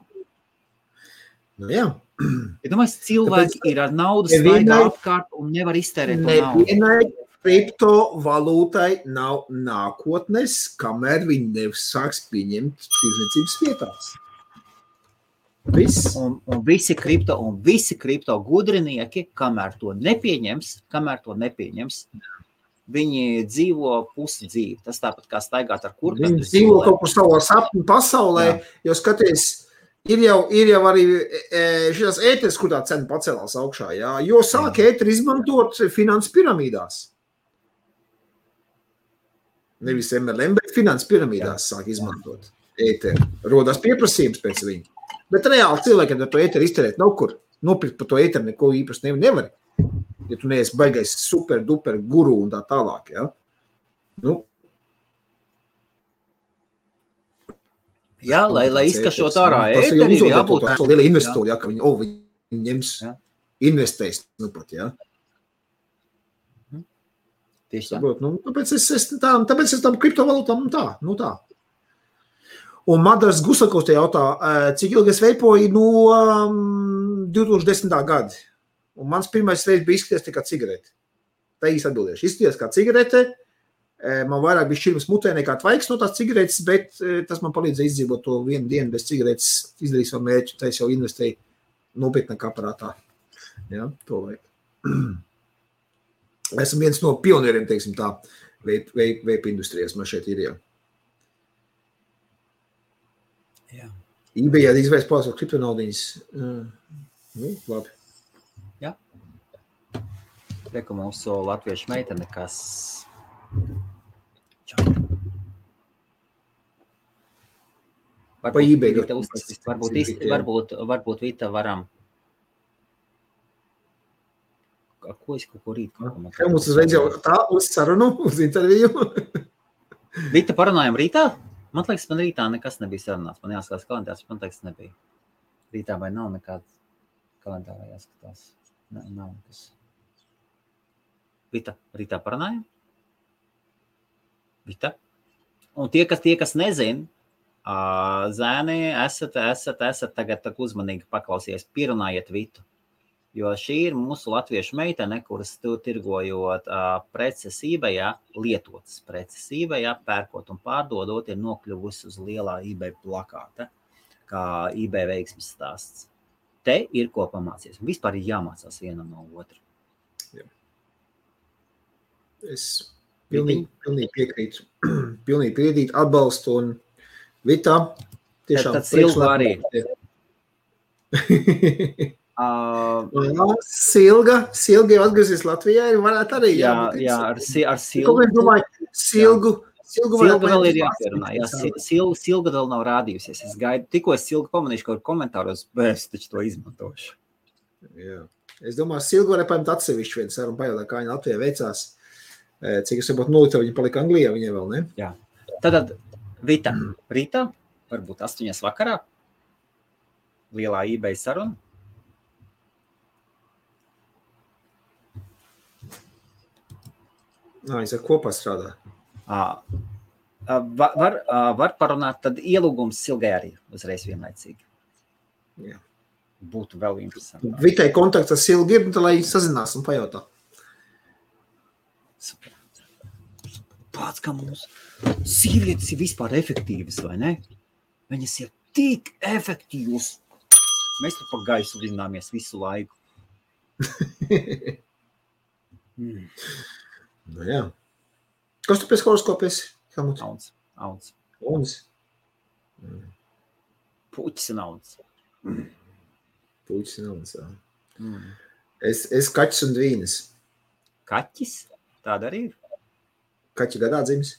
Jā. Ja domāju, cilvēki ir ar naudu staigā apkārt un nevar iztērēt to naudu. Nevienai kriptovalūtai nav nākotnes, kamēr viņi nesāks pieņemt tirdzniecības vietās. Viss. Un visi kripto gudrinieki, kamēr to nepieņems, viņi dzīvo pusi dzīvi. Tas tāpat kā staigāt ar kurpēm. Viņi dzīvo kaut kur savā sapņu pasaulē, jo skaties, Ir jau arī šīs ēteris, kur tā cena pacēlās augšā, jo sāk ēteri izmantot finanses piramīdās. Nevis MLM, bet finanses piramīdās sāk izmantot ēteri. Rodās pieprasījums pēc viņa. Bet reāli cilvēkiem ar to ēteri izterēt nav kur. Nopirkt par to ēteri neko īpaši nevar. Ja tu neesi baigais super, duper guru un tā tālāk, Jā, lai izkašot ārā ēteri, ir jābūt. Tas ir liela investori, ka viņi ņems, investēs, pat, Tieši tā. Tāpēc es tam kriptovalūtām, tā. Un Madars Gusakovs te jautā, cik ilgi es veipoju no 2010. Gada. Un mans pirmais veids bija izskaties tikai cigareti. Tā īsti atbildēšu. Izskaties kā cigarete. Man vairāk bija šķirmas mutē nekā tvaiks no tās cigaretes, bet tas man palīdzēja izdzīvot to vienu dienu bez cigaretes, izdarīt savu mērķi, tā es jau investēju nopietnākā aparātā. Ja, to vajag. Esmu viens no pionieriem, teiksim tā, vape industrijas man šeit ir, jā. Jā. eBayā izvērst pārsvar kriptonaudiņas. Labi. Jā. Reku mūsu latviešu meitene, kas... Pa eBay. Varbūt Vita varam... Ko es kaut ko rīt? Kā mums uzreiz jau tā uz sarunu, uz interviju? Vita, parunājam rītā? Man liekas, man rītā nekas nebija sarunāts. Man jāskatās kalendārs, man liekas, nebija. Rītā vai nav nekāds kalendārā jāskatās? Nav nekas. Vita, rītā parunājam? Vita? Un tie, kas nezin, zēni, esat tagad uzmanīgi paklausies, pierunājiet Vitu. Jo šī ir mūsu latviešu meitene, kuras tirgojot preces eBayā, lietotas preces eBayā, pērkot un pārdodot, ir nokļuvusi uz lielā eBay plakāta, kā eBay veiksmes stāsts. Te ir ko pamācies. Vispār ir jāmācās vienam no otra. Jā. Es pilnīgi piekrītu. Pilnīgi piekrītu, atbalstu un Vitā. Tiešām tad Silga arī. Silga jau atgriezies Latvijā, varētu arī. Jā, ar Silgu. Silga vēl ir jāpierunā. Silga vēl nav rādījusies. Es gaidu, tikko es Silgu pamanīšu kaut komentāros, bet es taču to izmantošu. Jā. Es domāju, Silga varētu paņemt atsevišķu vienu sarunu pajautāt, kā viņa Latvijā veicās. Cik es varbūt nolita, viņa palika Anglijā, viņa vēl, ne? Jā. Tad Vita, rītā, varbūt 8 vakarā, lielā eBay saruna. Viņš ar kopā strādā. Var parunāt, tad ielūgums Silgai arī uzreiz vienlaicīgi. Jā. Būtu vēl interesanti. Vitai kontakts ar Silgu ir, tad lai sazinās un pajautā. Super. Pats, kā mums sievietes ir vispār efektīvas, vai ne? Viņas ir tik efektīvas. Mēs tur pa gaisu vināmies visu laiku. Nu jā. Kas tu pēc horoskopies? Auns. Auns? Puķis un auns. Puķis un auns, jā. Es kaķis un dvīnes. Kaķis? Tāda arī ir? Kaķi gadā dzimis.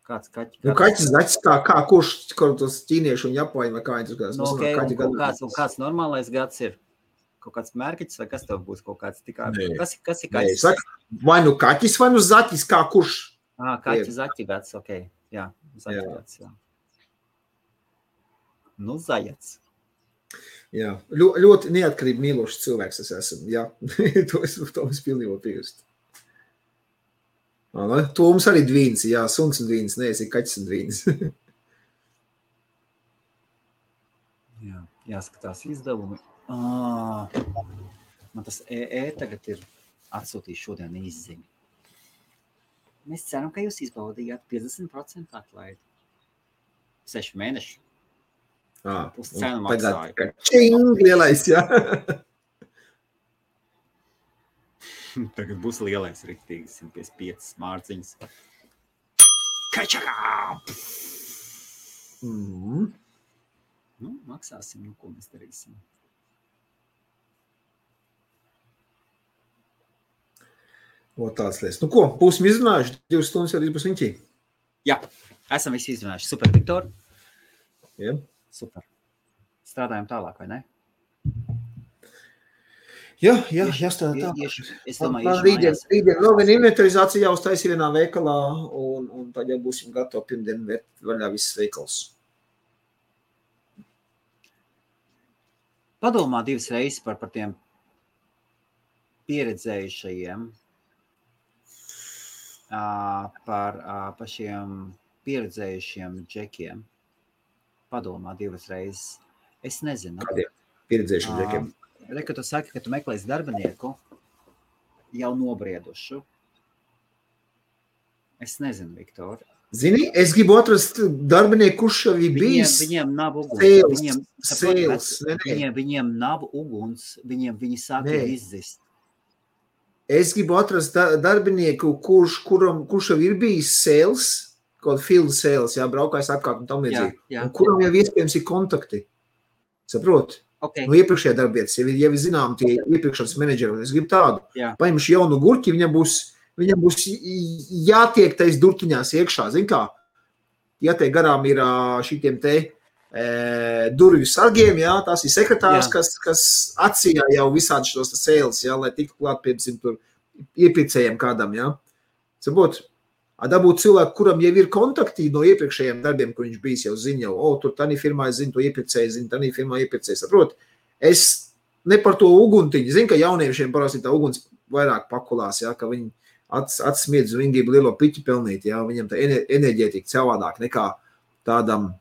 Kāds kaķis? Nu, kaķis zaķis kā kurš, kaut tos ķīnieši un japāņi vai kā viņi tur kādās. Nu, okay, kāds normālais gads ir? Kaut kāds mērķis vai kas tev būs kaut kāds tikā? Kas ir kaķis? Saka, vai nu kaķis vai nu zaķis, kā kurš? Kaķis zaķi gads, ok. Jā, zaķi gads, jā. Nu, zajac. Jā, ļoti neatkarīgi mīlošs cilvēks es esmu, jā. to es pilnībā piekrīstu. To mums arī dvīns, jā, suns un dvīns, neesi kaķis un dvīns. Jā, jāskatās izdevumi. Man tas tagad ir atsūtījis šodien izziņu. Mēs ceram, ka jūs izbaudījāt 50% atlaidi. 6 mēneši. Pus cenu maksāju. Čing, lielais, jā. Tagad būs lielais riktīgi 155 mārciņas. Kačakā! Nu, maksāsim, ko mēs darīsim. Tāds lietas. Nu ko, būsim izrunājuši, 2 stundas arī būs viņķī. Jā, esam visi izrunājuši. Super, Viktor. Jā. Super. Strādājam tālāk, vai ne? Jā, jāstrādā tā. Es domāju, rītdien vēl viena inventarizācija jāuztaisa vienā veikalā, un tad jau būsim gatavi pirmdien vērt vaļā visas veikals. Padomā 2 reizes par tiem pieredzējušajiem, par šiem pieredzējušiem džekiem. Padomā 2 reizes. Es nezinu. Kādiem pieredzējušiem džekiem? Kad tu saki, ka tu meklēsi darbinieku jau nobriedušu. Es nezinu, Viktor. Zini, es gribu atrast darbinieku, kurš jau ir bijis. Viņiem nav uguns. Viņiem nav uguns. Viņi sāk jau izzist. Es gribu atrast darbinieku, kurš jau ir bijis sales, kaut field sales, braukājis apkārt un tam līdzīgi. Un kuram jau iespējams ir kontakti. Saprot? Okay. No iepriekšējā darbietas, ja vi zinām tie iepriekšanas menedžeri, es gribu tādu. Paņemšu jaunu gurķi, viņam būs jātiek tais durtiņās iekšā, zin kā? Ja te garām ir šitiem te durvju sargiem, tās ir sekretārs, kas atsījā jau visādi šos sales, lai tiktu klāt, piemēram, tur iepirkējiem kādam, Saprot? Dabūt cilvēku, kuram jau ir kontakti no iepriekšējiem darbiem, kur viņš bijis jau zina, tur tādā firmā es zinu, to iepirkēju, zinu, tādā firmā iepirkēju, saprot? Es ne par to uguntiņu, zinu, ka jauniešiem parasti tā uguns vairāk pakulās, ka viņi atsmiedz un viņi grib lielo piķi pelnīt, viņam tā enerģētika savādāk nekā tādam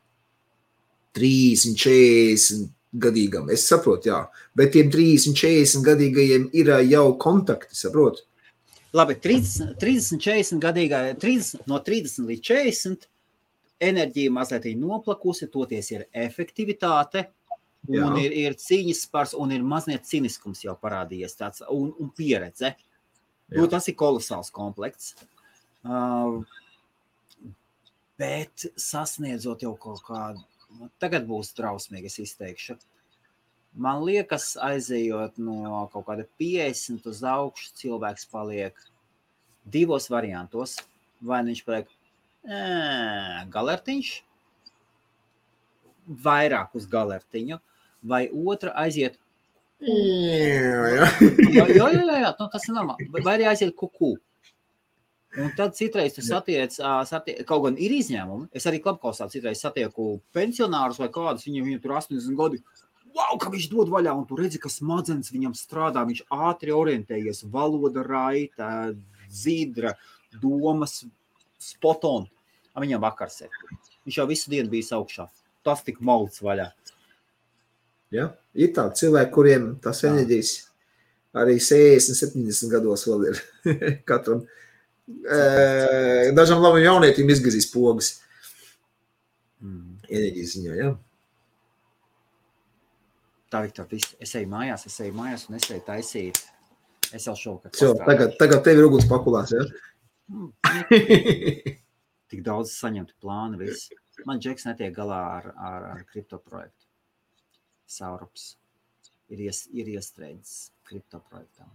30-40 gadīgam. Es saprotu, bet tiem 30-40 gadīgajiem ir jau kontakti, saprot? Labi, 30-40 gadīgā, no 30 līdz 40 enerģija mazliet ir noplakusi, toties ir efektivitāte, un ir cīņas spars, un ir mazliet ciniskums jau parādījies tāds, un pieredze. Tas ir kolosāls komplekts. Bet sasniedzot jau kaut kādu, tagad būs trausmīgi, es izteikšu. Man liekas, aizejot no kaut kāda 50 uz augšu, cilvēks paliek divos variantos. Vai viņš paliek galertiņš, vairāk uz galertiņu, vai otra aiziet jā, tas ir normāli. Vai arī aiziet kuku. Un tad citreiz tu satiec, kaut gan ir izņēmumi, es arī Klapkausā citreiz satieku pensionārus vai kādus, viņiem tur 80 gadi, wow, ka viņš dod vaļā, un tu redzi, ka smadzenes viņam strādā, viņš ātri orientējies, valoda raita, zīdra, domas, spot on. Viņam vakars ir. Viņš jau visu dienu bijis augšā. Tas tik mauts vaļā. Ja, ir tādi cilvēki, kuriem tas enerģijas arī 60-70 gados vēl ir. Katram dažam labam jaunietim izgazīs pogas. Enerģijas ziņā, Tā, Viktor, es eju mājās un es eju taisīt. Es jau šovakar pastrādāšu. Tagad tev ir uguns pakulās, Tik daudz saņemtu plānu viss. Man Džeks netiek galā ar kripto projektu. Saurups ir iestrēdzis kripto projektām.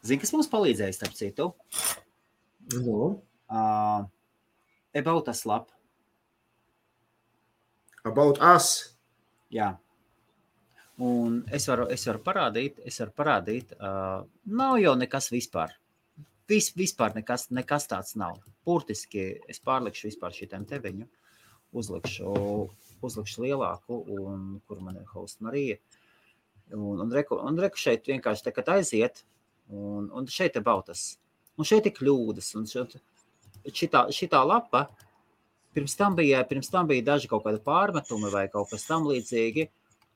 Zini, kas mums palīdzēja, starp citu? About Us lap. About Us? Jā. Un es varu parādīt, nav jau nekas vispār. Vispār nekas tāds nav. Burtiski es pārlikšu vispār šitiem teviņu, uzlikšu lielāku, un kur man ir host Marija. Un reku šeit vienkārši tagad aiziet, un šeit ir About-Us. Un šeit ir kļūdas, un šitā lapa, pirms tam bija daži kaut kādi pārmetumi vai kaut kas tam līdzīgi,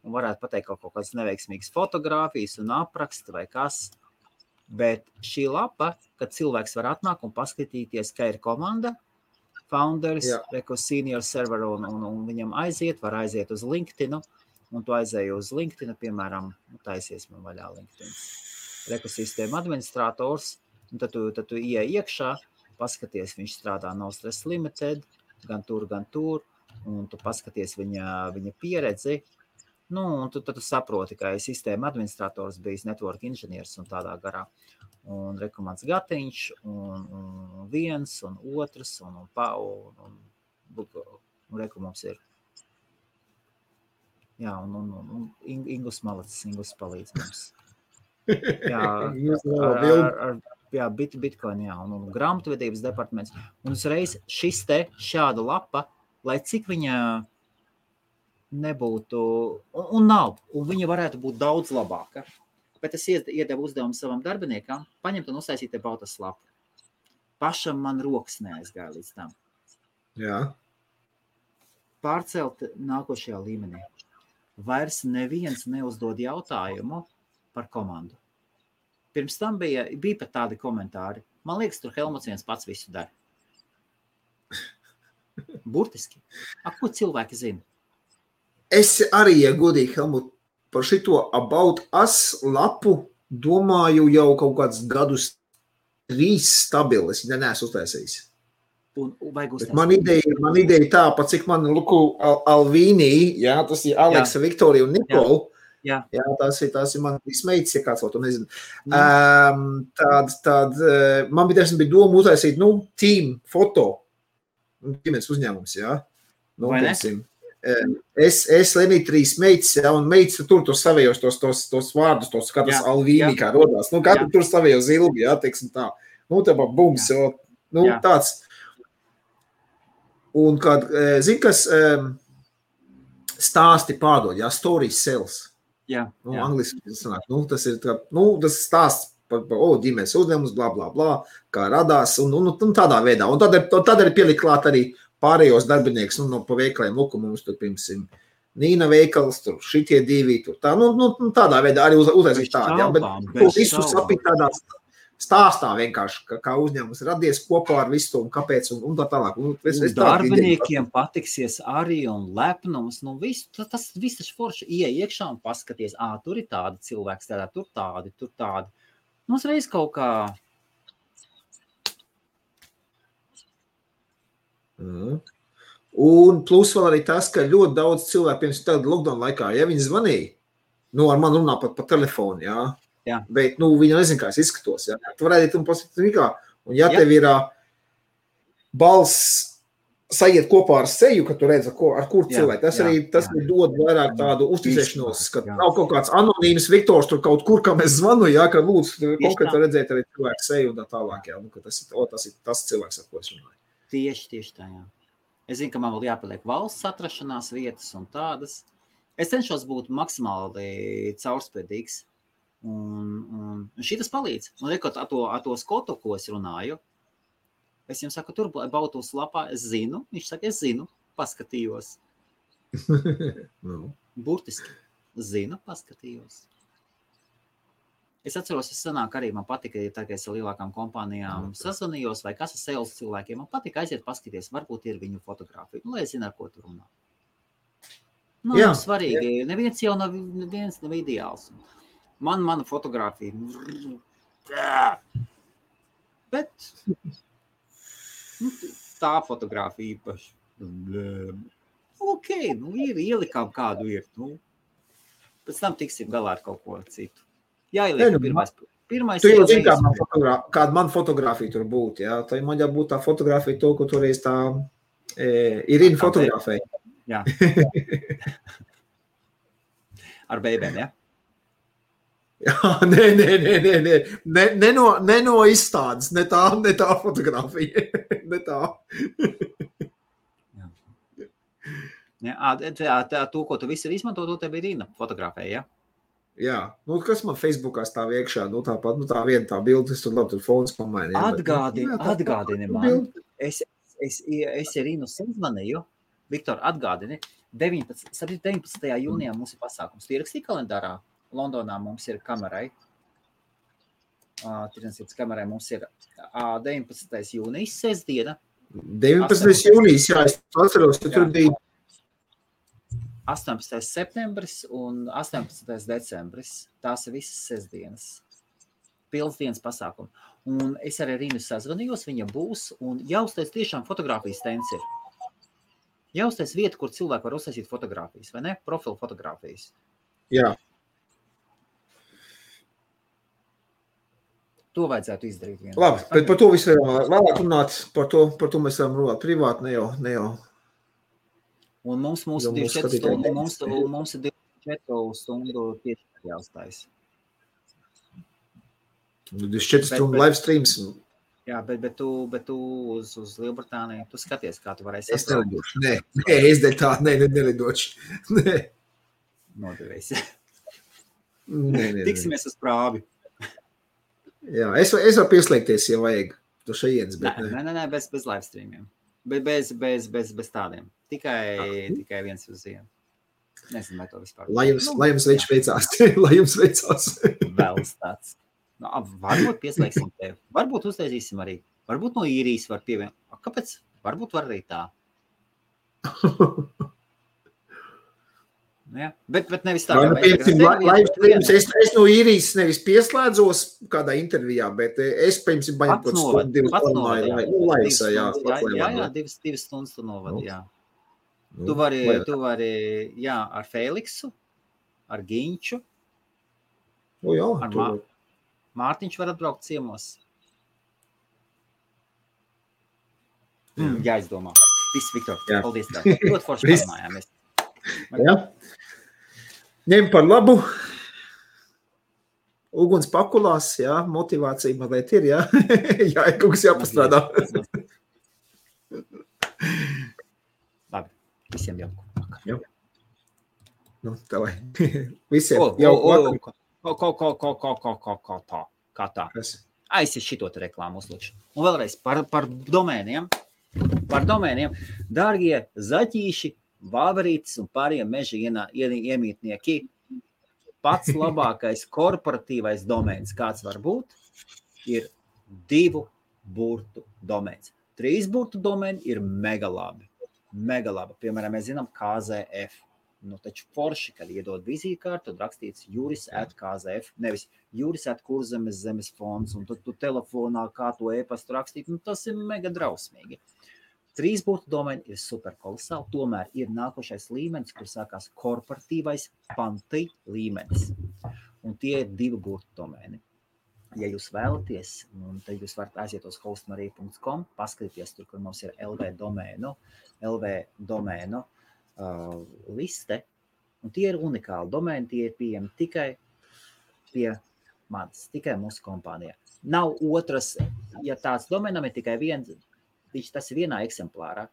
un varētu pateikt kaut kādas neveiksmīgas fotogrāfijas un apraksti vai kas. Bet šī lapa, kad cilvēks var atnākt un paskatīties, ka ir komanda, founders, senior server, un viņam var aiziet uz LinkedIn, un tu aizēji uz LinkedIn, piemēram, taisies man vaļā LinkedIn. Ekosistēma administrators, un tad tu ieej iekšā, paskaties, viņš strādā No Stress Limited, gan tur, un tu paskaties viņa pieredzi, un tu saproti, ka sistēma administrators bijis network inženieris un tādā garā. Un rekomands Gatiņš, un viens, un otrs, un rekomums ir. Jā, un Ingus Malacis, Ingus palīdz mums. Jā, Bitcoin, un grāmatvedības departaments. Un uzreiz šāda lapa, lai cik viņa nebūtu, un nav, un viņa varētu būt daudz labāka. Bet es iedevu uzdevumu savam darbiniekam, paņemt un uztaisīt About-Us lapu. Pašam man rokas neaizgāja līdz tam. Jā. Pārcelt nākošajā līmenī. Vairs neviens neuzdod jautājumu par komandu. Pirms tam bija pat tādi komentāri. Man liekas, tur Helmuts viens pats visu dara. Burtiski. Ko cilvēki zina? Es arī, ja godīgi, Helmut, par šito About Us lapu domāju jau kaut kādus gadus 3 stabilis, ja neesmu uztaisījis. Vajag uztaisīt. Man ideja tā, pat cik man Luku Alvīnī, jā, tas ir Aleksa, Viktorija un Nikola. Jā, tās ir man meitas, ja kāds vēl to nezinu. Man bija doma uztaisīt, team foto, ģimenes uzņēmums, jā. Vai ne? Es Lenī 3 meitas, jā, un meitas tur savējos tos vārdus, kā tas Alvīnī kā rodās. Katru tur savējo zilbi, jā, teiksim tā. Tā bums, tāds. Un kad, kas stāsti pārdod, jā, stories sells. Jā. Angliski sanāk. Tas ir tas stāsts par ģimenes uzņēmums, blā, blā, blā, kā radās, un tādā veidā. Un tad arī pielikt klāt arī pārējos darbinieks, pa veikaliem, mums tur, piemēram, Nīna veikals, tur šitie 2, tur tā, tādā veidā arī uztaisīt tādu, jā, bet visu sapīt tādā stāstā vienkārši, kā uzņēmums radies kopā ar visu un kāpēc un tā tālāk. Darbiniekiem patiksies arī un lepnums, tas viss taču forši iekšā un paskaties, tur ir tāda cilvēks, tur tādi. Mums reiz kaut kā... Un plus vēl arī tas, ka ļoti daudz cilvēku, pirms tāda lockdown laikā, ja viņi zvanīja, ar mani runā pat pa telefonu, jā. Jā. Bet, viņi nezin, kā es izskatos, jā. Tu varētu un pasakīt, un ja tev ir balss sajiet kopā ar seju, ka tu redz, ar kur cilvēku, tas arī dod vairāk tādu uzticēšanos, ka nav kaut kāds anonīms Viktors tur kaut kur, kam es zvanu, jā, ka lūdzu konkrēti redzēt arī cilvēku seju un tā tālāk, jā, ka tas ir tas cilvēks, ar ko es runāju. Tieši tā, jā. Es zinu, ka man vēl jāpaliek valsts atrašanās vietas un tādas. Es cenšos būt maksimāli caurspēdīgs. Un šitas palīdz. Un rekot, ar to Skotu, ko es runāju, es jums saku, tur Bautus lapā, es zinu, viņš saka, es zinu, paskatījos. Burtiski, zinu, paskatījos. Es atceros, es sanāk arī, man patika, tā kā es ar lielākām kompānijām sazvanījos, vai kas ar sales cilvēkiem, man patika aiziet paskatīties, varbūt ir viņu fotografija, lai es zinu, ar ko tur runā. Nav svarīgi, neviens jau nav ideāls. Mana fotografija. Bet tā fotografija īpaši. Ok, ir ielikām kādu ir. Pēc tam tiksim galā ar kaut ko citu. Jāieliek pirmais. Tu jau zini, kāda man fotografija tur būtu, jā? Tā man jābūt tā fotografija to, ko toreiz tā Irina fotografēja. Jā. Ar bēbēm, jā? Jā, nē. Ne no izstādes, ne tā fotografija. Ne tā. Jā, to, ko tu visur izmanto, to tev ir Irina fotografēja, jā? Jā, kas man Facebookā stāv iekšā, tāpat, tā viena tā bildes, tur labi, tur fons pamaini. Atgādini man, es Irinu sazvanīju, Viktor, atgādini, 19. jūnijā mums ir pasākums. Tu ierakstīji kalendārā, Londonā mums ir kamerai, tirdzniecības kamerai mums ir 19. jūnijas, sestdiena. 19. jūnijas, jā, es atceros, ka tur bija 18. septembris un 18. decembris. Tās ir visas sestdienas. Pilns dienas pasākumi. Un es arī Rīnu sazvanījos, viņa būs, un jāuztais tiešām fotogrāfijas stends ir. Jāuztais vieta, kur cilvēki var uztaisīt fotogrāfijas, vai ne? Profilu fotogrāfijas. Jā. To vajadzētu izdarīt vienā. Labi, bet par to visu vēlāk runāt, par to mēs varam runāt privāti, ne jau. Un mums 24 stundu, mums ir 24 stundu tieši jāuztais. 24 stundu live streams. Jā, bet tu uz Lielbritāniju, tu skaties, kā tu varēsi. Es nelidošu, es dēļ tā, nelidošu. Nē. Nodevies. Nē. Tiksimies uz prāvi. Jā, es varu pieslēgties, ja vajag. Tu šajienas, bet Nē, bez live streamiem. Bez tādiem. Tikai viens uz vienu. Nezinu, vai to vispār. Lai jums viņš veicās. Lai jums veicās. Vēl tāds. Varbūt pieslēgsim tevi. Varbūt uztaisīsim arī. Varbūt no īrijas var pievienot. Kāpēc? Varbūt var arī tā. Ja? Bet nevis tā, es no īrijas nevis pieslēdzos kādā intervijā, bet es, piemēram, baņam kaut stundu, 2 stundu. Divas stundas tu novadi, jā. Tu vari, jā, ar Feliksu, ar Ginču, ar Mārtiņš var atbraukt ciemos. Jāizdomā. Viss, Viktor, paldies tā. Ļoti forši parunājāmies. Jā. Ņem par labu. Uguns pakulās, jā, motivācija mazliet ir, jā. Jā, kaut kas jāpastrādā. Labi, visiem jauku vakar. Jā. Nu, tā vai. Visiem jauku vakar. Kā tā. Aizies šito te reklāmu uzlūkšu. Un vēlreiz par domēniem. Par domēniem. Dārgie zaķīši, vāverītes un pārējiem meža iemītnieki, pats labākais korporatīvais domēns, kāds var būt, ir 2 burtu domēns. 3 burtu domēni ir mega labi. Piemēram, mēs zinām KZF. Nu, taču forši, kad iedod vizītkārtu, tad rakstīts juris@KZF, nevis juris@Kurzemes zemes fonds, un tad tu telefonā kā to e-pastu rakstīt, nu tas ir mega drausmīgi. 3 burtu domēni ir super kolosāli, tomēr ir nākošais līmenis, kur sākās korporatīvais panti līmenis. Un tie ir 2 burtu domēni. Ja jūs vēlaties, tad jūs varat aiziet uz hostmarija.com, paskatīties tur, kur mums ir LV domēnu liste, un tie ir unikāli domēni, tie ir pieejami tikai pie manis, tikai mūsu kompānijā. Nav otras, ja tāds domēnam ir tikai viens, tas ir vienā eksemplārā,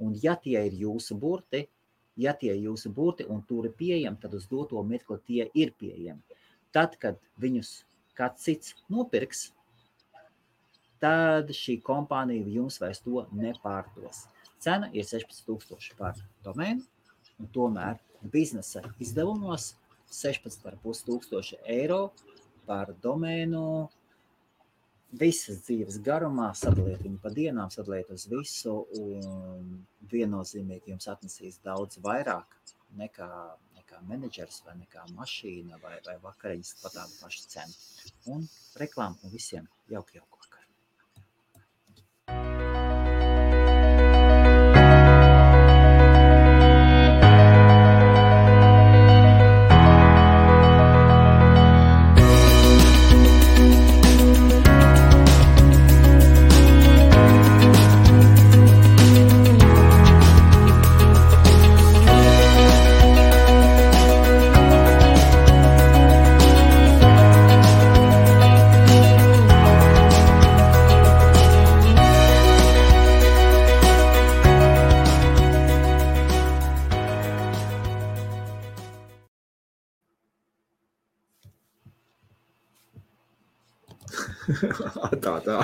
un ja tie ir jūsu burti, un tur ir pieejami, tad uz doto mirkli tie ir pieejami. Tad, kad viņus kāds cits nopirks, tad šī kompānija jums vairs to nepārdos. Cena ir 16,000 par domēnu, un tomēr biznesa izdevumos 16,500 eiro par domēnu visas dzīves garumā, sadaliet viņu pa dienām, sadaliet uz visu, un viennozīmīgi jums atnesīs daudz vairāk nekā menedžers vai nekā mašīna vai vakariņas par tādu pašu cenu. Un reklāmu un visiem jauku vakar. Tā.